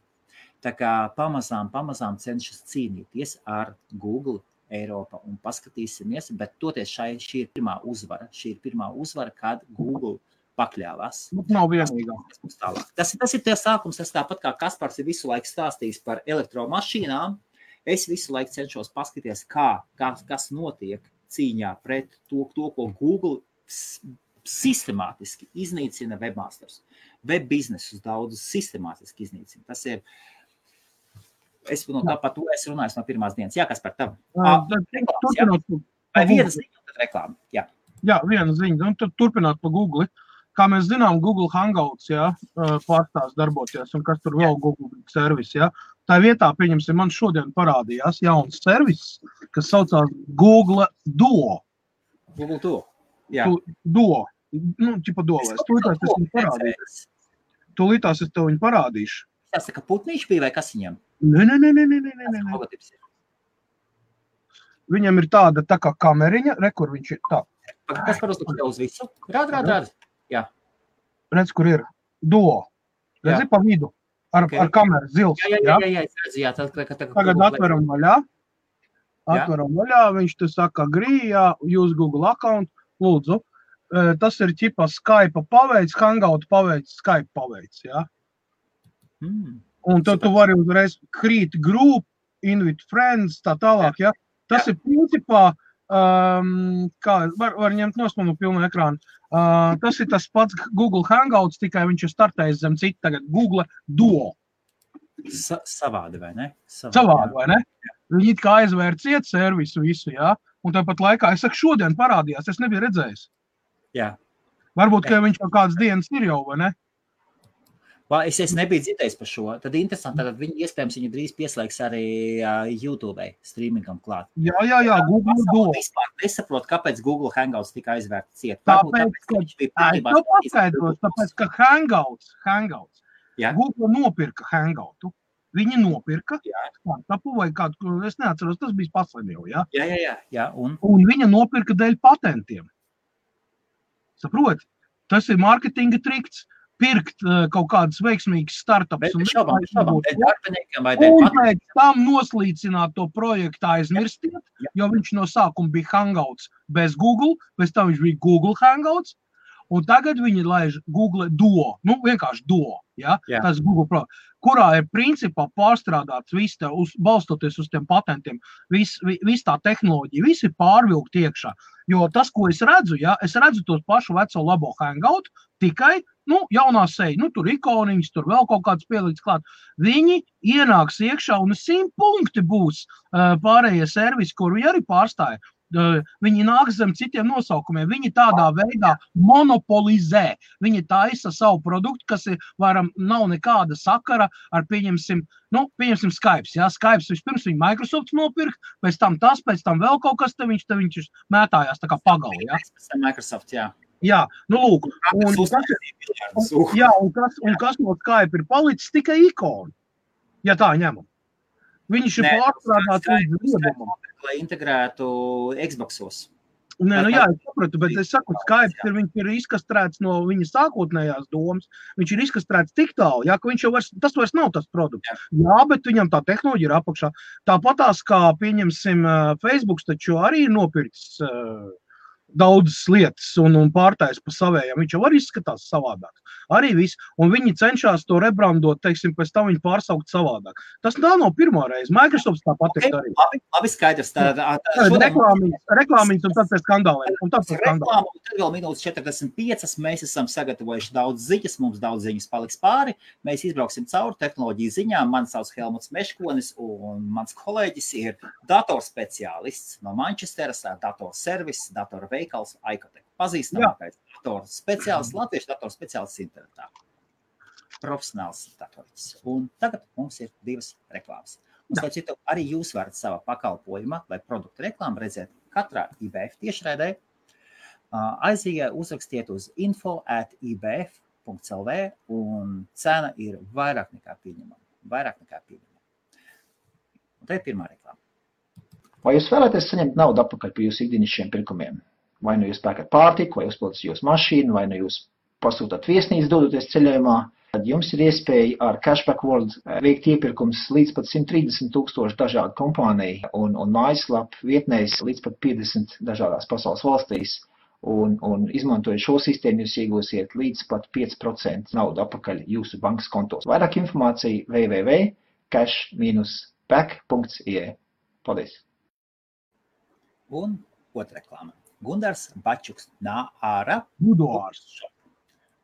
Tā kā pamazām cenšas cīnīties ar Google Eiropa un paskatīsimies, bet toties šī ir pirmā uzvara, kad Google pakļāvās. Nav vienīgā. Tas ir tie sākums, tas tāpat kā Kaspars ir visu laiku stāstījis par elektromašīnām, es visu laiku cenšos paskatīties, kas notiek cīņā pret to, ko Google sistemātiski iznīcina webmasters. Web biznesus daudz sistemātiski iznīcina. Tas ir, par to es runāju no pirmās dienas. Jā, kas par tavu? Vai viena ziņa, tad reklāma? Jā, viena ziņa. Un tad turpināt pa Google. Kā mēs zinām, Google Hangouts pārstās darboties, un kas tur vēl Google servis. Tā vietā, pieņemsim, man šodien parādījās jauns servis, kas saucās Google Duo. Google Duo, jā. Duo. Ķipa Duo. Tūlītās es tev viņu parādīšu. Tas tā kā putnīši bija vai kas viņam? Nē. Viņam ir tāda tā kā kameriņa, kur viņš ir tā. Kas par uz visu? Rād. Jā. Redz, kur ir Duo. Redzi pa vidu. Ar kameru zils. Jā. Tagad atveram vaļā. Viņš te saka, use Google account. Lūdzu. Tas ir ķipa Skype paveids, Hangout paveids, Skype paveids. Jā. Un tad tu vari uzreiz create group, invite friends, tā tālāk. Jā. Tas ir principā, var ņemt nosmanu pilnu ekrānu. Tas ir tas pats Google Hangouts, tikai viņš ir startējis zem citu tagad Google Duo. Savādi, vai ne? Savādi, vai ne? Viņi it kā aizvēr ciet servisu visu, jā. Un tāpat laikā, es saku, šodien parādījās, es nebiju redzējis. Jā. Varbūt, ka viņš jau kādas dienas ir jau, vai ne? Es nebiju dzirdējis par šo. Tad interesanti, tad viņu drīz pieslēgs arī YouTube streamingam klāt. Jā, Google Duo. Vispār nesaprotu, kāpēc Google Hangouts tika aizvērts ciet. Tāpēc, ka Hangouts. Google nopirka Hangoutu. Viņi nopirka startupu vai kādu, es neatceros, tas bija pasaļ jau, jā? Jā. Un viņa nopirka dēļ patentiem. Saproti? Tas ir marketinga trikts. Pirkt kaut kādas veiksmīgas startups. Un pēc tam noslīcināt to projektu aizmirstiet, jo viņš no sākuma bija Hangouts bez Google, pēc tam viņš bija Google Hangouts, un tagad viņi laiž Google Duo, vienkārši Duo, tas Google, kurā ir principā pārstrādāts viss, balstoties uz tiem patentiem, viss tā tehnoloģija, viss ir pārvilkt iekšā, jo tas, ko es redzu, es redzu tos pašu veco labo Hangout, tikai jaunā seja, tur ikoniņas, tur vēl kaut kāds pieliks klāt. Viņi ienāks iekšā un 100 punkti būs pārējie servisi, kur viņi arī pārstāja. Viņi nāk zem citiem nosaukumiem. Viņi tādā veidā monopolizē. Viņi taisa savu produktu, kas nav nekāda sakara ar, pieņemsim Skype. Skype vispirms viņa Microsoft nopirkt, pēc tam vēl kaut kas, te viņš mētājās tā kā pagali. Microsoft, jā. Jā, lūk. Un kas no Skype ir palicis tikai ikonu, ja tā ņemam. Viņš ir pārstrādāts līdz liedumam. Lai integrētu Xboxos. Jā, es sapratu, bet es saku, Skype viņš ir izkastrēts no viņa sākotnējās domas. Viņš ir izkastrēts tik tālu, ka viņš jau tas vairs nav tas produkts. Jā, bet viņam tā tehnoloģija ir apakšā. Tāpatās, kā pieņemsim Facebook, taču arī ir nopircis daudzas lietas un pārtais pa savējām. Viņš jau arī izskatās savādāk. Arī viss. Un viņi cenšas to rebrandot, teiksim, pēc tam viņi pārsaukt savādāk. Tas nav pirmo reizi. Microsoft tāpat ir arī. Labi, skaidrs. Reklāmiņas un tad pēc skandāliem. Un tad vēl minūtes 45. Mēs esam sagatavojuši daudz ziņas. Mums daudz ziņas paliks pāri. Mēs izbrauksim cauri tehnoloģiju ziņām. Mani sauc Helmuts Meškonis un mans kolēģis ir datorspeciālists no Manchesteras, datorservis, datorveikals, Aikotec. Pazīstamākais datorspeciālists, latviešu datorspeciālists internetā. Profesionāls datorists. Un tagad mums ir 2 reklāmas. Un, starp citu, arī jūs varat savā pakalpojumā vai produktu reklāmu redzēt katrā IBF tiešraidē. Uzrakstiet uz info@ibf.lv un cena ir vairāk nekā pieņemama. Un te ir pirmā reklāma. Vai jūs vēlaties saņemt naudu atpakaļ par jūsu ikdienišķiem pirkumiem? Vai nu jūs pērkat pārtiku, vai uzpildat jūsu mašīnu, vai nu jūs pasūtat viesnīcu dodoties ceļojumā, tad jums ir iespēja ar Cashback World veikt iepirkums līdz pat 130,000 dažādu kompāniju un mājaslapu vietnēs līdz pat 50 dažādās pasaules valstīs. Un izmantojot šo sistēmu, jūs iegūsiet līdz pat 5% naudu atpakaļ jūsu bankas kontos. Vairāk informācija www.cash-back.ie. Paldies! Un otra reklāma. Gundars Bačuks Nāra. Buduārs.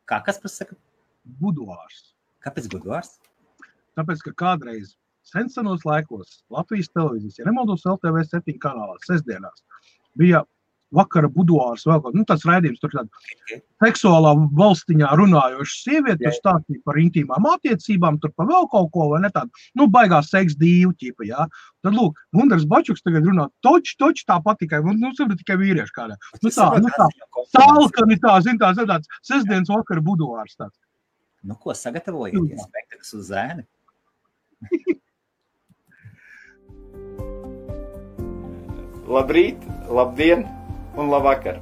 Kas pasaka? Buduārs. Kāpēc buduārs? Tāpēc, ka kādreiz senos laikos Latvijas televīzijas, ja nemaldos LTV 7 kanālā, sestdienās, bija vakara buduārs vēl kaut, tāds raidījums, tur tāda seksuālā valstiņā runājoša sieviete, tur stāstīja par intīmām attiecībām, tur par vēl kaut ko, vai ne tādu, baigās seks dīvu ķipa, jā. Tad, lūk, Gundars Bačuks tagad runā toči tāpat tikai, tikai vīrieši kādā. Tālkani tāds sestdienas vakara buduārs tāds. Ko sagatavojieties? Spektakls uz zēni? Labrīt, labdien un labvakar.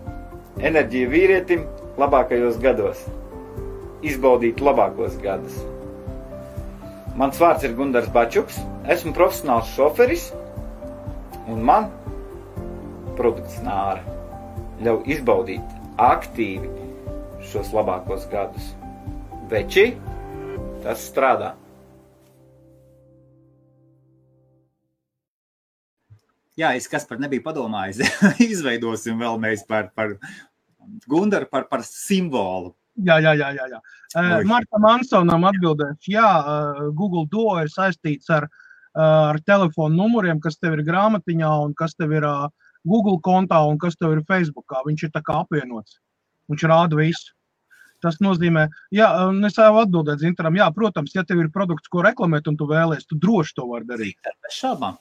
Enerģija vīrietim labākajos gados. Izbaudīt labākos gadus. Mans vārds ir Gundars Bačuks, esmu profesionāls šoferis un man produkts Nāra ļauj izbaudīt aktīvi šos labākos gadus. Veči, tas strādā. Jā, kas par nebija padomājis, izveidosim vēl mēs par Gundaru, par simbolu. Jā. Marta Mansonam atbildēšu, Google Duo ir saistīts ar telefonu numuriem, kas tev ir grāmatiņā un kas tev ir Google kontā un kas tev ir Facebookā. Viņš ir tā kā apvienots. Viņš rāda visu. Tas nozīmē, es jau atbildēt Zintaram, protams, ja tev ir produkts, ko reklamēt un tu vēlies, tu droši to var darīt. Bez šaubām.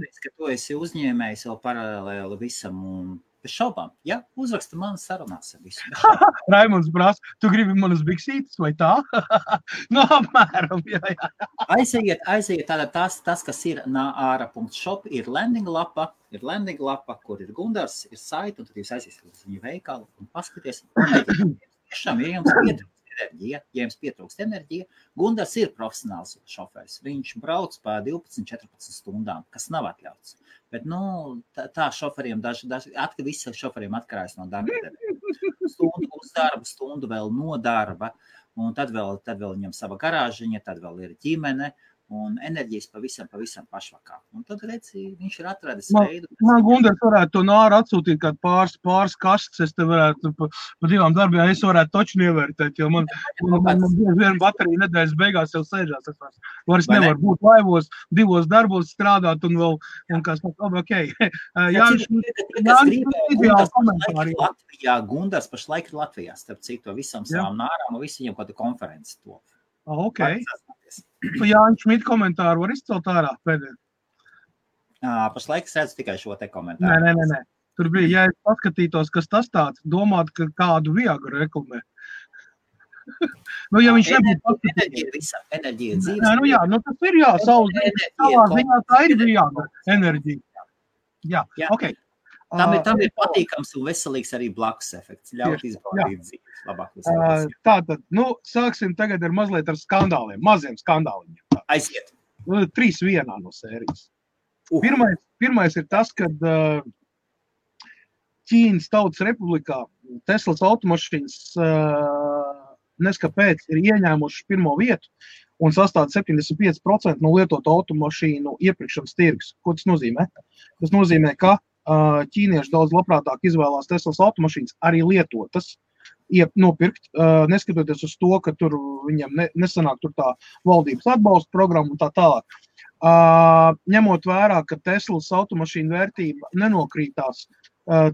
Es ka tu esi uzņēmējs vēl paralēli visam un bez šaubām. Uzraksta manas sarunās ar visu. Raimunds prasa, tu gribi manas biksītes vai tā? Apmēram, jā. Aiziet, tātad tas, kas ir nāra.shop, ir landing lapa, kur ir Gundars, ir saita, un tad jūs aiziesiet uz viņu veikalu un paskaties. Tiešām, ja jums pietrūkst enerģija, Gundars ir profesionāls šoferis. Viņš brauc pa 12-14 stundām, kas nav atļauts. Bet, tā šoferiem, visi šoferiem atkarājas no darba. Stundu uz darbu, stundu vēl no darba, un tad vēl viņam sava garāžiņa, tad vēl ir ģimene, un enerģijas pavisam pašvakā. Un tad, redzi, viņš ir atradis veidu. Man Gundars varētu to Nāru atsūtīt kādu pāris kastes, es te varētu pa 2 darbiem, es varētu toču ievērtēt, jo man viena baterija nedēļas beigās jau sēžās. Es vairs nevaru būt laivos, 2 darbos strādāt un vēl, un kas ok. Gundars pašlaik ir Latvijā, starp citu, visam savām Nārām, un visi viņam kādu konferenci to. Ok. Jāņš Šmita komentāru var izcelt ārā pēdējā? Pašlaik es redzu tikai šo te komentāru. Nē. Tur bija, ja es paskatītos, kas tas tāds, domāt, ka kādu Viagru reklamē. Ja viņš nebūtu paskatīties. Enerģija dzīves. Tas ir savā ziņā tā ir Viagra enerģija. Ok. Tam ir patīkams un veselīgs arī blakus efekts. Ļaut izbaudīt dzīves labākos. Tātad, sāksim tagad ar mazliet ar skandāliem, maziem skandāliem. Aiziet. 3 vienā no sērijas. Pirmais ir tas, kad Ķīnas Tautas Republikā Teslas automašīnas neskapēc ir ieņēmuši pirmo vietu un sastāda 75% no lietotu automašīnu iepirkšanas tirgus. Ko tas nozīmē? Tas nozīmē, ka ķīnieši daudz labprātāk izvēlās Teslas automašīnas arī lietotas, nopirkt, neskatoties uz to, ka tur viņam nesanāk tur tā valdības atbalsta programma un tā tālāk. Ņemot vērā, ka Teslas automašīnu vērtība nenokrītās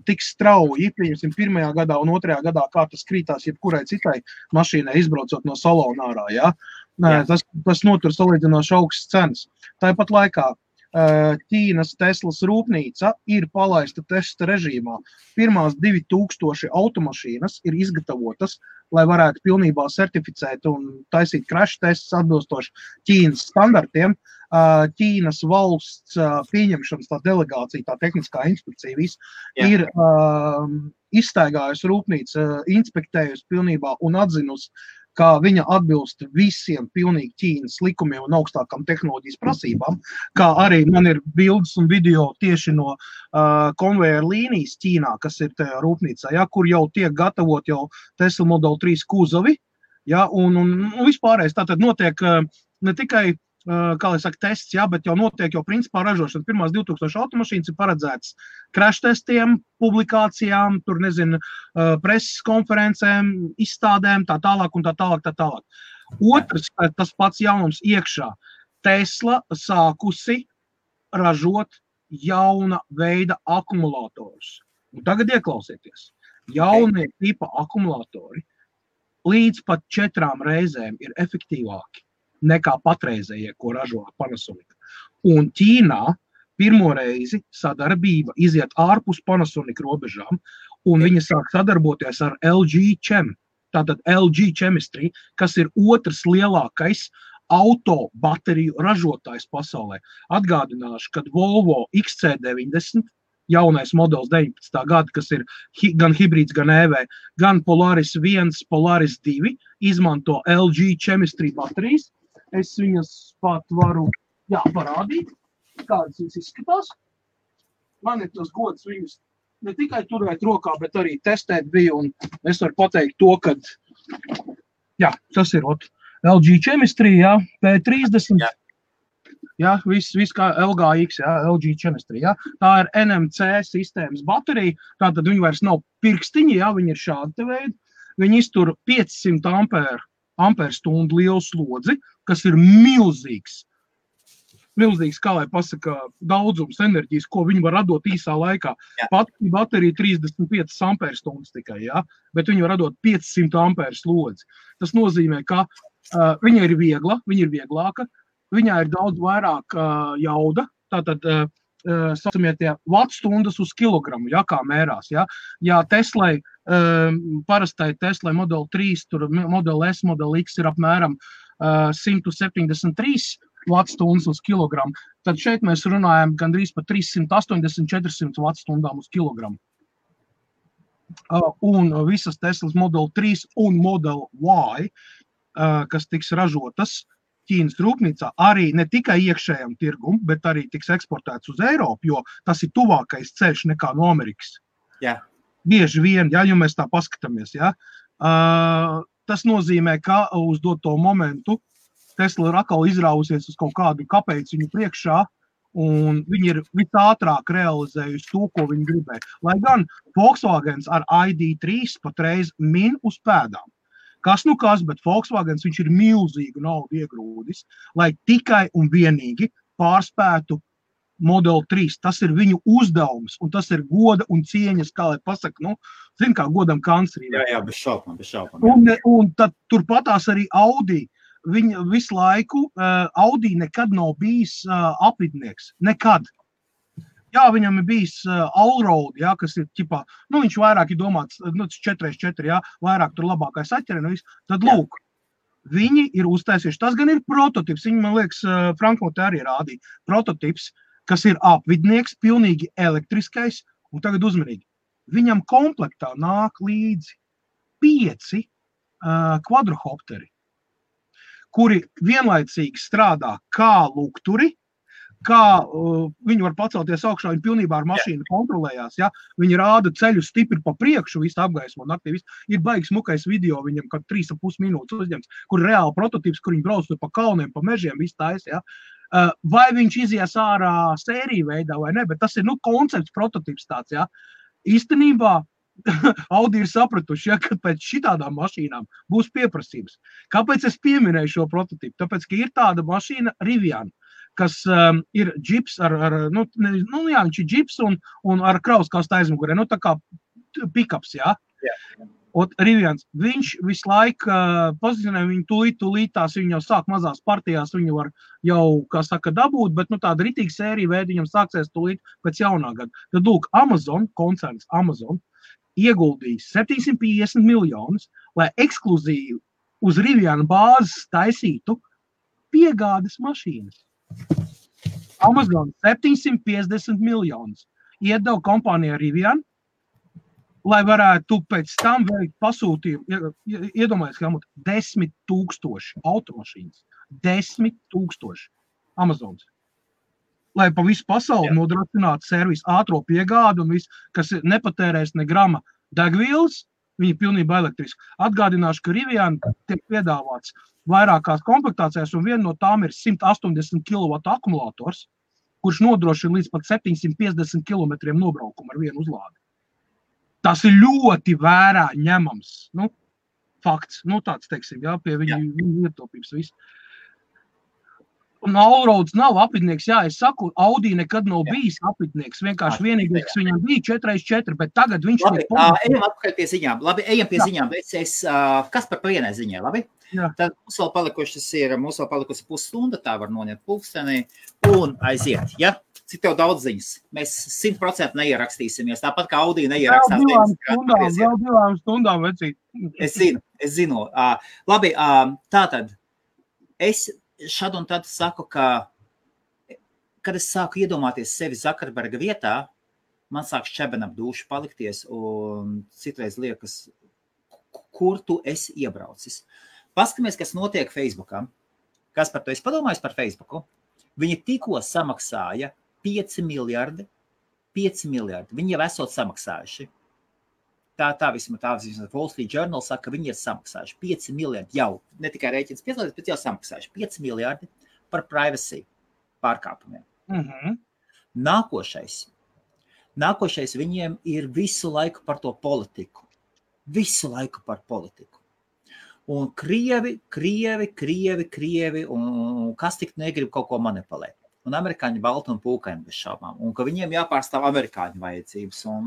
tik strauji, pieņemsim, 1. gadā un 2. gadā, kā tas krītās jebkurai citai mašīnai izbraucot no salona ārā, ja? Tas notur salīdzinoši augstas cenas. Tāpat laikā Ķīnas Teslas rūpnīca ir palaista testa režīmā. Pirmās 2000 automašīnas ir izgatavotas, lai varētu pilnībā certificēt un taisīt crash tests atbilstoši Ķīnas standartiem. Ķīnas valsts pieņemšanas tā delegācija, tā tehniskā inspekcija viss ir izstaigājusi rūpnīca, inspektējusi pilnībā un atzinusi, ka viņa atbilst visiem pilnīgi Ķīnas likumiem un augstākām tehnoloģijas prasībām, kā arī man ir bildes un video tieši no konvejeru līnijas Ķīnā, kas ir tajā rūpnīcā, ja, kur jau tiek gatavot jau Tesla Model 3 kuzovi, ja, un vispārējais tātad notiek ne tikai kā lai saka, tests, jā, bet jau notiek jau principā ražošana. Pirmās 2000 automašīnas ir paredzētas crash testiem, publikācijām, tur nezinu, preses konferencēm, izstādēm, tā tālāk un tā tālāk. Otrs, tas pats jaunums iekšā. Tesla sākusi ražot jauna veida akumulatorus. Un tagad ieklausieties. Jaunie tipa akumulatori līdz pat 4 reizēm ir efektīvāki nekā patreizējie, ko ražo Panasonic. Un Ķīnā pirmo reizi sadarbība iziet ārpus Panasonic robežām, un viņa sāk sadarboties ar LG Chem, tātad LG Chemistry, kas ir otrs lielākais auto bateriju ražotājs pasaulē. Atgādināšu, kad Volvo XC90, jaunais modelis 19. gada, kas ir gan hibrīds, gan EV, gan Polaris 1, Polaris 2, izmanto LG Chemistry baterijas. Es viņas pat varu parādīt, kādas viņas izskatās. Man ir tas gods viņas ne tikai turēt rokā, bet arī testēt bija, un es varu pateikt to, ka tas ir LG Chemistry, P30, viss kā LGX, LG Chemistry, tā ir NMC sistēmas baterija, tātad viņi vairs nav pirkstiņi, viņi ir šādi te veidi, viņi iztur 500 amperstundu lielu slodzi, kas ir milzīgs, kā lai pasaka, daudzums enerģijas, ko viņi var radot īsā laikā. Pati baterija 35 amperstundas tikai, bet viņi var radot 500 amperu slodzi. Tas nozīmē, ka viņa ir viegla, viņa ir vieglāka, viņā ir daudz vairāk jauda, tātad saucamie tie vattstundas uz kilogramu, kā mērās. Ja Teslai, parastai Teslai Model 3, tur Model S, Model X ir apmēram 173 vattstundas uz kilogramu, tad šeit mēs runājam gandrīz par 380-400 wattstundām uz kilogramu. Un visas Teslas Model 3 un Model Y, kas tiks ražotas Ķīnas rūpnīcā, arī ne tikai iekšējam tirgum, bet arī tiks eksportēts uz Eiropu, jo tas ir tuvākais ceļš nekā no Amerikas. Bieži vien, ja mēs tā paskatāmies, tas nozīmē, ka uz doto momentu Tesla ir atkal izrāvusies uz kaut kādu kapeiciņu priekšā, un viņi ir visātrāk realizējusi to, ko viņi gribēja. Lai gan Volkswagens ar ID3 patreiz min uz pēdām. Kas, bet Volkswagens viņš ir milzīgu naudu iegrūdis, lai tikai un vienīgi pārspētu Model 3. Tas ir viņu uzdevums, un tas ir goda un cieņas, kā lai pasaka, zin kā godam kanclerī. Jā, bez šaubām. Un tad turpatās arī Audi. Viņa visu laiku, Audi nekad nav bijis apvidnieks. Nekad. Viņam ir bijis Allroad, kas ir ķipā, viņš vairāk ir domāts, 4x4, vairāk tur labākais atķeri, tad lūk, viņi ir uztaisījuši. Tas gan ir prototips, viņi, man liekas, Frankfurtē arī rādīja. Prototips, kas ir apvidnieks, pilnīgi elektriskais, un tagad uzmanīgi. Viņam komplektā nāk līdzi 5 kvadrohopteri, kuri vienlaicīgi strādā kā lukturi, kā viņi var pacelties augšā, viņi pilnībā ar mašīnu kontrolējās, ja? Viņi rāda ceļu stipri pa priekšu, visu apgaismo naktī, ir baigs smukais video viņam, kad 3,5 minūtes uzņemts, kur reāli prototips, kur viņi brauc pa kalniem, pa mežiem, visu tais, ja? Vai viņš izies ārā sēriju veidā vai ne, bet tas ir, koncepts, prototips tāds, ja? Īstenībā Audi ir sapratuši, ja, ka pēc šitādām mašīnām būs pieprasības. Kāpēc es pieminēju šo prototipu? Tāpēc, ka ir tāda mašīna Rivian, kas ir džips viņš ir džips un ar krauskastu aizmugurē, tā kā pikaps, jā. Un Rivians, viņš visu laiku pozicionē viņu tūlīt tās, viņi jau sāk mazās partijās, viņu var jau, kā saka, dabūt, bet tāda ritīga sērija veida viņam sāksies tūlīt pēc jaunā gada. Tad, lūk, Amazon, koncerns Amazon, ieguldīja 750 miljonus, lai ekskluzīvi uz Riviana bāzes taisītu piegādes mašīnas. Amazon 750 miljonus iedeva kompānijā Rivian, lai varētu pēc tam veikt pasūtījumu, iedomājies, ka 10 000 automašīnas, 10 000 Amazons, lai pa visu pasauli nodrošinātu servisu ātro piegādu un visu, kas nepatērēs ne grama degvielas, viņi pilnībā elektriski. Atgādināšu, ka Rivian tiek piedāvāts vairākās komplektācijās, un viena no tām ir 180 kW akumulators, kurš nodrošina līdz pat 750 km nobraukumu ar vienu uzlādi. Tas ir ļoti vērā ņemams, fakts, tāds, teiksim, jā, pie viņa ietaupības viss. Un Allroads nav apvidnieks, jā, es saku, Audi nekad nav bijis apvidnieks, vienkārši vienīgais, kas viņam bija 4x4, bet tagad viņš ir... Ejam atpakaļ pie ziņām, ejam pie ziņām, kas par vienai ziņai, labi? Jā. Tad mums vēl palikusi pusstunda, tā var noņemt pulkstenī un aiziet, ja? Cik tev daudz ziņas? Mēs 100% neierakstīsimies, tāpat kā Audi neierakstās. Vēl divām stundām, vecīt. Es zinu. Labi, tātad, es šad un tad saku, ka, kad es sāku iedomāties sevi Zuckerberga vietā, man sāk šķeben ap dušu palikties un citreiz liekas, kur tu esi iebraucis. Paskamies, kas notiek Facebookā. Kas par to es padomāju par Facebooku? Viņi tikko samaksāja 5 miljardi. Viņi jau esot samaksājuši. Tā vismaz Wall Street Journal saka, ka viņi ir samaksājuši 5 miljardi jau, ne tikai rēķins piedalīties, bet jau samaksājuši 5 miljardi par privacy pārkāpumiem. Nākošais viņiem ir visu laiku par to politiku. Visu laiku par politiku. Un Krievi, un kas tik negrib kaut ko manipulēt. Un amerikāņi balti un pūkaini bez šaubām. Un ka viņiem jāpārstāv amerikāņu vajadzības. Un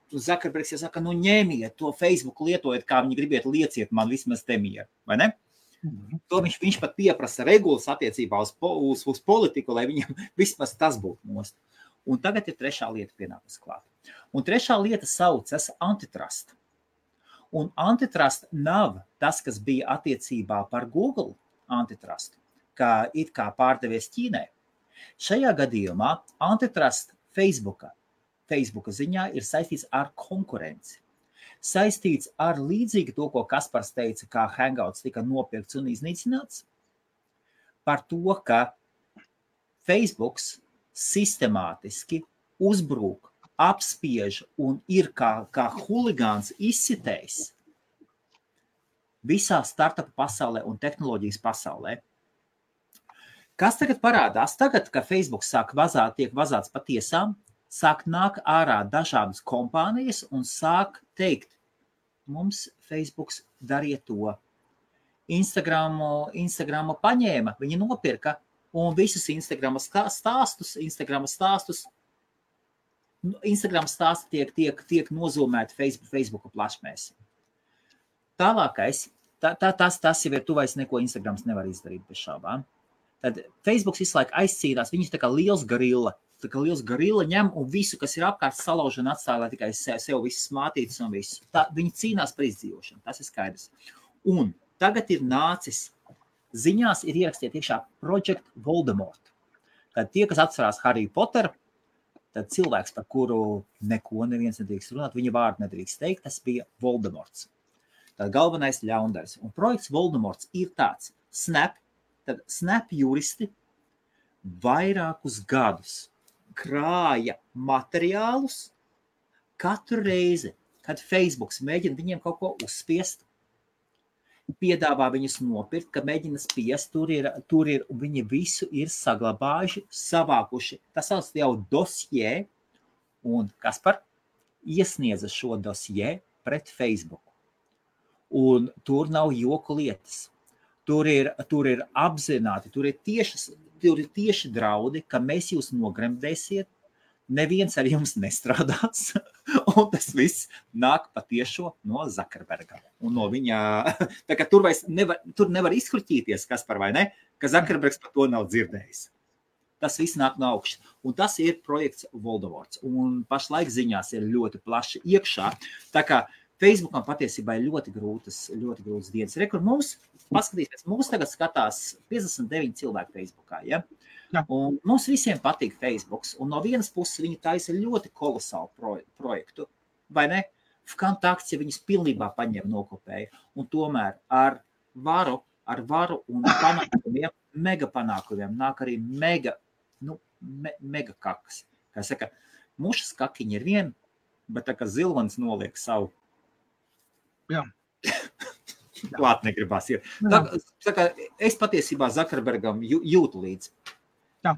Zuckerbergs saka, ņēmiet to Facebook, lietojiet, kā viņi gribiet, lieciet man vismaz te mieru, vai ne? To viņš pat pieprasa regulas attiecībā uz politiku, lai viņam vismaz tas būtu nost. Un tagad ir trešā lieta pienākas klāt. Un trešā lieta saucas antitrust. Un antitrust nav tas, kas bija attiecībā par Google antitrust, kā it kā pārdevies Ķīnai. Šajā gadījumā antitrust Facebooka ziņā ir saistīts ar konkurenci. Saistīts ar līdzīgi to, ko Kaspars teica, kā Hangouts tika nopirkts un iznīcināts, par to, ka Facebooks sistemātiski uzbrūk, apspiež un ir kā huligāns izsitējs visā startupu pasaulē un tehnoloģijas pasaulē. Kas tagad parādās? Tagad, ka Facebook tiek vazāts pa tiesām, sāk nāk ārā dažādas kompānijas un sāk teikt, mums Facebooks dariet to. Instagramu paņēma, viņi nopirka un visus Instagram stāsti tiek nozūmēti Facebooka plašmēs. Tālākais, tas jau ir tuvais, neko Instagrams nevar izdarīt bez šaubām. Tad Facebooks visu laiku aizcīnās, viņš tā kā liels gorilla ņem un visu, kas ir apkārt salauž un atstāja, lai tikai sev visas mātītas un visu. Viņi cīnās par izdzīvošanu, tas ir skaidrs. Un tagad ir nācis, ziņās ir ierakstīta iekšā Project Voldemort. Tad tie, kas atcerās Harry Potter, tad cilvēks, par kuru neko neviens nedrīkst runāt, viņa vārdu nedrīkst teikt, tas bija Voldemorts. Tad galvenais ļaundaris. Un projekts Voldemorts ir tāds Snap juristi vairākus gadus krāja materiālus katru reizi, kad Facebooks mēģina viņiem kaut ko uzspiest, piedāvā viņus nopirkt, ka mēģina spiest, tur ir, un viņi visu ir saglabājuši, savākuši. Tas sauc jau dosjē, un Kaspar iesniedza šo dosjē pret Facebook. Un tur nav joku lietas. Tur ir apzināti, tur ir tieši draudi, ka mēs jūs nogremdēsiet, neviens ar jums nestrādās, un tas viss nāk patiešo no Zuckerberga. Un no viņa, tā kā tur nevar izkruķīties, Kaspar, vai ne, ka Zuckerbergs par to nav dzirdējis. Tas viss nāk no augšas. Un tas ir projekts Voldemorts. Un pašlaik ziņās ir ļoti plaši iekšā. Tā kā Facebookam patiesībā ir ļoti grūtas dienas. Rekur mums, paskatīsimies, mums tagad skatās 59 cilvēki Facebookā, ja? Jā. Un mums visiem patīk Facebooks, un no vienas puses viņi taisa ļoti kolosālu projektu, vai ne? Vkontakts, ja viņus pilnībā paņem nokopēja, un tomēr ar varu un panākumiem, mega panākumiem nāk arī mega kakas. Kā saka, mušas kakiņi ir vien, bet tā kā zilvanis noliek savu. Jā. Klāt negribās ir. Tā kā es patiesībā Zuckerbergam jūtu līdzi. Jā.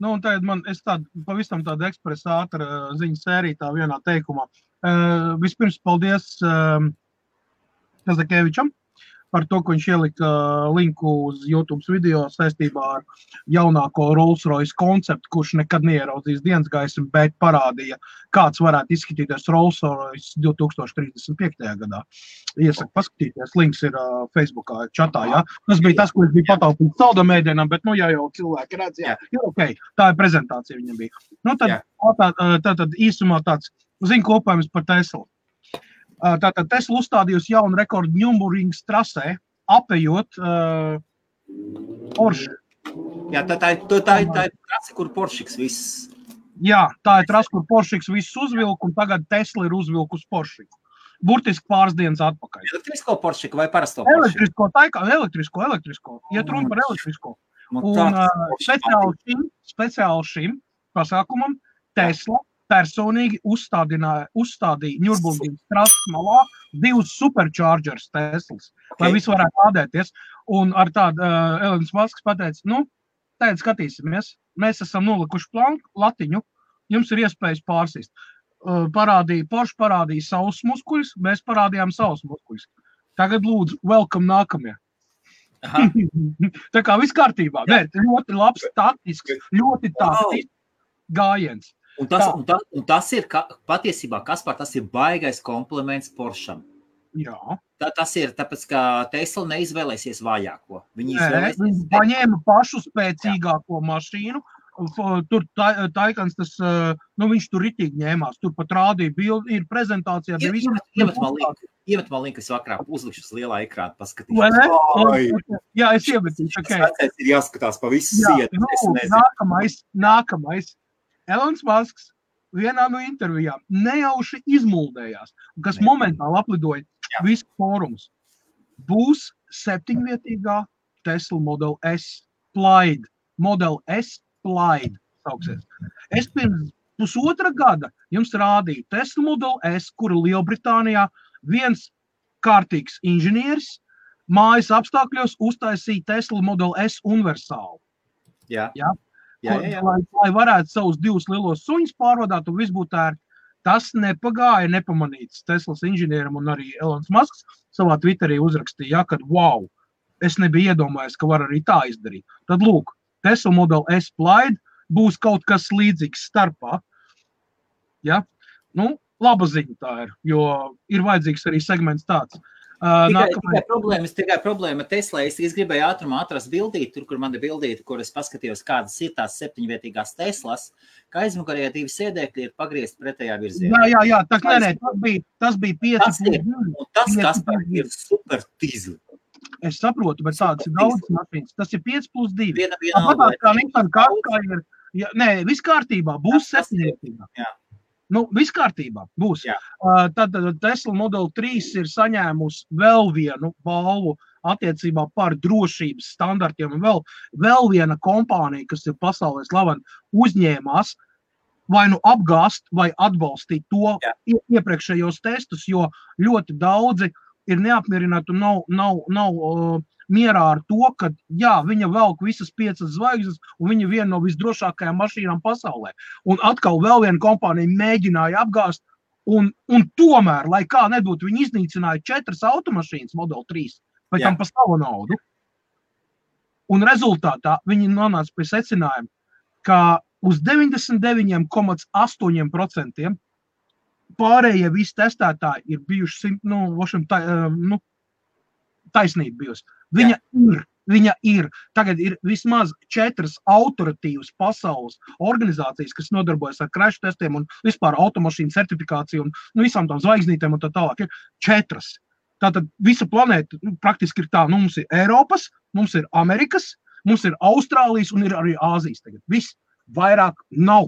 Nu, un tagad es pavisam tādu ekspresa ātra ziņu sēriju tā vienā teikumā. Vispirms paldies Kazakevičam par to, ka viņš ielika linku uz YouTube video saistībā ar jaunāko Rolls-Royce konceptu, kurš nekad neieraudzīs dienas gaismu, bet parādīja, kāds varētu izskatīties Rolls-Royce 2035. gadā. Iesaku paskatīties, links ir Facebookā čatā, jā. Tas bija tas, ko es biju pataupījis saldamēdienam, bet jau cilvēki redz, jā, okay. Tā ir prezentācija viņam bija. Nu, tad īsumā tāds ziņkopējums par Teslu. Tātad Tesla uzstādījusi jaunu rekordu Nürburgrings trasē, apejot Porsche. Jā, tā ir trasa, kur Porscheks viss. Jā, tā ir trasa, kur Porscheks viss uzvilk, un tagad Tesla ir uzvilkus Porscheku. Burtiski pāris dienas atpakaļ. Elektrisko Porscheku vai parasto Porscheku? Elektrisko. Iet runa par elektrisko. Un speciāli šim pasākumam Tesla personīgi uzstādīja Nürburgrings trases malā 2 superchargers Teslas, lai visi varētu lādēties. Un ar tādu Elonas Masks pateica, tagad skatīsimies, mēs esam nolikuši latiņu, jums ir iespējas pārsist. Porsche parādīja savus muskuļus, mēs parādījām savus muskuļus. Tagad lūdzu, welcome nākamie. Tā kā viss kārtībā, bet ļoti labs taktisks, gājiens. Un tas ir, patiesībā, Kaspar, tas ir baigais kompliments Porscham. Jā. Tas ir, tāpēc, ka Tesla neizvēlēsies vājāko. Viņi paņēma pašu spēcīgāko mašīnu. Tur Taikans, viņš tur ritīgi ņēmās. Tur pat rādīja bildi, ir prezentācijā. Iemet man linku, es vakarā uzlikšu uz lielā ekrāna paskatīšu. Vai ne? Jā, es iemetīšu. Tas ir jāskatās pa visu sienu. Nākamais. Elons Masks vienā no intervijām nejauši izmuldējās, kas momentāli aplidoja visu fórumus. Būs 7-vietīgā Tesla Model S Plaid. Model S Plaid sauksies. Es pirms pusotra gada jums rādīju Tesla Model S, kuru Lielbritānijā viens kārtīgs inženieris mājas apstākļos uztaisīja Tesla Model S universālu. Jā. Lai varētu savus 2 lielos suņus pārvadāt un viss būtu ērti. Tas nepagāja nepamanīts Teslas inženieram un arī Elons Masks savā Twitterī uzrakstīja, kad wow, es nebiju iedomājies, ka var arī tā izdarīt. Tad lūk, Tesla Model S Plaid būs kaut kas līdzīgs starpā. Ja? Laba ziņa tā ir, jo ir vajadzīgs arī segments tāds. Tikai problēma Teslā. Es gribēju ātrumā atrast bildīti, tur, kur man ir bildīti, kur es paskatījos, kādas ir tās 7-vietīgās Teslas, ka aizmukarējā 2 sēdēkļi ir pagriezti pretējā virzienā. Jā, tas bija 5+2. Tas, Kaspar, ir super tīzli. Es saprotu, bet tādas ir daudz mašīnas. Tas ir 5+2. Viss kārtībā, būs 7-vietīgā. Jā. Viss kārtībā būs. Tad Tesla Model 3 ir saņēmusi vēl vienu balvu attiecībā par drošības standartiem. Un vēl viena kompānija, kas ir pasaulē slavena, uzņēmās vai nu apgāst vai atbalstīt to iepriekšējos testus, jo ļoti daudzi ir neapmierināti un nav mierā ar to, ka viņa velk visas 5 zvaigznes un viņa viena no visdrošākajām mašīnām pasaulē. Un atkal vēl viena kompānija mēģināja apgāst un tomēr, lai kā nebūtu, viņi iznīcināja 4 automašīnas Model 3, pēc tam pa savu naudu. Un rezultātā viņi nonāca pie secinājuma, ka uz 99,8% pārējie visi testētāji ir bijuši, taisnība bijusi. Viņa ir. Tagad ir vismaz 4 autoritīvas pasaules organizācijas, kas nodarbojas ar crash testiem un vispār automašīnu certifikāciju un visām tām zvaigznītēm un tā tālāk. Ir 4. Tātad visa planēta praktiski ir tā. Mums ir Eiropas, mums ir Amerikas, mums ir Austrālijas un ir arī Āzijas tagad. Viss vairāk nav.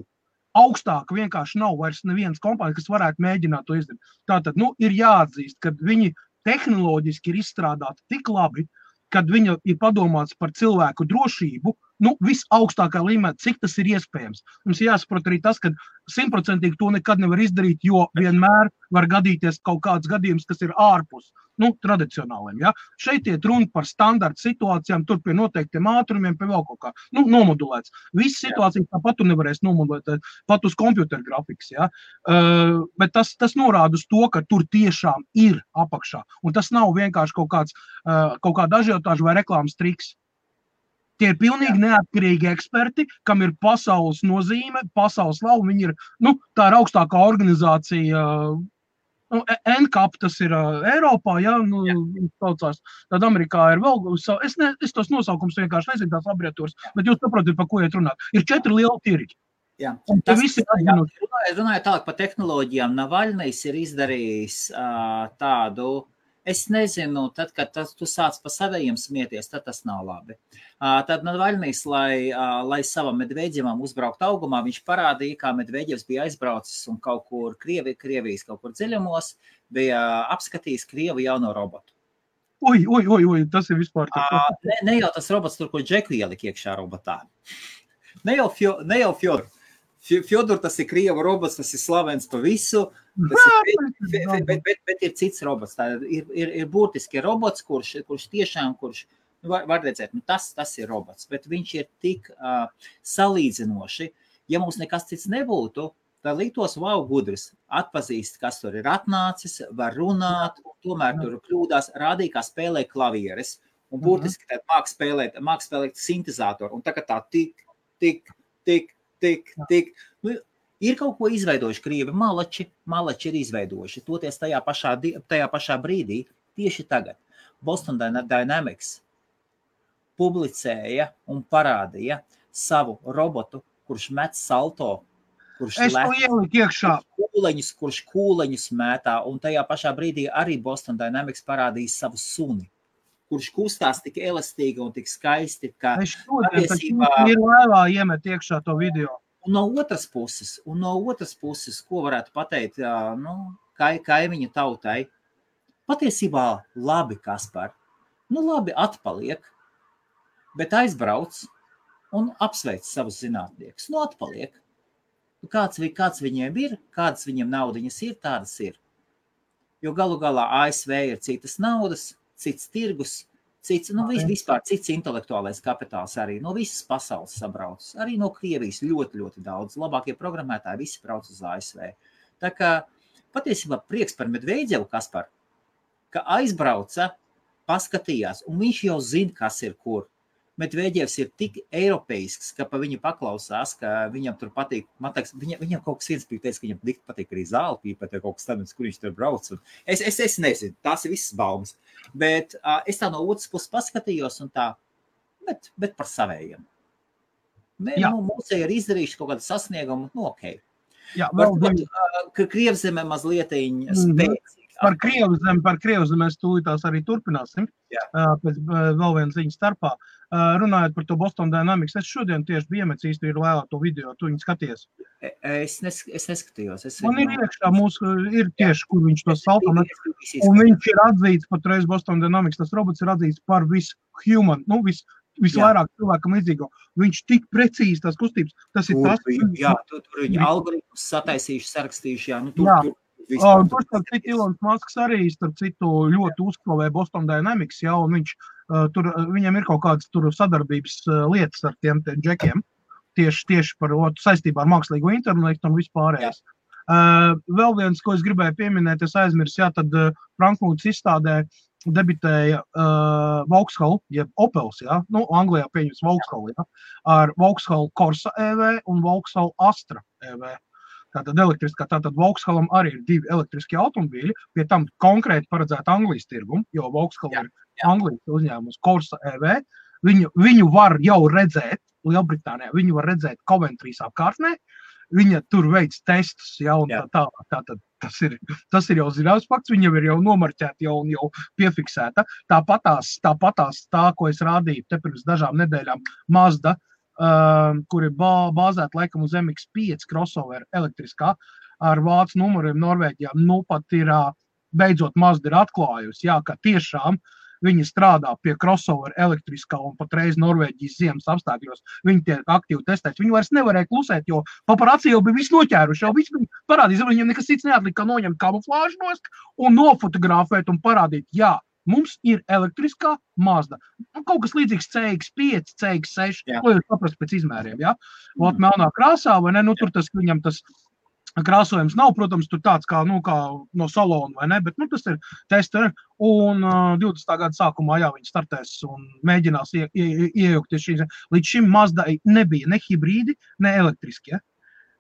Augstāk vienkārši nav vairs nevienas kompānijas, kas varētu mēģināt to izdarīt. Tātad, ir jāatzīst, ka viņi tehnoloģiski ir izstrādāti tik labi, kad viņa ir padomāts par cilvēku drošību, visaugstākā līmenī, cik tas ir iespējams. Mums jāsaprot arī tas, ka 100% to nekad nevar izdarīt, jo vienmēr var gadīties kaut kāds gadījums, kas ir ārpus tradicionāliem. Ja? Šeit iet runa par standarta situācijām, tur pie noteiktiem ātrumiem, pie vēl kaut kā nomodulēts. Visas situācijas tāpat tu nevarēs nomodulēt, pat uz kompjuteru grafikas. Ja? Bet tas norāda uz to, ka tur tiešām ir apakšā. Un tas nav vienkārši kaut kāda ažiotāža vai reklāmas triks. Tie ir pilnīgi neatkarīgi eksperti, kam ir pasaules nozīme, pasaules slava. Viņi ir, tā ir augstākā organizācija, NCAP, tas ir Eiropā, saucās. Tad Amerikā ir vēl, es tos nosaukums vienkārši nezinu, tās laboratorijas, bet jūs saprotat, par ko iet runāt. Ir 4 lieli tirgi. Jā. Runājot tālāk par tehnoloģijām, Navaļnijs ir izdarījis tādu, es nezinu, tad, kad tu sāc pa savējiem smieties, tad tas nav labi. Tad Navaļnijs, lai savam Medveģevam uzbraukt augumā, viņš parādīja, kā Medveģevs bija aizbraucis un kaut kur Krievijas kaut kur dziļumos, bija apskatījis Krievu jauno robotu. Oi, tas ir vispār tā. Ne jau tas robots tur, ko Džeku ielika iekšā robotā. Ne jau Fjodor. Fjodor, tas ir Krieva robots, tas ir slavens pa visu, bet ir cits robots. Tā ir būtiski robots, kurš tiešām, var redzēt, tas ir robots, bet viņš ir tik salīdzinoši. Ja mums nekas cits nebūtu, tad liktos, gudrs, atpazīst, kas tur ir atnācis, var runāt, un tomēr tur kļūdās, rādīja, kā spēlē klavieres, un būtiski tad māk spēlēt sintezātoru, un tā tik, ir kaut ko izveidojuši Krievi, malači ir izveidojuši, toties tajā pašā brīdī, tieši tagad. Boston Dynamics publicēja un parādīja savu robotu, kurš met salto, kurš kūleņus mētā, un tajā pašā brīdī arī Boston Dynamics parādīja savu suni, kurš kustās tik elastīgi un tik skaisti, ka patiesībā ir laivā iemet iekšā to video. Un no otras puses, ko varētu pateikt, kaimiņu tautai, patiesībā labi, Kaspar, labi atpaliek, bet aizbrauc un apsveic savus zinātniekus. Atpaliek. Kāds viņiem ir, kādas viņiem naudiņas ir, tādas ir. Jo galu galā ASV ir citas naudas, cits tirgus, vispār cits intelektuālais kapitāls arī no visas pasaules sabrauc. Arī no Krievijas ļoti, ļoti daudz. Labākie programmētāji visi brauc uz ASV. Tā kā patiesībā prieks par Medveģevu, Kaspar, ka aizbrauca, paskatījās, un viņš jau zina, kas ir kur. Medveģevs ir tik eiropeisks, ka pa viņu paklausās, ka viņam tur patīk, viņam kaut kas viens teica, ka viņam patīk arī zāli pīpēt, vai kaut kas tāds, kur viņš tur brauc. Es nezinu, tās ir visas baumas. Bet es tā no otras puses paskatījos un tā, bet par savējiem. Mūsēji ir izdarījuši kaut kādu sasniegumu, ok. Jā, Varbūt, ka Krievzeme mazlietiņ spēcīgi Par Krievzemi mēs tūlītās arī turpināsim. Pēc vēl viena ziņa starpā. Runājot par to Boston Dynamics, es šodien tieši biju iemetis īsti ir lēlā to video, tu viņu skaties. Es neskatījos. Man ir iekšā mūsu, ir tieši, kur viņš to salto. Un viņš ir atzīts patreiz Boston Dynamics, tas robots ir atzīts par visu-human, visvairāk cilvēkam līdzīgo. Viņš tik precīzi tās kustības, tas ir tas. Tur viņi algoritmus sataisījuši, sarakstījuši, Tur starp citu Ilons Masks arī starp citu ļoti uzklavē Boston Dynamics, un viņam ir kaut kādas tur sadarbības lietas ar tiem džekiem, tieši par saistībā ar mākslīgo intelektu un vispārējais. Vēl viens, ko es gribēju pieminēt, es aizmirsu, tad Frankfurtas izstādē debitēja Vauxhall, jeb Opels, Anglijā pieņems Vauxhall, ar Vauxhall Corsa EV un Vauxhall Astra EV. Tātad Vauxhallam arī ir 2 elektriskie automobīļi, pie tam konkrēti paredzēta Anglijas tirgumu, jo Vauxhall ir Anglijas uzņēmums Corsa EV. Viņu var jau redzēt Lielbritānijā, viņu var redzēt Coventrīs apkārtnē, viņa tur veids testus, un tātad tas ir jau zināms fakts, viņa ir jau nomarķēta un jau piefiksēta. Tāpatās tā, ko es rādīju te pirms dažām nedēļām, Mazda, kur ir bāzēta laikam uz MX-5 crossover elektriskā ar vācu numuriem Norvēģijā. Pat ir beidzot Mazda ir atklājusi, ka tiešām viņi strādā pie crossover elektriskā un patreiz Norvēģijas ziemas apstākļos. Viņi tiek aktīvi testēti. Viņi vairs nevarēja klusēt, jo paparazzi jau bija visu noķēruši, jau visu parādīs, viņiem nekas cits neatlika, kā noņemt kamuflāžu nost un nofotografēt un parādīt, mums ir elektriskā Mazda. Kaut kas līdzīgs CX-5, CX-6, ko jūs saprast pēc izmēriem, melnā krāsā, vai ne? Tur viņam tas krāsojums nav, protams, tur tāds kā no salona, vai ne? Bet tas ir tester, un 20. gada sākumā, viņi startēs un mēģinās iejaukties šīs. Līdz šim Mazdai nebija ne hibrīdi, ne elektriskie.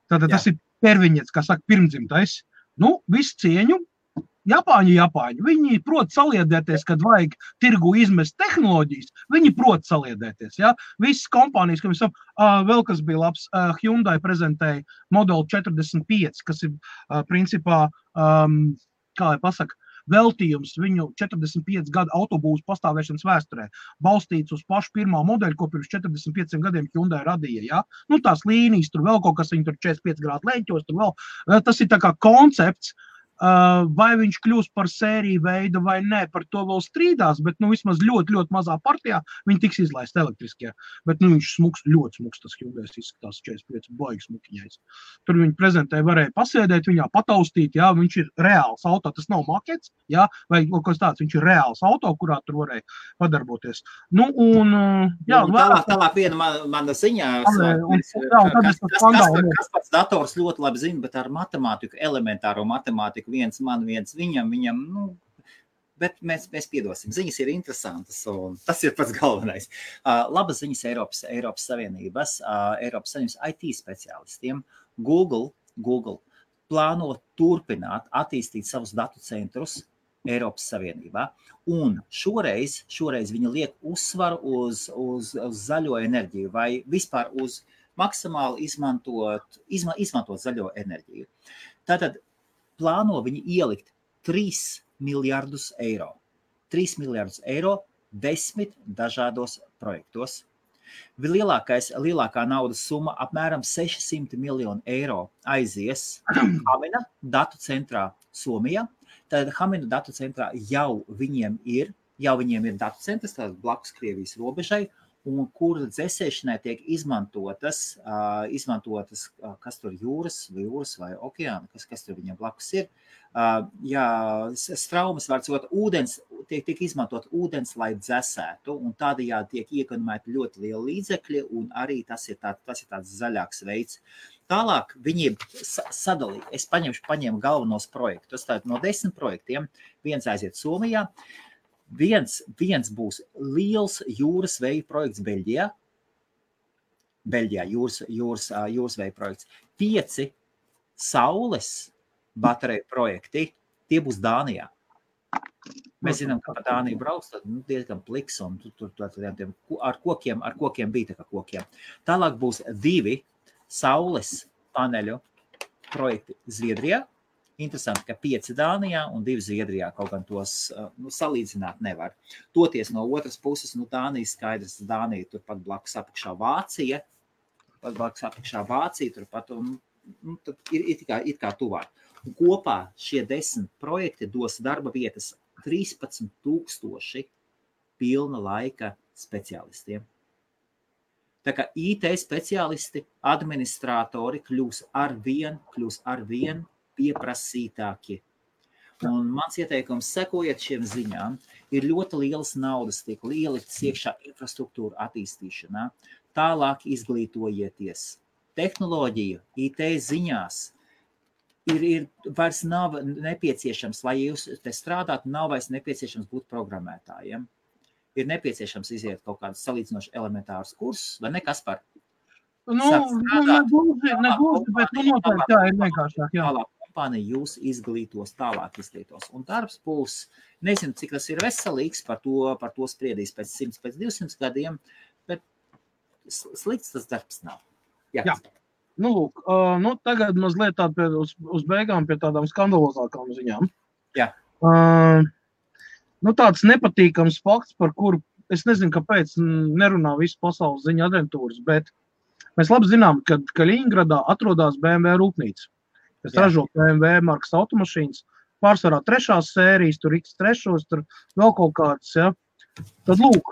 Tātad tas ir perviņets, kā saka, pirmdzimtais. Visu cieņu. Japāņi, viņi prot saliedēties, kad vajag tirgu izmest tehnoloģijas, viņi prot saliedēties, Visas kompānijas, vēl kas bija labs, Hyundai prezentēja modeli 45, kas ir, principā, kā lai pasaka, veltījums viņu 45 gadu autobūvas pastāvēšanas vēsturē, balstīts uz pašu pirmā modeļu, ko pirms 45 gadiem Hyundai radīja, tās līnijas, tur vēl kaut kas, viņi tur 45 grādu leņķos, tur vēl, tas ir tā kā koncepts, vai viņš kļūs par sēriju veidu vai nē, par to vēl strīdās, bet vismaz ļoti, ļoti mazā partijā viņi tiks izlaist elektriskie. Bet viņš ļoti smuks, tas Hyundai izskatās 45 baigi smukiņais. Tur viņi prezentēja, varēja pasēdēt viņā, pataustīt, viņš ir reāls auto, tas nav makets, vai kaut kas tāds, viņš ir reāls auto, kurā tur varēja padarboties. Tālāk viena mana ziņā, kas pats dators ļoti labi zina, bet ar matemātiku, elementāro matemātiku, viens man, viens viņam, bet mēs piedosim. Ziņas ir interesantas, un tas ir pats galvenais. Labas ziņas Eiropas Savienības IT speciālistiem. Google plāno turpināt attīstīt savus datu centrus Eiropas Savienībā, un šoreiz viņi liek uzsvaru uz zaļo enerģiju, vai vispār uz maksimāli izmantot zaļo enerģiju. Tātad plāno viņi ielikt 3 miljardus eiro. 3 miljardus eiro 10 dažādos projektos. Lielākā naudas summa apmēram 600 miljonu eiro aizies Hamina datu centrā Somijā. Tad Hamina datu centrā jau viņiem ir datu centrs, tātad blakus Krievijas robežai, un kur dzēsēšanai tiek izmantotas, kas tur jūras vai okeāna, kas tur viņam blakus ir. Straumes var cot ūdens, tiek izmantot ūdens, lai dzēsētu, un tādējādi tiek iekonomēti ļoti lieli līdzekļi, un arī tas ir tāds zaļāks veids. Tālāk viņi sadalīja, es paņēmu galvenos projektus, tātad no 10 projektiem, viens aiziet Somijā, Viens būs liels jūras veja projekts Beļģijā. Jūras veja projekts. 5 saules bateriju projekti, tie būs Dānijā. Mēs zinām, ka pa Dāniju brauc, tad diezgan pliks, un tur ar kokiem bija tā kā kokiem. Tālāk būs 2 saules paneļu projekti Zviedrijā, Interesanti, ka 5 Dānijā un 2 Zviedrijā, kaut gan tos salīdzināt nevar. Toties no otras puses, Dānija skaidrs, Dānija turpat blakus apakšā Vācija, turpat tad ir it kā tuvāk. Un kopā šie 10 projekti dos darba vietas 13,000 pilna laika speciālistiem. Tā kā IT speciālisti, administratori kļūs arvien pieprasītāki. Un mans ieteikums, sekojiet šiem ziņām, ir ļoti lielas naudas tiek ieliktas iekšā infrastruktūra attīstīšanā. Tālāk izglītojieties. Tehnoloģija, IT ziņās vairs nav nepieciešams, lai jūs te strādātu, nav vairs nepieciešams būt programmētājiem. Ir nepieciešams iziet kaut kādus salīdzinoši elementārus kursus, vai ne, Kaspar? Negluži, bet noteikti tā ir vienkāršāk, jā. Tālāk kompānija jūs tālāk izglītos. Un darbs būs, nezinu, cik tas ir veselīgs, par to spriedīs pēc 100, pēc 200 gadiem, bet slikts tas darbs nav. Jā. Lūk, tagad mazliet uz beigām pie tādām skandalozākām ziņām. Jā. Tāds nepatīkams fakts, par kuru es nezinu, kāpēc nerunā visu pasaules ziņu aģentūras, bet mēs labi zinām, ka Kaļiņgradā atrodas BMW rūpnīca, kas ražo BMW markas automašīnas, pārsvarā 3. sērijas, tur X3, tur vēl kaut kāds, ja. Tad lūk,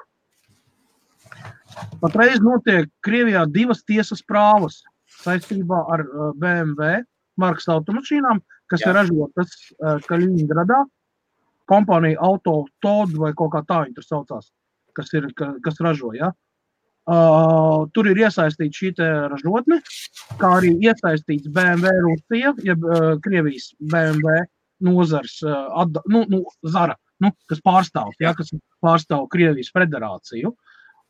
patreiz notiek Krievijā 2 tiesas prāvas saistībā ar BMW markas automašīnām, kas ir ražotas Kaļiņgradā. Kompānija Autotod vai kaut kā tā viņi tur saucās, kas ražo, ja. Tur ir iesaistīta šī te ražotne, kā arī iesaistīts BMW Rusija, jeb Krievijas BMW nozars Zara, kas pārstāv, ja, kas pārstāv Krievijas federāciju.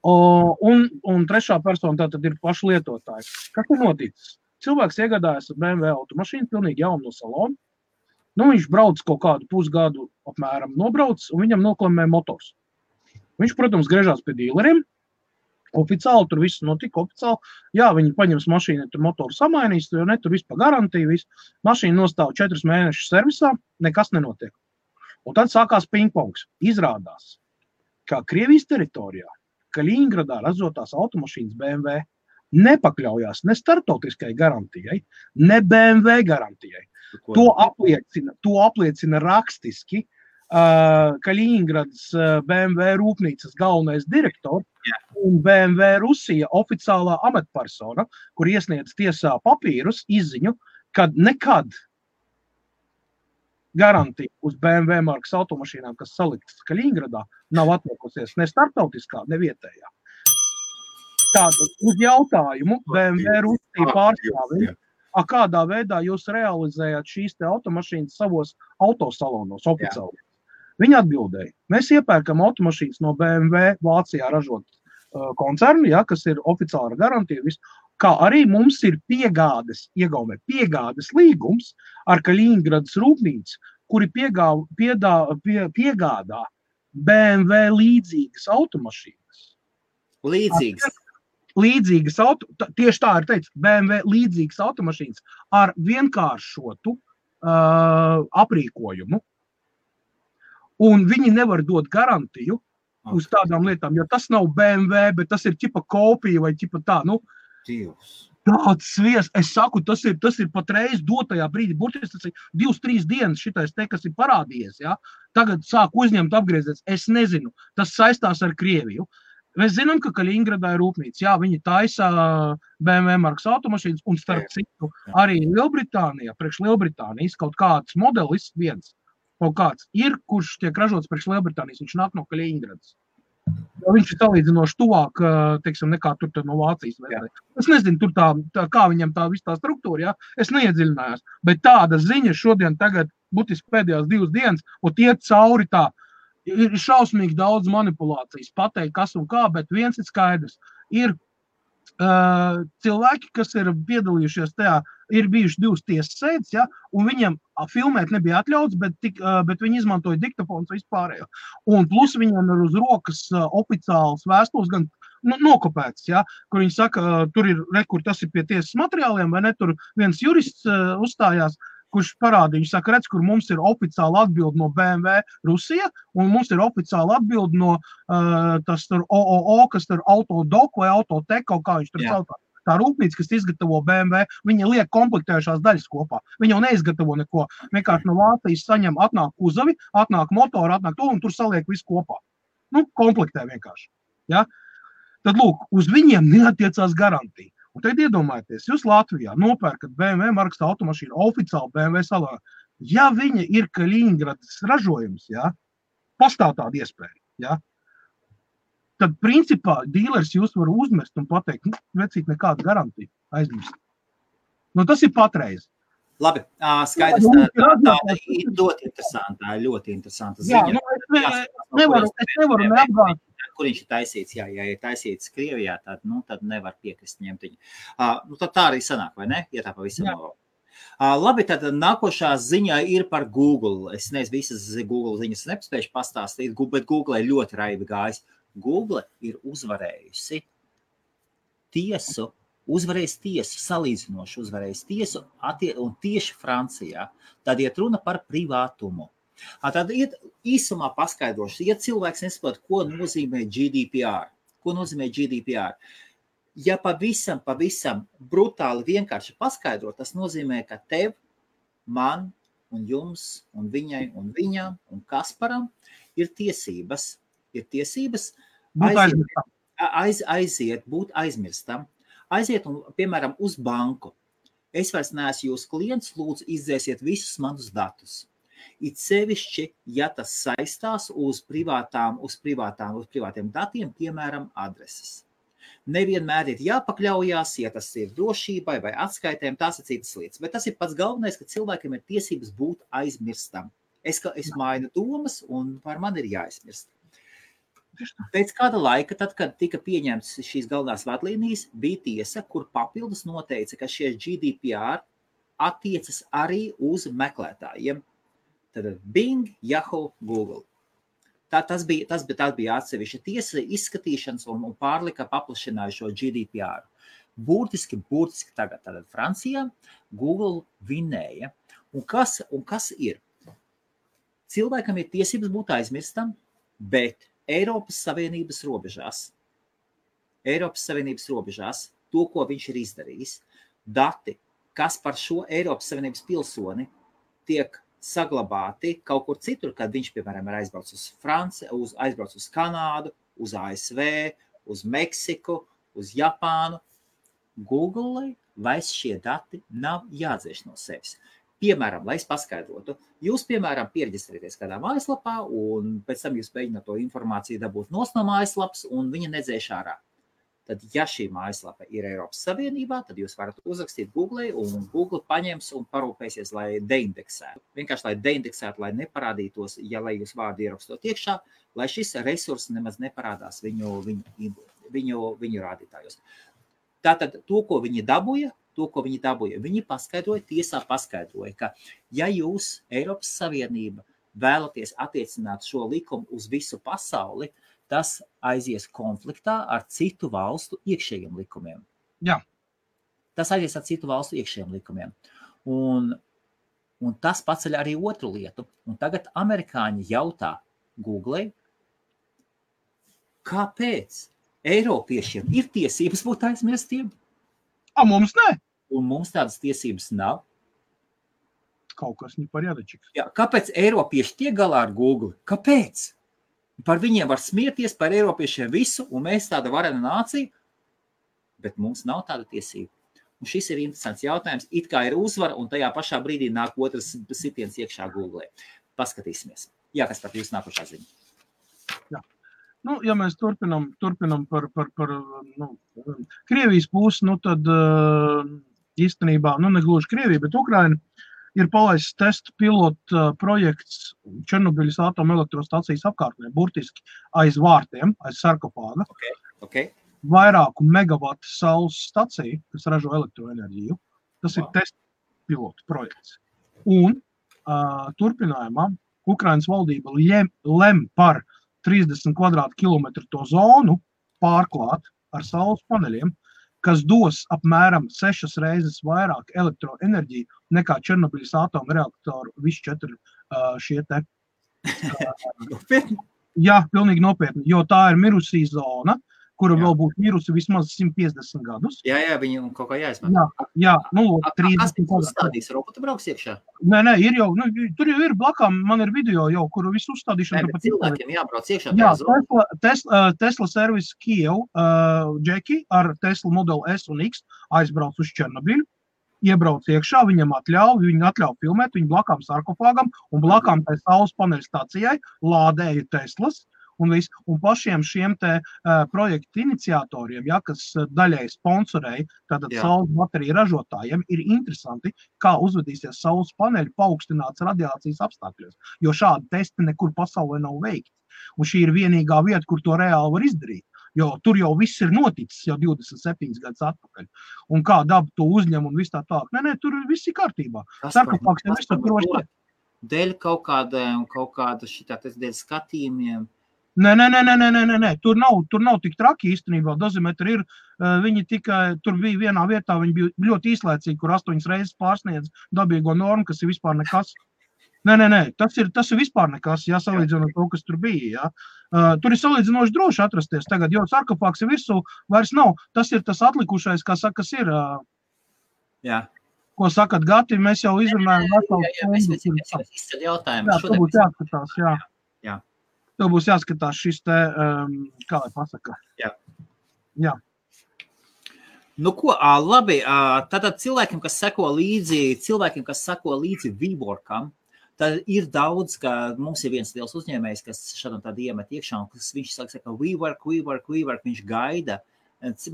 Un trešā persona tātad ir paši lietotāji. Kas ir noticis? Cilvēks iegādājas BMW automašīnu, pilnīgi jaunu no salona. Viņš brauc kaut kādu pusgadu apmēram nobrauc, un viņam noklamē motors. Viņš, protams, griežās pie dīleriem. Oficiāli tur viss notika oficiāli. Jā, viņi paņems mašīnu, tur motoru samainīs, jo ne, tur viss pa garantiju, viss. Mašīna nostāv 4 mēnešus servisā, nekas nenotiek. Un tad sākās pingpongs. Izrādās, kā Krievijas teritorijā, Kaļiņgradā ražotās automašīnas BMW nepakļaujās ne starptautiskai garantijai, ne BMW garantijai. To apliecina rakstiski Kaļiņgradas BMW rūpnīcas galvenais direktors un BMW Rusija oficiālā amatpersona, kur iesniedz tiesā papīrus, izziņu, kad nekad garantija uz BMW markas automašīnām, kas saliktas Kaļiņgradā, nav atliekusies ne starptautiskā, ne vietējā. Tātad uz jautājumu BMW Rusija pārstāvja, kādā veidā jūs realizējāt šīs te automašīnas savos autosalonos oficiāli? Viņi atbildēja, mēs iepērkam automašīnas no BMW Vācijā ražot koncernu, ja, kas ir oficiāla garantija, kā arī mums ir piegādes līgums ar Kaļiņgradas rūpnīcu, kuri piegādā BMW līdzīgas automašīnas. Līdzīgas tieši tā ir teicis, BMW līdzīgas automašīnas ar vienkāršotu aprīkojumu. Un viņi nevar dot garantiju uz tādām lietām, jo tas nav BMW, bet tas ir ķipa kopija vai ķipa tā, tāds svies. Es saku, tas ir patreiz dotajā brīdī, burtiski tas ir 2-3 dienas šitais te, kas ir parādījies, ja? Tagad sāk uzņemt apgriezies, es nezinu, tas saistās ar Krieviju. Mēs zinām, ka Kaļiņgradā ir rūpnīca, jā, viņi taisa BMW markas automašīnas, un starp citu arī Lielbritānijā, priekš Lielbritānijas kaut kāds modelis viens, kaut kāds ir, kurš tiek ražots priekš Lielbritānijas, viņš nāk no Kaļiņgradas. Viņš ir salīdzinoši tuvāk, teiksim, nekā tur no Vācijas. Es nezinu, tur kā viņam tā viss tā struktūra, jā, es neiedziļinājos, bet tāda ziņa šodien tagad, būtiski pēdējās 2 dienas, un iet cauri tā, ir šausmīgi daudz manipulācijas, pateikt, kas un kā, bet viens ir skaidrs. Ir cilvēki, kas ir piedalījušies tajā, ir bijuši 2 tiesas sēdes, ja, un viņiem filmēt nebija atļauts, bet viņi izmantoja diktafons vispārējo. Un plus viņiem ir uz rokas oficiāls vēstules, gan nokopēts, ja, kur viņi saka, tur ir, kur tas ir pie tiesas materiāliem, vai ne, tur viens jurists uzstājās, kurš parādīja, saka, redz, kur mums ir oficiāla atbilde no BMW Rusija, un mums ir oficiāla atbilde no tas tur OOO, kas tur Autodoc vai Autotek, kaut kā viņš tur sauc. Tā rūpnīca, kas izgatavo BMW, viņa liek komplektējušās daļas kopā. Viņa jau neizgatavo neko. Vienkārši no Vācijas saņem, atnāk kuzavi, atnāk motori, atnāk to, un tur saliek visu kopā. Nu, komplektē vienkārši. Ja? Tad, lūk, uz viņiem neatiecās garantija. Un tagad iedomājieties, jūs Latvijā nopērkat BMW markas automašīnu, oficiāli BMW salā. Ja viņa ir Kaļiņgradas ražojums, ja, pastāv tāda iespēja, ja, tad, principā, dīlers jūs var uzmest un pateikt, vecīt nekāda garantija, aizmirst. Nu, tas ir patreiz. Labi, skaidrs, tāda ir ļoti interesanta ziņa. Jā, nu, es nevaru neapgāt. Kur viņš ir taisīts, ja ir taisīts Krievijā, tad nevar piekrist ņemt viņu. Nu, tad tā arī sanāk, vai ne? Ja tā pavisam nav. Labi, tad nākošā ziņā ir par Google. Es nezinu, visas Google ziņas nespējuši pastāstīt, bet Google ir ļoti raibi gājis. Google ir uzvarējusi tiesu, salīdzinoši uzvarējusi tiesu, un tieši Francijā. Tad iet runa par privātumu. Tad iet īsumā paskaidroši, ja cilvēks nesaprot, ko nozīmē GDPR. Ja pavisam brutāli vienkārši paskaidrot, tas nozīmē, ka tev, man un jums un viņai un viņam un Kasparam ir tiesības būt aizmirstam. Aiziet un, piemēram, uz banku. Es vairs neesmu jūsu klients, lūdzu izdzēsiet visus manus datus. It sevišķi, ja tas saistās uz privātiem datiem, piemēram, adreses. Nevienmēr ir jāpakļaujās, ja tas ir drošībai vai atskaitēm, tās ir citas lietas. Bet tas ir pats galvenais, ka cilvēkiem ir tiesības būt aizmirstam. Es mainu domas un par mani ir jāaizmirst. Pēc kāda laika, tad, kad tika pieņemts šīs galvenās vadlīnijas, bija tiesa, kur papildus noteica, ka šie GDPR attiecas arī uz meklētājiem. Tad Bing, Yahoo, Google. Tas bija atsevišķa tiesa izskatīšanas un pārlika paplašināja šo GDPR. Burtiski tagad Francijā Google vinēja. Un kas ir? Cilvēkam ir tiesības būt aizmirstam, bet Eiropas Savienības robežās to, ko viņš ir izdarījis, dati, kas par šo Eiropas Savienības pilsoni tiek saglabāti kaut kur citur, kad viņš, piemēram, ir aizbraucis uz Franciju, aizbraucis uz Kanādu, uz ASV, uz Meksiku, uz Japānu. Google vairs šie dati nav jādzēš no sevis. Piemēram, lai es paskaidrotu, jūs, piemēram, pierģistrēties kādā mājaslapā un pēc tam jūs mēģināt to informāciju dabūt no mājaslapas un viņa nedzēš ārā. Tad, ja šī mājaslapa ir Eiropas Savienībā, tad jūs varat uzrakstīt Google un Google paņems un parūpēsies, lai deindeksētu. Vienkārši, lai deindeksētu, lai neparādītos, lai jūs vārdu ierakstot iekšā, lai šis resurs nemaz neparādās viņu rādītājos. Tātad to, ko viņi dabūja, viņi tiesā paskaidroja, ka ja jūs Eiropas Savienība vēlaties attiecināt šo likumu uz visu pasauli, tas aizies konfliktā ar citu valstu iekšējiem likumiem. Jā. Tas aizies ar citu valstu iekšējiem likumiem. Un tas paceļ arī otru lietu. Un tagad amerikāņi jautā Google, kāpēc Eiropiešiem ir tiesības būt aizmirstiem? Mums ne. Un mums tādas tiesības nav. Kaut kas nepariadačiks. Jā, kāpēc Eiropieši tiek galā ar Google? Kāpēc? Par viņiem var smieties, par Eiropiešiem visu, un mēs tāda varena nācija, bet mums nav tāda tiesība. Un šis ir interesants jautājums. It kā ir uzvara, un tajā pašā brīdī nāk otrs sitiens iekšā Google. Paskatīsimies. Jā, kas par jūs nākošā ziņa? Jā. Nu, ja mēs turpinam par Krievijas pusi, tad īstenībā, negluži Krievija, bet Ukraina ir palaists testu pilotu projekts Černobiļas atomelektrostacijas apkārtnē, burtiski aiz vārtiem, aiz sarkofāga. Okay. Vairāku megavatu saules stacija, kas ražo elektroenerģiju. Tas ir testu pilotu projekts. Un turpinājumā Ukrainas valdība lem par 30 kvadrātkilometru to zonu pārklāt ar saules paneļiem, kas dos apmēram 6 reizes vairāk elektroenerģiju nekā Černobiļas atomreaktoru visi 4 šie te. Jā, pilnīgi nopietni, jo tā ir mirusī zona, kura vēl būtu mirusi vismaz 150 gadus. Jā, viņu kaut kā jāizmanto. Jā, nu, 30 Kas uzstādīs? Robota brauks iekšā? Nē, ir jau, tur jau ir blakām, man ir video jau, kuru visu uzstādīšanu. Nē, bet cilvēkiem jābrauc iekšā. Jā, Tesla servis Kiev, Džeki ar Tesla Model S un X aizbrauc uz Černobiļu, iebrauc iekšā, viņam atļauj filmēt, viņu blakām sarkofāgam un blakām tai saules paneļu stacijai lādēja Teslas. Un pašiem šiem te projektu iniciatoriem, kas daļai sponsorēja, tātad saules bateriju ražotājiem, ir interesanti, kā uzvedīsies saules paneļi paaugstināts radiācijas apstākļos, jo šādi testi nekur pasaulē nav veikti. Un šī ir vienīgā vieta, kur to reāli var izdarīt, jo tur jau viss ir noticis jau 27 gadus atpakaļ. Un kā daba to uzņem un viss tā tālāk. Nē, tur viss ir kārtībā. Sarkofāgs jau viss tur droši. Dēļ kaut kāda šitā, dēļ skatījumiem. Nē, tur nav tik traki īstenībā, dozimetri ir, viņi tikai, tur bija vienā vietā, viņi bija ļoti īslaicīgi, kur 8 reizes pārsniedz dabīgo normu, kas ir vispār nekas. Nē, tas ir vispār nekas, salīdzinot to, kas tur bija, Tur ir salīdzinoši droši atrasties tagad, jo sarkofāgs ir virsū vairs nav, tas ir tas atlikušais, kā saka, kas ir. Jā. Ko sakat, Gati, mēs jau izrunājam. Mēs izceļ jautājumu. Jā, tev būs jāskatās, jā. Tev būs jāskatās šis te, kā lai pasaka. Jā. Nu ko, labi, tātad cilvēkiem, kas seko līdzi WeWorkam, tad ir daudz, ka mums ir viens liels uzņēmējs, kas šādam tādu iemet iekšā, un viņš saka, WeWork, viņš gaida.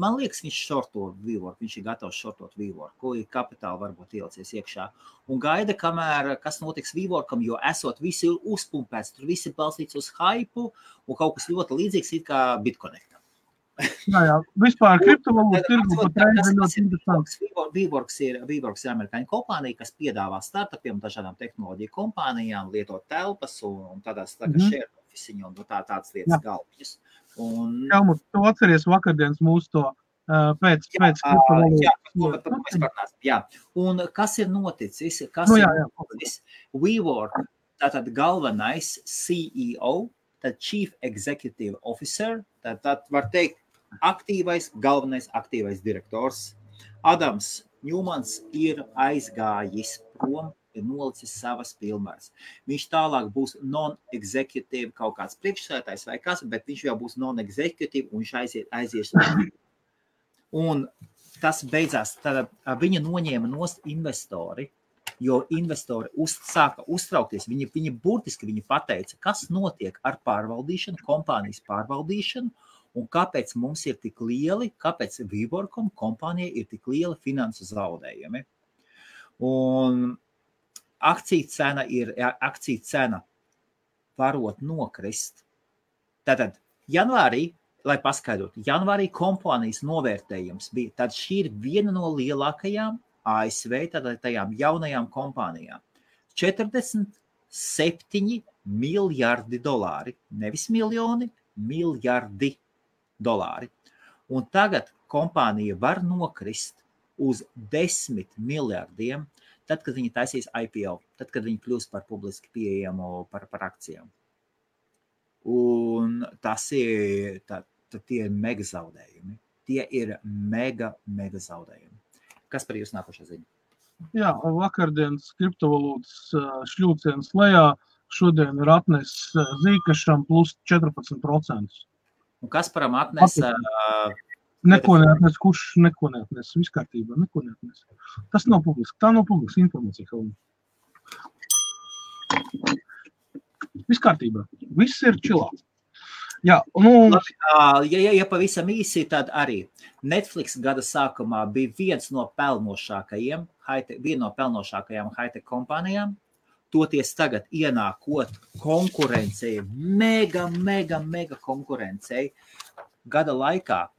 Man liekas, viņš šorto WeWork, viņš ir gatavs šortot WeWork, ko ir kapitāli varbūt ielicies iekšā. Un gaida, kamēr kas notiks WeWorkam, jo esot visi uzpumpēts, tur visi balstīts uz hypu, un kaut kas ļoti līdzīgs it kā BitConnectam. Jā, vispār kriptovalūtu tirgu patreiz ir ļoti interesants. WeWorks ir amerikāņu kompānija, kas piedāvā startupiem, dažādām tehnoloģiju kompānijām, lietot telpas un tādās share office un tādas lietas galviņas. Helmut, tu atceries vakardienas mūsu to pēc kriptovalūtas. Jā, un kas ir noticis? WeWork, tātad galvenais CEO, tad Chief Executive Officer, tad var teikt galvenais aktīvais direktors. Adams Ņūmans ir aizgājis prom, ir nolicis savas pilnvaras. Viņš tālāk būs non-executive kaut kāds priekšsēdētājs vai kas, bet viņš jau būs non-executive un viņš aizies. Un tas beidzās, tad viņa noņēma nost investori, jo investori sāka uztraukties. Viņi burtiski pateica, kas notiek ar pārvaldīšanu, kompānijas pārvaldīšanu, un kāpēc mums ir tik lieli, kāpēc WeWorkam kompānijai ir tik lieli finansu zaudējumi. Un akciju cena varot nokrist. Tātad janvārī, lai paskaidrotu, janvārī kompānijas novērtējums bija, tad šī ir viena no lielākajām ASV, tātad tajām jaunajām kompānijām. 47 miljardi dolāri, nevis miljoni, miljardi dolāri. Un tagad kompānija var nokrist uz 10 miljardiem, tad, kad viņi taisīs IPO, tad, kad viņi kļūs par publiski pieejamu par akcijām. Un tas ir, tie ir mega zaudējumi. Tie ir mega zaudējumi. Kas par jūs nākošā ziņa? Jā, vakardienas kriptovalūtas šļūciens lejā šodien ir atnes Zīkašam plus 14%. Un Kasparam atnes... Neko neatnes, kurš neko neatnes, viss kārtībā, neko neatnes. Tas nav publiski, tā nav publiska informācija. Viss kārtībā, viss ir čilā. Jā, ja pavisam īsi, tad arī Netflix gada sākumā bija viena no pelnošākajām high-tech kompānijām, toties tagad ienākot konkurencei, mega konkurencei, Gada laikā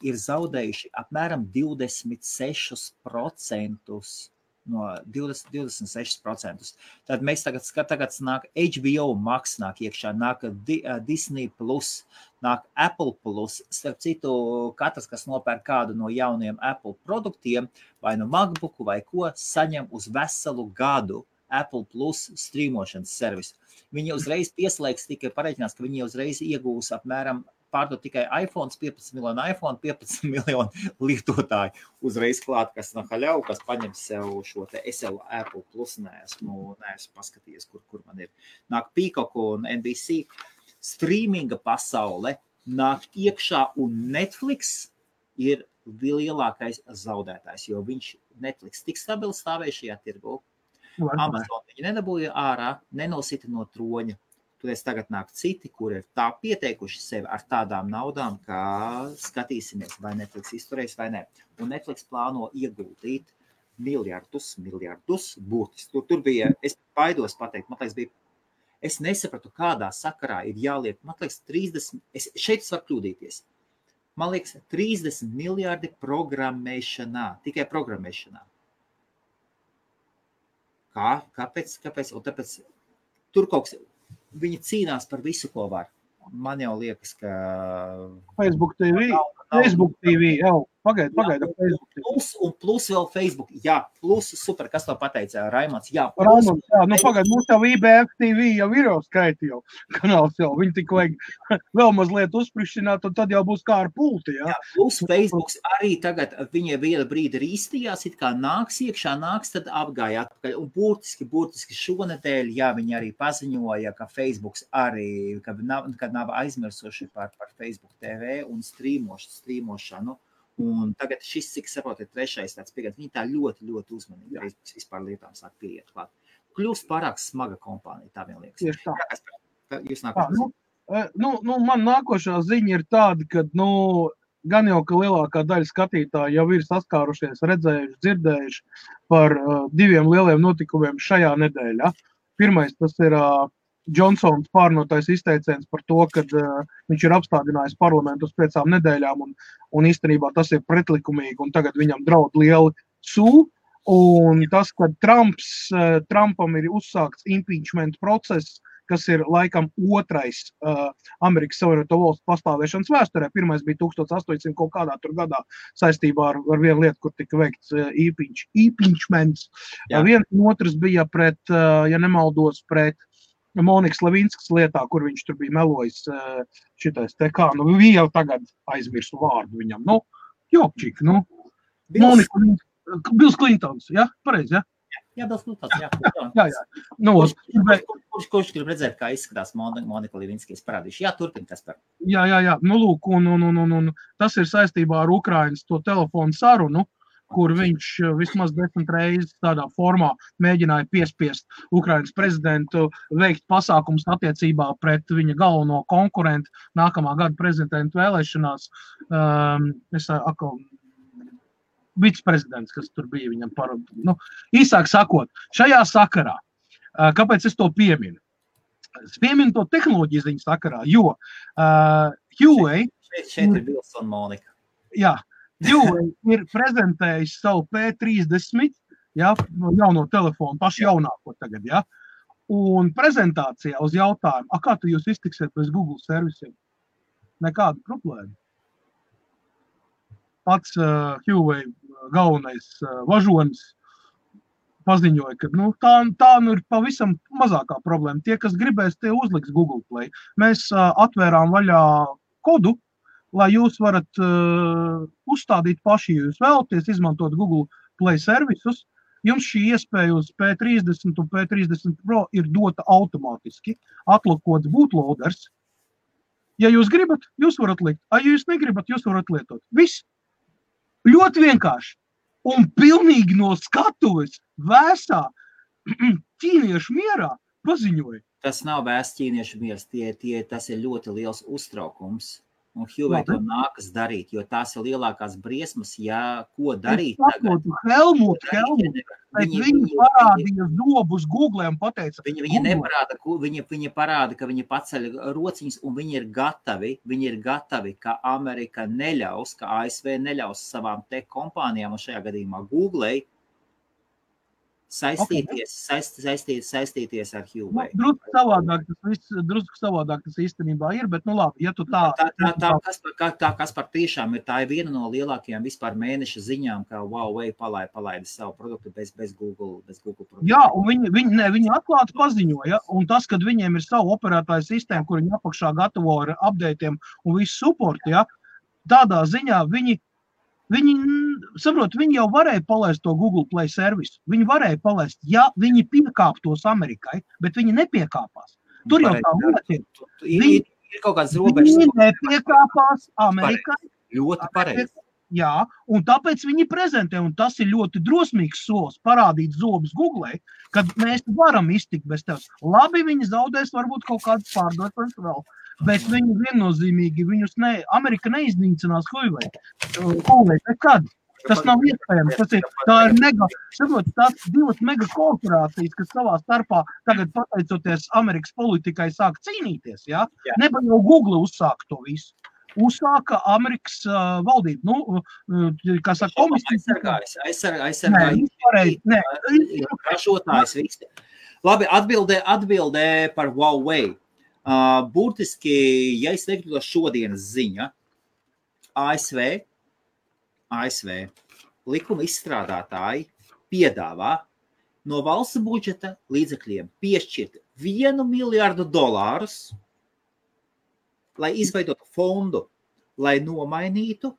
ir zaudējuši apmēram 26% no 26%. Tad mēs tagad nāk HBO Max, nāk iekšā, nāk Disney Plus, nāk Apple Plus. Starp citu, katrs, kas nopērk kādu no jauniem Apple produktiem, vai no MacBooku vai ko, saņem uz veselu gadu Apple Plus strīmošanas servisu. Viņi uzreiz pieslēgs, tikai pareiķinās, ka viņi uzreiz iegūs apmēram pārdot tikai iPhones, 15 miljonu iPhone, 15 miljonu lietotāju uzreiz klāt, kas no haļau, kas paņem sev šo te SL Apple Plus, neesmu paskatījies, kur man ir. Nāk Peacock un NBC. Streaminga pasaule nāk iekšā un Netflix ir lielākais zaudētājs, jo viņš Netflix tik stabili stāvēja šajā tirgu. Amazon viņi nedabūja ārā, nenosita no troņa. Toties tagad nāk citi, kur ir tā pieteikuši sevi ar tādām naudām, kā skatīsimies, vai Netflix izturēs vai ne. Un Netflix plāno ieguldīt miljardus būtiski. Tur bija, es baidos pateikt, man liekas, es nesapratu, kādā sakarā ir jāliek, man liekas, 30, šeit es varu kļūdīties. Man liekas, 30 miljardi programmēšanā, tikai programmēšanā. Kāpēc? Un tāpēc tur kaut kas, viņi cīnās par visu, ko var. Man jau liekas, ka... Facebook TV jau. Pagaid, Facebook TV. Plus vēl Facebook. Jā, plus super, kas to pateica, Raimonds. Jā, pagaid, mums jau IBF TV jau ir jau skaiti jau. Kanāls jau, viņi tik vajag vēl mazliet uzsprišķināt, un tad jau būs kā ar pulti, jā. Jā, plus Facebook arī tagad, viņa viena brīdi rīstījās, it kā nāks, tad apgāja atpakaļ. Un burtiski šonedēļ, jā, viņi arī paziņoja, ka Facebook arī, kad nav aizmirsuši par Facebook TV un strīmošanu. Un tagad šis, cik saprot, ir trešais tāds pieejams. Viņi tā ļoti uzmanīgi arī vispār lietām sāk pieiet klāt. Kļūst pārāk smaga kompānija, tā vien liekas. Tieši tā. Jūs nākošā ziņa? Man nākošā ziņa ir tāda, ka, gan jau, ka lielākā daļa skatītāji jau ir saskārušies, redzējuši, dzirdējuši par diviem lieliem notikumiem šajā nedēļā. Pirmais, tas ir Johnsons pārnotais izteiciens par to, ka viņš ir apstādinājis parlamentu uz 5 nedēļām un īstenībā tas ir pretlikumīgi un tagad viņam draud lieli sū. Un tas, ka Trumpam ir uzsākts impeachment process, kas ir laikam otrais Amerikas Savienoto Valstu pastāvēšanas vēsturē. Pirmais bija 1800 kaut kādā tur gadā saistībā ar vienu lietu, kur tika veikts impeachments. Viens un otrs bija pret, ja nemaldos, pret Monikas Levinskas lietā, kur viņš tur bija melojis šitais te kā, viņi jau tagad aizmirsu vārdu viņam. Jopčik, Bills Clintons, ja? Pareizi, ja? Jā, Bills Clintons, jā. Kurš grib redzēt, kā izskatās Monika Levinska, es parādīšu. Jā, turpin, Kaspar. Jā. Lūk, un tas ir saistībā ar Ukrainas to telefonu sarunu, kur viņš vismaz 10 reizes tādā formā mēģināja piespiest Ukrainas prezidentu veikt pasākums attiecībā pret viņa galveno konkurentu nākamā gada prezidentu vēlēšanās. Viceprezidents, kas tur bija viņam īsāk sakot, šajā sakarā, kāpēc es to pieminu? Es pieminu to tehnoloģiju ziņu sakarā, jo Huawei... Šeit ir Bills un Monika. Jā. Huawei ir prezentējis savu P30, jauno telefonu, pašu jaunāko tagad, un prezentācijā uz jautājumu, kā tu jūs iztiksiet bez Google servisiem? Nekāda problēma. Pats Huawei galvenais važonis paziņoja, ka tā ir pavisam mazākā problēma. Tie, kas gribēs, tie uzliks Google Play. Mēs atvērām vaļā kodu, lai jūs varat uzstādīt paši, ja jūs vēlaties izmantot Google Play servisus. Jums šī iespēja uz P30 un P30 Pro ir dota automātiski. Atlokots bootloaders. Ja jūs gribat, jūs varat likt. Ja jūs negribat, jūs varat lietot. Viss. Ļoti vienkārši. Un pilnīgi no skatuves vēsā ķīniešu mierā paziņoja. Tas nav vēsts ķīniešu miers, tas ir ļoti liels uztraukums. Un Huawei to nākas darīt, jo tās ir lielākās briesmas, ko darīt tagad. Helmut, viņi parādīja dobus Google un pateica. Viņi parāda, ka viņi paceļ rociņas un viņi ir gatavi, ka Amerika neļaus, ka ASV neļaus savām tech kompānijām un šajā gadījumā Googlei saistīties ar Huawei. Drusku savādāk tas īstenībā ir, bet nu labi, ja tu tā... Kaspar tiešām tā ir viena no lielākajām vispār mēneša ziņām, kā Huawei palaida savu produktu bez Google produktu. Jā, un viņi atklāti paziņoja, un tas, kad viņiem ir savu operētāju sistēmu, kur viņi apakšā gatavo ar updateiem un visu supportu, ja, tādā ziņā viņi jau varēja palaist to Google Play servisu. Viņi varēja palaist, ja viņi piekāptos Amerikai, bet viņi nepiekāpās. Tur jau tā lieta ir. Ir kaut kāds robežas. Viņi nepiekāpās Amerikai. Ļoti pareizi. Jā, un tāpēc viņi prezentē, un tas ir ļoti drosmīgs solis parādīt zobus Google, kad mēs varam iztikt bez tevis. Labi, viņi zaudēs varbūt kaut kādas pārdošanas vēl. Bet viņi viennozīmīgi, Amerika neiznīcinās Huawei nekad. Tas nav iespējams. Tās divas mega korporācijas, kas savā starpā tagad pateicoties Amerikas politikai sāk cīnīties. Ja? Neba jau Google uzsāka to visu. Uzsāka Amerikas valdība. Kā saka, komisija. Aizsargājas. Ražotājs visi. Labi, atbildē par Huawei. Burtiski, ja es teiktu šodienas ziņa, ASV likuma izstrādātāji piedāvā no valsts budžeta līdzekļiem piešķirt $1 miljardu, lai izveidotu fondu, lai nomainītu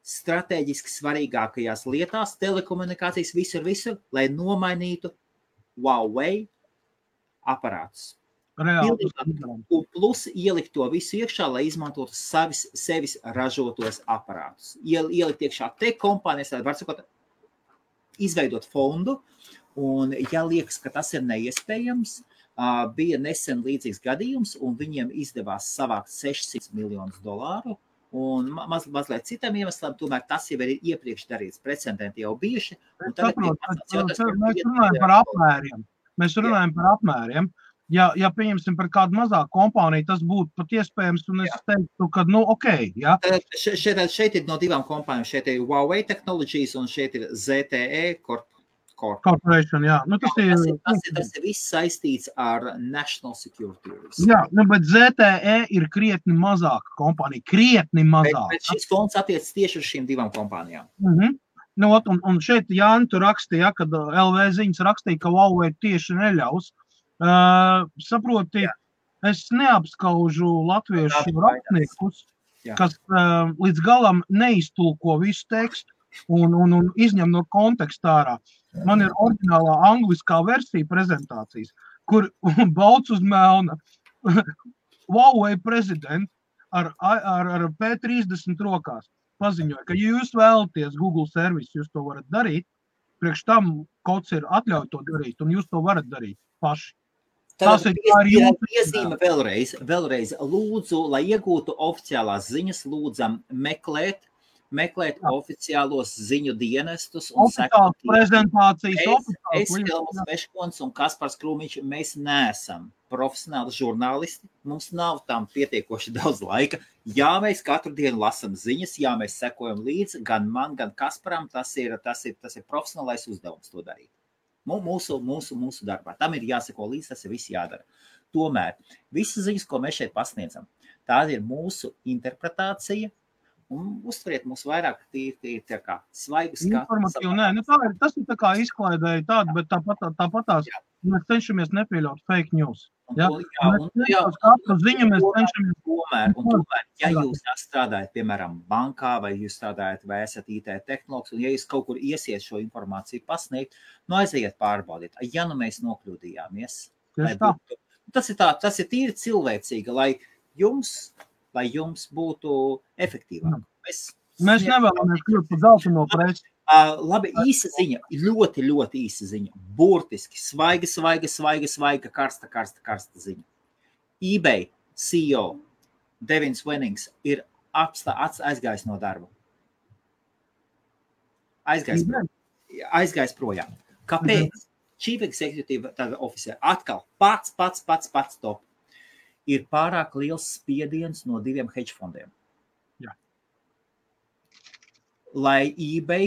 strateģiski svarīgākajās lietās, telekomunikācijas visur, lai nomainītu Huawei aparātus. Un plus ielikt to visu iekšā, lai izmantotu sevis ražotos aparātus. Ielikt iekšā te kompānijas, lai var sakot, izveidot fondu, un ja liekas, ka tas ir neiespējams, bija nesen līdzīgs gadījums, un viņiem izdevās savākt $600 miljonus, un mazliet citam iemeslam, tomēr tas jau ir iepriekš darīts, precedenti jau bijuši. Mēs runājam par apmēriem. Ja pieņemsim par kādu mazāku kompāniju, tas būtu pat iespējams, un es teiktu, ka, ja. Šeit ir no divām kompānijām. Šeit ir Huawei Technologies, un šeit ir ZTE Corporation, jā. Tas ir viss saistīts ar National Security. Jā, bet ZTE ir krietni mazāka kompānija, Bet šis fonds attiec tieši uz šīm divām kompānijām. Un šeit Jāni tu rakstīja, kad LV ziņas rakstīja, ka Huawei tieši neļaus. Saproti, es neapskaužu latviešu rakstniekus, kas līdz galam neiztulko visu tekstu un izņem no konteksta ārā. Man ir oriģinālā angliskā versija prezentācijas, kur bauc uz melna Huawei prezidents ar P30 rokās paziņoja, ka ja jūs vēlaties Google servisu, jūs to varat darīt, priekš tam kods ir atļauj to darīt, un jūs to varat darīt paši. Tātad piezīme vēlreiz lūdzu, lai iegūtu oficiālās ziņas, lūdzam meklēt oficiālos ziņu dienestus un sekot prezentācijas. Es Helmuts Meškons un Kaspars Krūmiņš, mēs neesam profesionāli žurnālisti, mums nav tam pietiekoši daudz laika. Jā, mēs katru dienu lasam ziņas, jā, mēs sekojam līdzi, gan man, gan Kasparam, tas ir profesionālais uzdevums to darīt. Mūsu darbā. Tam ir jāseko līdz, tas ir viss jādara. Tomēr visas ziņas, ko mēs šeit pasniedzam, tā ir mūsu interpretācija, un uztveriet mūs vairāk tā kā svaigas informatīvi. Tas ir tā kā izklaidēja tādu, bet tāpatās mēs cenšamies nepieļaut fake news. Tomēr, ja jūs strādājat, piemēram, bankā, vai jūs strādājat, vai esat IT tehnologs, un ja jūs kaut kur iesiet šo informāciju pasniegt, aiziet pārbaudiet. Ja mēs nokļūdījāmies, tas ir tīri cilvēcīgi, lai jums būtu efektīvāk. Mēs nevēlamies kļūt par zeltaino preci. Labi, īsa ziņa, ļoti, ļoti īsa ziņa. Burtiski, svaiga, karsta ziņa. eBay CEO Devins Wennings ir aizgājis no darba. Aizgājis projām. Kāpēc? Chief Executive Officer atkal pats top. Ir pārāk liels spiediens no 2 hedge fondiem. Jā. Lai eBay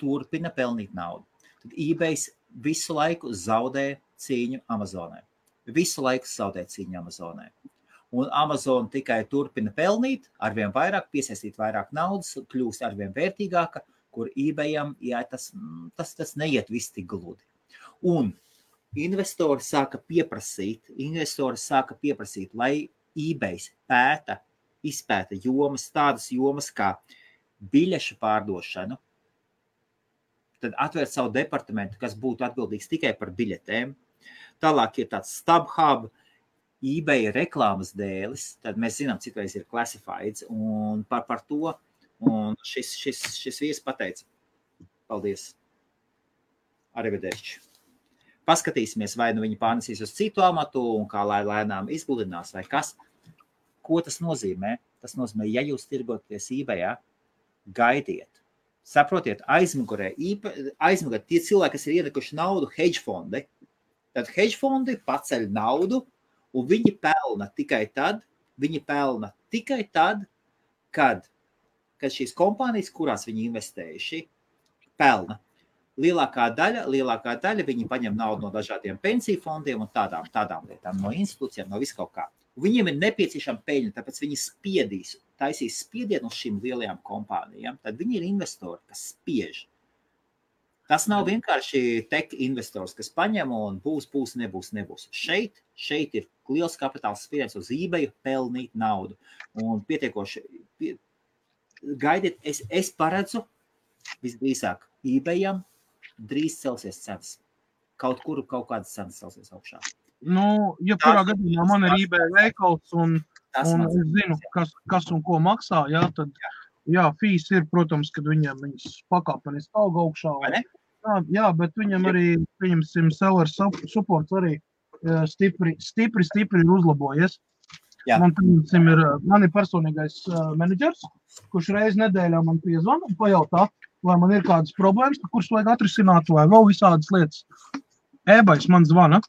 turpina pelnīt naudu. Tad eBay visu laiku zaudē cīņu Amazonē. Visu laiku zaudē cīņu Amazonē. Un Amazon tikai turpina pelnīt, arvien vairāk, piesaistīt vairāk naudas, kļūst arvien vērtīgāka, kur eBayam, jā, tas neiet viss tik gludi. Un investori sāka pieprasīt, lai eBays izpēta jomas, tādas jomas kā biļešu pārdošanu, tad atvērt savu departamentu, kas būtu atbildīgs tikai par biļetēm. Tālāk ir tāds StubHub, eBay reklāmas dēlis, tad mēs zinām, citreiz ir classifieds, un par to, un šis vīrs pateica, paldies, arrivederci. Paskatīsimies, vai nu viņi pārnesīs uz citu amatu, un kā lai lēnām izgludinās, vai kas. Ko tas nozīmē? Tas nozīmē, ja jūs tirgoties eBayā, gaidiet. Saprotiet, aizmugurē tie cilvēki, kas ir ienekuši naudu hedge fondi, tad hedge fondi paceļ naudu, un viņi pelna tikai tad, kad šīs kompānijas, kurās viņi investējuši, pelna. Lielākā daļa viņi paņem naudu no dažādiem pensiju fondiem un tādām lietām, no institūcijām, no viskaut kā. Viņiem ir nepieciešama peļņa, tāpēc viņi taisīs spiedienu uz šīm lielajām kompānijām, tad viņi ir investori, kas spiež. Tas nav vienkārši tech investors, kas paņem un būs, nebūs. Šeit ir liels kapitāls spiediens uz eBayu pelnīt naudu. Un pietiekoši, gaidiet, es paredzu visdrīzāk eBayam drīz celsies cenas. Kaut kādas cenas celsies augšā. Jebkurā gadījumā man ir eBay veikals un es zinu, kas un ko maksā, tad fees ir, protams, kad viņas pakāpeniski aug augšā. Jā, bet viņam arī, pieņemsim, seller supports arī stipri uzlabojies. Man ir personīgais menedžers, kurš reiz nedēļā man piezvana un pajautā, vai man ir kādas problēmas, kuras vajag atrisināt, vai vēl visādas lietas. eBays man zvana.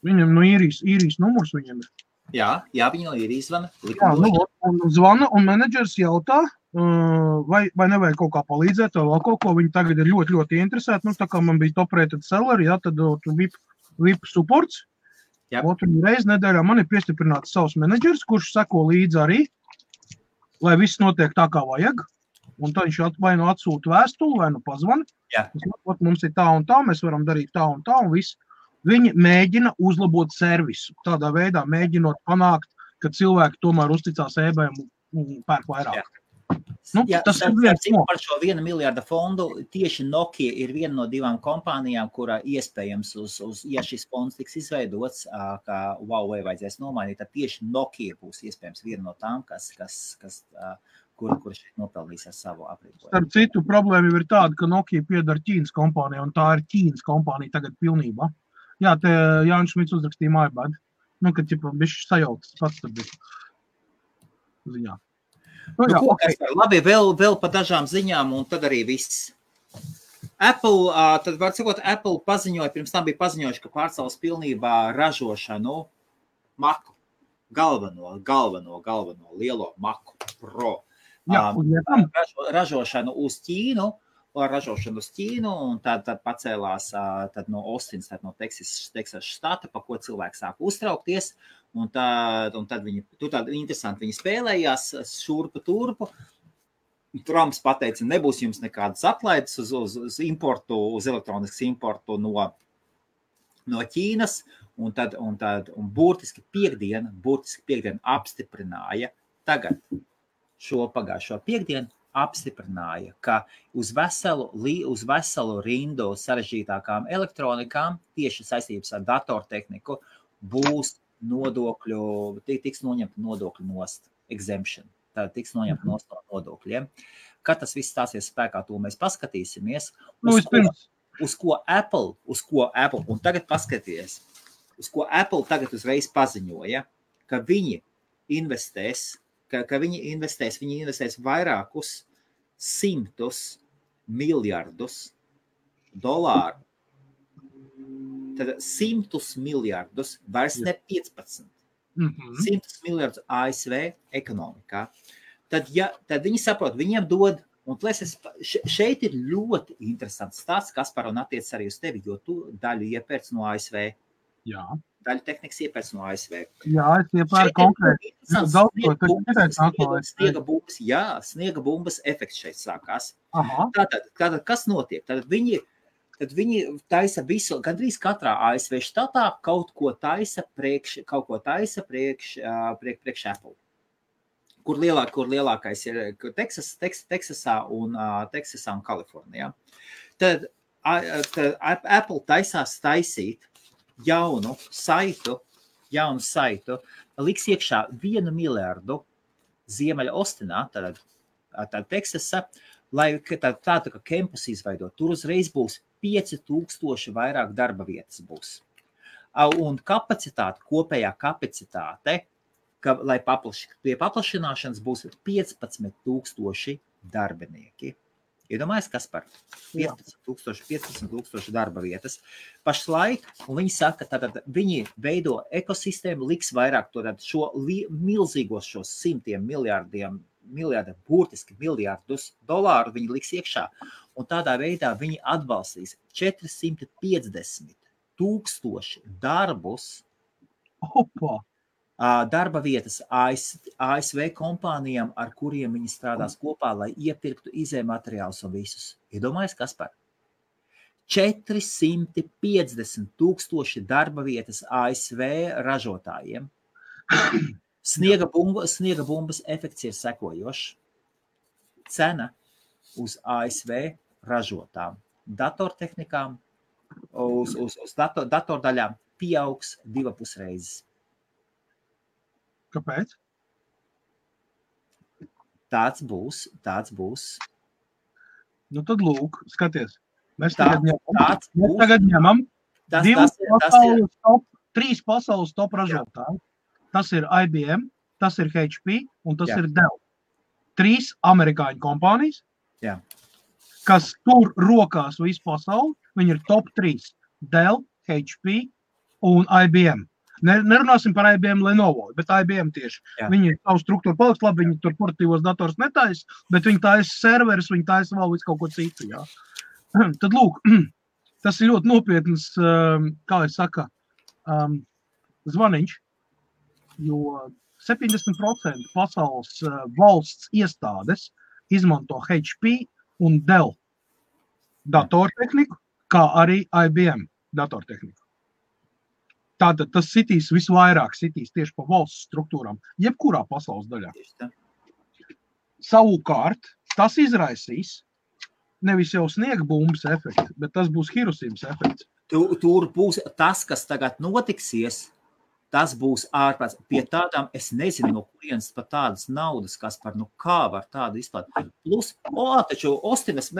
Viņam no īrijas numurs viņam ir. Jā, viņi no īrijas zvana. Zvana un menedžers jautā, vai nevajag kaut kā palīdzēt, vai vēl kaut ko. Viņi tagad ir ļoti, ļoti interesēti. Tā kā man bija top-rated seller, tad VIP supports. Otru reizi nedēļā man ir piestiprināts savs menedžers, kurš seko līdzi arī, lai viss notiek tā, kā vajag. Un tad viņš vai nu atsūta vēstuli, vai nu pazvana. Mums ir tā un tā, mēs varam darīt tā un tā, un viss. Viņi mēģina uzlabot servisu. Tādā veidā mēģinot panākt, ka cilvēki tomēr uzticās eBayam un pērk vairāk. Tas ir viens par šo 1 miljārda fondu. Tieši Nokia ir viena no 2 kompānijām, kurā iespējams, ja šis fonds tiks izveidots, kā Huawei vajadzēs nomainīt, tad tieši Nokia būs iespējams viena no tām, kur šeit nopelnīs ar savu aprīkojumu. Starp citu, problēma ir tāda, ka Nokia piedara Ķīnas kompānijai, un tā ir Ķīnas kompānija tagad pilnībā. Jā, te Jānis Šmits uzrakstīja MyBad. Kad bišķi sajauktas pats tad bija ziņā. Labi, vēl pa dažām ziņām, un tad arī viss. Apple, tad var sakot, Apple paziņoja, pirms tam bija paziņojuši, ka pārcels pilnībā ražošanu Macu, galveno lielo Macu Pro. Ražošanu uz Ķīnu, un tad pacēlās no Austins, no Teksas štata, pa ko cilvēki sāk uztraukties, un tad viņi, interesanti, viņi spēlējās šurpu turpu. Trumps pateica, nebūs jums nekādas atlaides uz importu, uz elektroniskas importu no Ķīnas, un burtiski piekdien apstiprināja tagad pagājušo piekdienu, apstiprināja, ka uz veselu rindu sarežģītākām elektronikām, tieši saistības ar datortehniku, būs tiks noņemta nodokļu nost, exemption. Tad tiks noņemta nost no nodokļiem. Kad tas viss stāsies spēkā, to mēs paskatīsimies. Uz ko Apple, un tagad paskaties, uz ko Apple tagad uzreiz paziņoja, ka viņi investēs vairākus 100 miljardus dolāru. Tad 100 miljardus, vairs ne 15. 100 miljardus ASV ekonomikā. Tad viņi saprot, viņiem dod Un šeit ir ļoti interesants stāsts, Kaspar, un attiec arī uz tevi, jo tu daļu iepērc no ASV. Jā. Daļu tehnikas iepērc no ASV. Jā, es iepērcu konkrēti. Sniega bumbas efekts šeit sākās. Aha. Tātad kas notiek? Tad viņi taisa visu, gandrīz katrā ASV štatā kaut ko taisa priekš Apple. Kur lielākais ir Teksasā un Kalifornijā. Tad Apple taisās taisīt jaunu saitu, liks iekšā 1 miljardu Ziemeļa Ostinā, tātad Teksasa, lai tādu kā campus izveidot. Tur uzreiz būs 5000 vairāk darba vietas būs. Un kopējā kapacitāte, lai pie paplašināšanas būs 15,000 darbinieki. Iedomājies, kas par 15,000 darba vietas. Pašlaik, un viņi saka, tātad viņi veido ekosistēmu, liks vairāk šo milzīgos šos burtiski miljardus dolāru viņi liks iekšā. Un tādā veidā viņi atbalstīs 450,000 darbus. Opa! Darba vietas ASV kompānijām, ar kuriem viņi strādās kopā, lai iepirktu izējumateriālus un visus. Iedomājies, kas par 450,000 darba vietas ASV ražotājiem. Sniega bumbas efekts ir sekojošs. Cena uz ASV ražotām datortehnikām, uz datordaļām pieaugs 2,5 reizes. Kāpēc? Tāds būs. Nu tad lūk, skaties. Mēs tagad ņemam 3 pasaules top ražotāji. Tas ir IBM, tas ir HP un tas ir Dell. 3 amerikāņu kompānijas, kas tur rokās visu pasauli. Viņi ir top 3. Dell, HP un IBM. Nerunāsim par IBM Lenovo, bet IBM tieši. Viņi savu struktūru paliks labi, viņi tur portatīvos dators netais, bet viņi taisa serverus, viņi taisa vēl visu kaut ko citu. Jā. Tad lūk, tas ir ļoti nopietns, kā es saka, zvaniņš, jo 70% pasaules valsts iestādes izmanto HP un Dell datortehniku, kā arī IBM datortehniku. Tātad tas sitīs visvairāk tieši pa valsts struktūrām, jebkurā pasaules daļā. Savukārt, tas izraisīs nevis jau sniega bumbas efekts, bet tas būs Hirosimas efekts. Tur būs tas, kas tagad notiksies, tas būs ārpēc. Pie tādām, es nezinu, no kurienes pat tādas naudas, kas par, kā var tādu izplāt. Plus, taču Ostinas,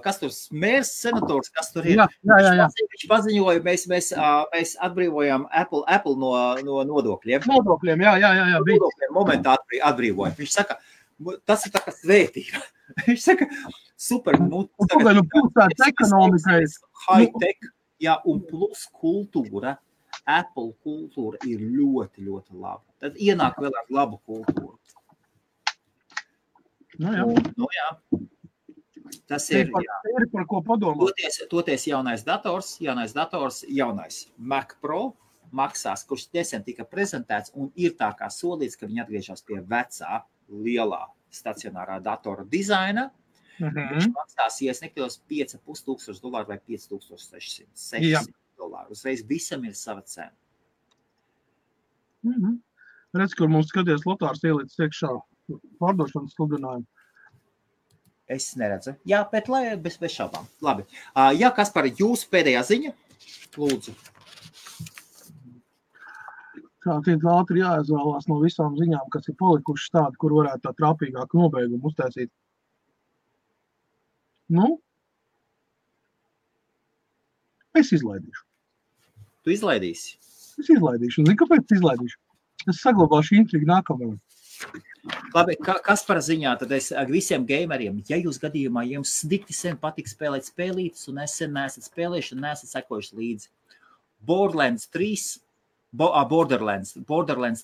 kas tur mērs senators, kas tur ir. Jā. Viņš paziņoja, mēs atbrīvojam Apple no nodokļiem. Nodokļiem, jā. Nodokļiem momentā atbrīvojam. Viņš saka, tas ir tā kā svētība. Viņš saka, super, pilsētas ekonomikai. High-tech, un plus kultūra. Apple kultūra ir ļoti, ļoti laba. Tad ienāk vēl ar labu kultūru. Jā. Tas ir par ko padomāt. Toties jaunais dators, jaunais Mac Pro maksās, kurš nesen tika prezentēts un ir tā kā solīts, ka viņi atgriežas pie vecā, lielā stacionārā datora dizaina. Viņš maksās, ja es nekļos, $5,500 vai $5,600. Uzreiz visam ir sava cena. Redz, kur mums skaties Lotārs ielīdz iekšā pārdošanas sludinājumu. Es neredzu. Jā, bet bez šaubām. Labi. Jā, Kaspar, jūsu pēdējā ziņa? Lūdzu. Kā tiek ātri jāizvēlās no visām ziņām, kas ir palikušas tādi, kur varētu tā trāpīgāk nobeigumu uztaisīt. Es izlaidīšu. Tu izlaidīsi? Es izlaidīšu. Zini, kāpēc izlaidīšu? Es saglabāšu intrigu nākamajam. Labi, kas par ziņā? Tad es visiem gameriem, ja jūs gadījumā jums dikti sen patīk spēlēt spēlītes un es sen neesat spēlējuši un neesat sekojuši līdzi. Borderlands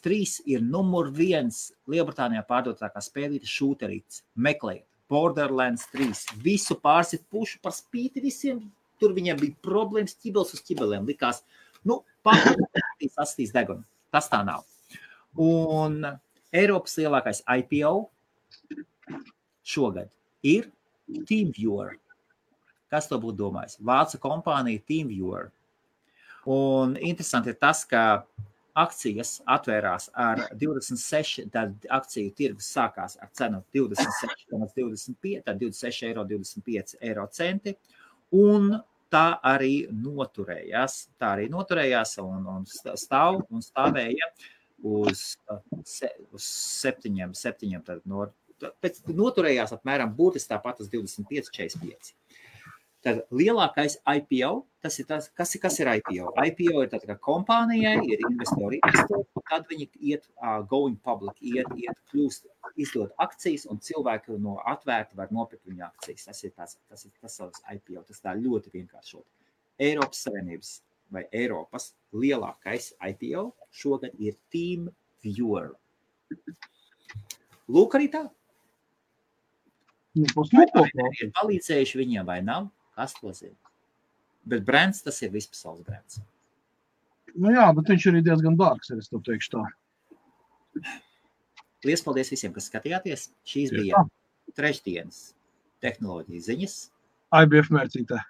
3 ir numur 1 Lielbritānijā pārdotākā spēlītes šūterītes. Meklējiet. Borderlands 3. Visu pārsit pušu par spīti visiem. Tur viņiem bija problēmas, ķibels uz ķibeliem. Likās, sastīs degunu. Tas tā nav. Un Eiropas lielākais IPO šogad ir TeamViewer. Kas to būtu domājis? Vācu kompānija TeamViewer. Un interesanti ir tas, ka akcijas atvērās ar 26, tad akciju tirgus sākās ar cenu 26,25, tad 26,25 eiro centi, un tā arī noturējās. Un stāvēja uz 7, tad noturējās apmēram būtiski tāpat uz 25,45. Tad lielākais IPO, tas ir tas, kas ir IPO? IPO ir tad, ka kompānijai ir investori, tad viņi iet going public, kļūst, izdod akcijas, un cilvēki no atvērti var nopirkt viņa akcijas. Tas ir savs IPO, tas tā ļoti vienkāršot. Eiropas Savienības vai Eiropas lielākais IPO šogad ir TeamViewer. Lūk arī tā. Ir palīdzējuši viņiem vai nav? Kas to zina? Bet brands, tas ir vispasaules brands. Nu jā, bet viņš arī diezgan dārgs, es to teikšu tā. Liels paldies visiem, kas skatījāties. Šīs bija trešdienas tehnoloģijas ziņas. IBF mērcītē.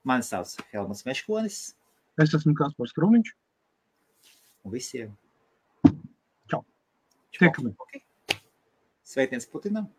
Mani sauc Helmuts Meškonis. Es esmu Kaspars Krumiņš. Un visiem. Čau. Tiekamies. Okay. Sveiciens Putinam.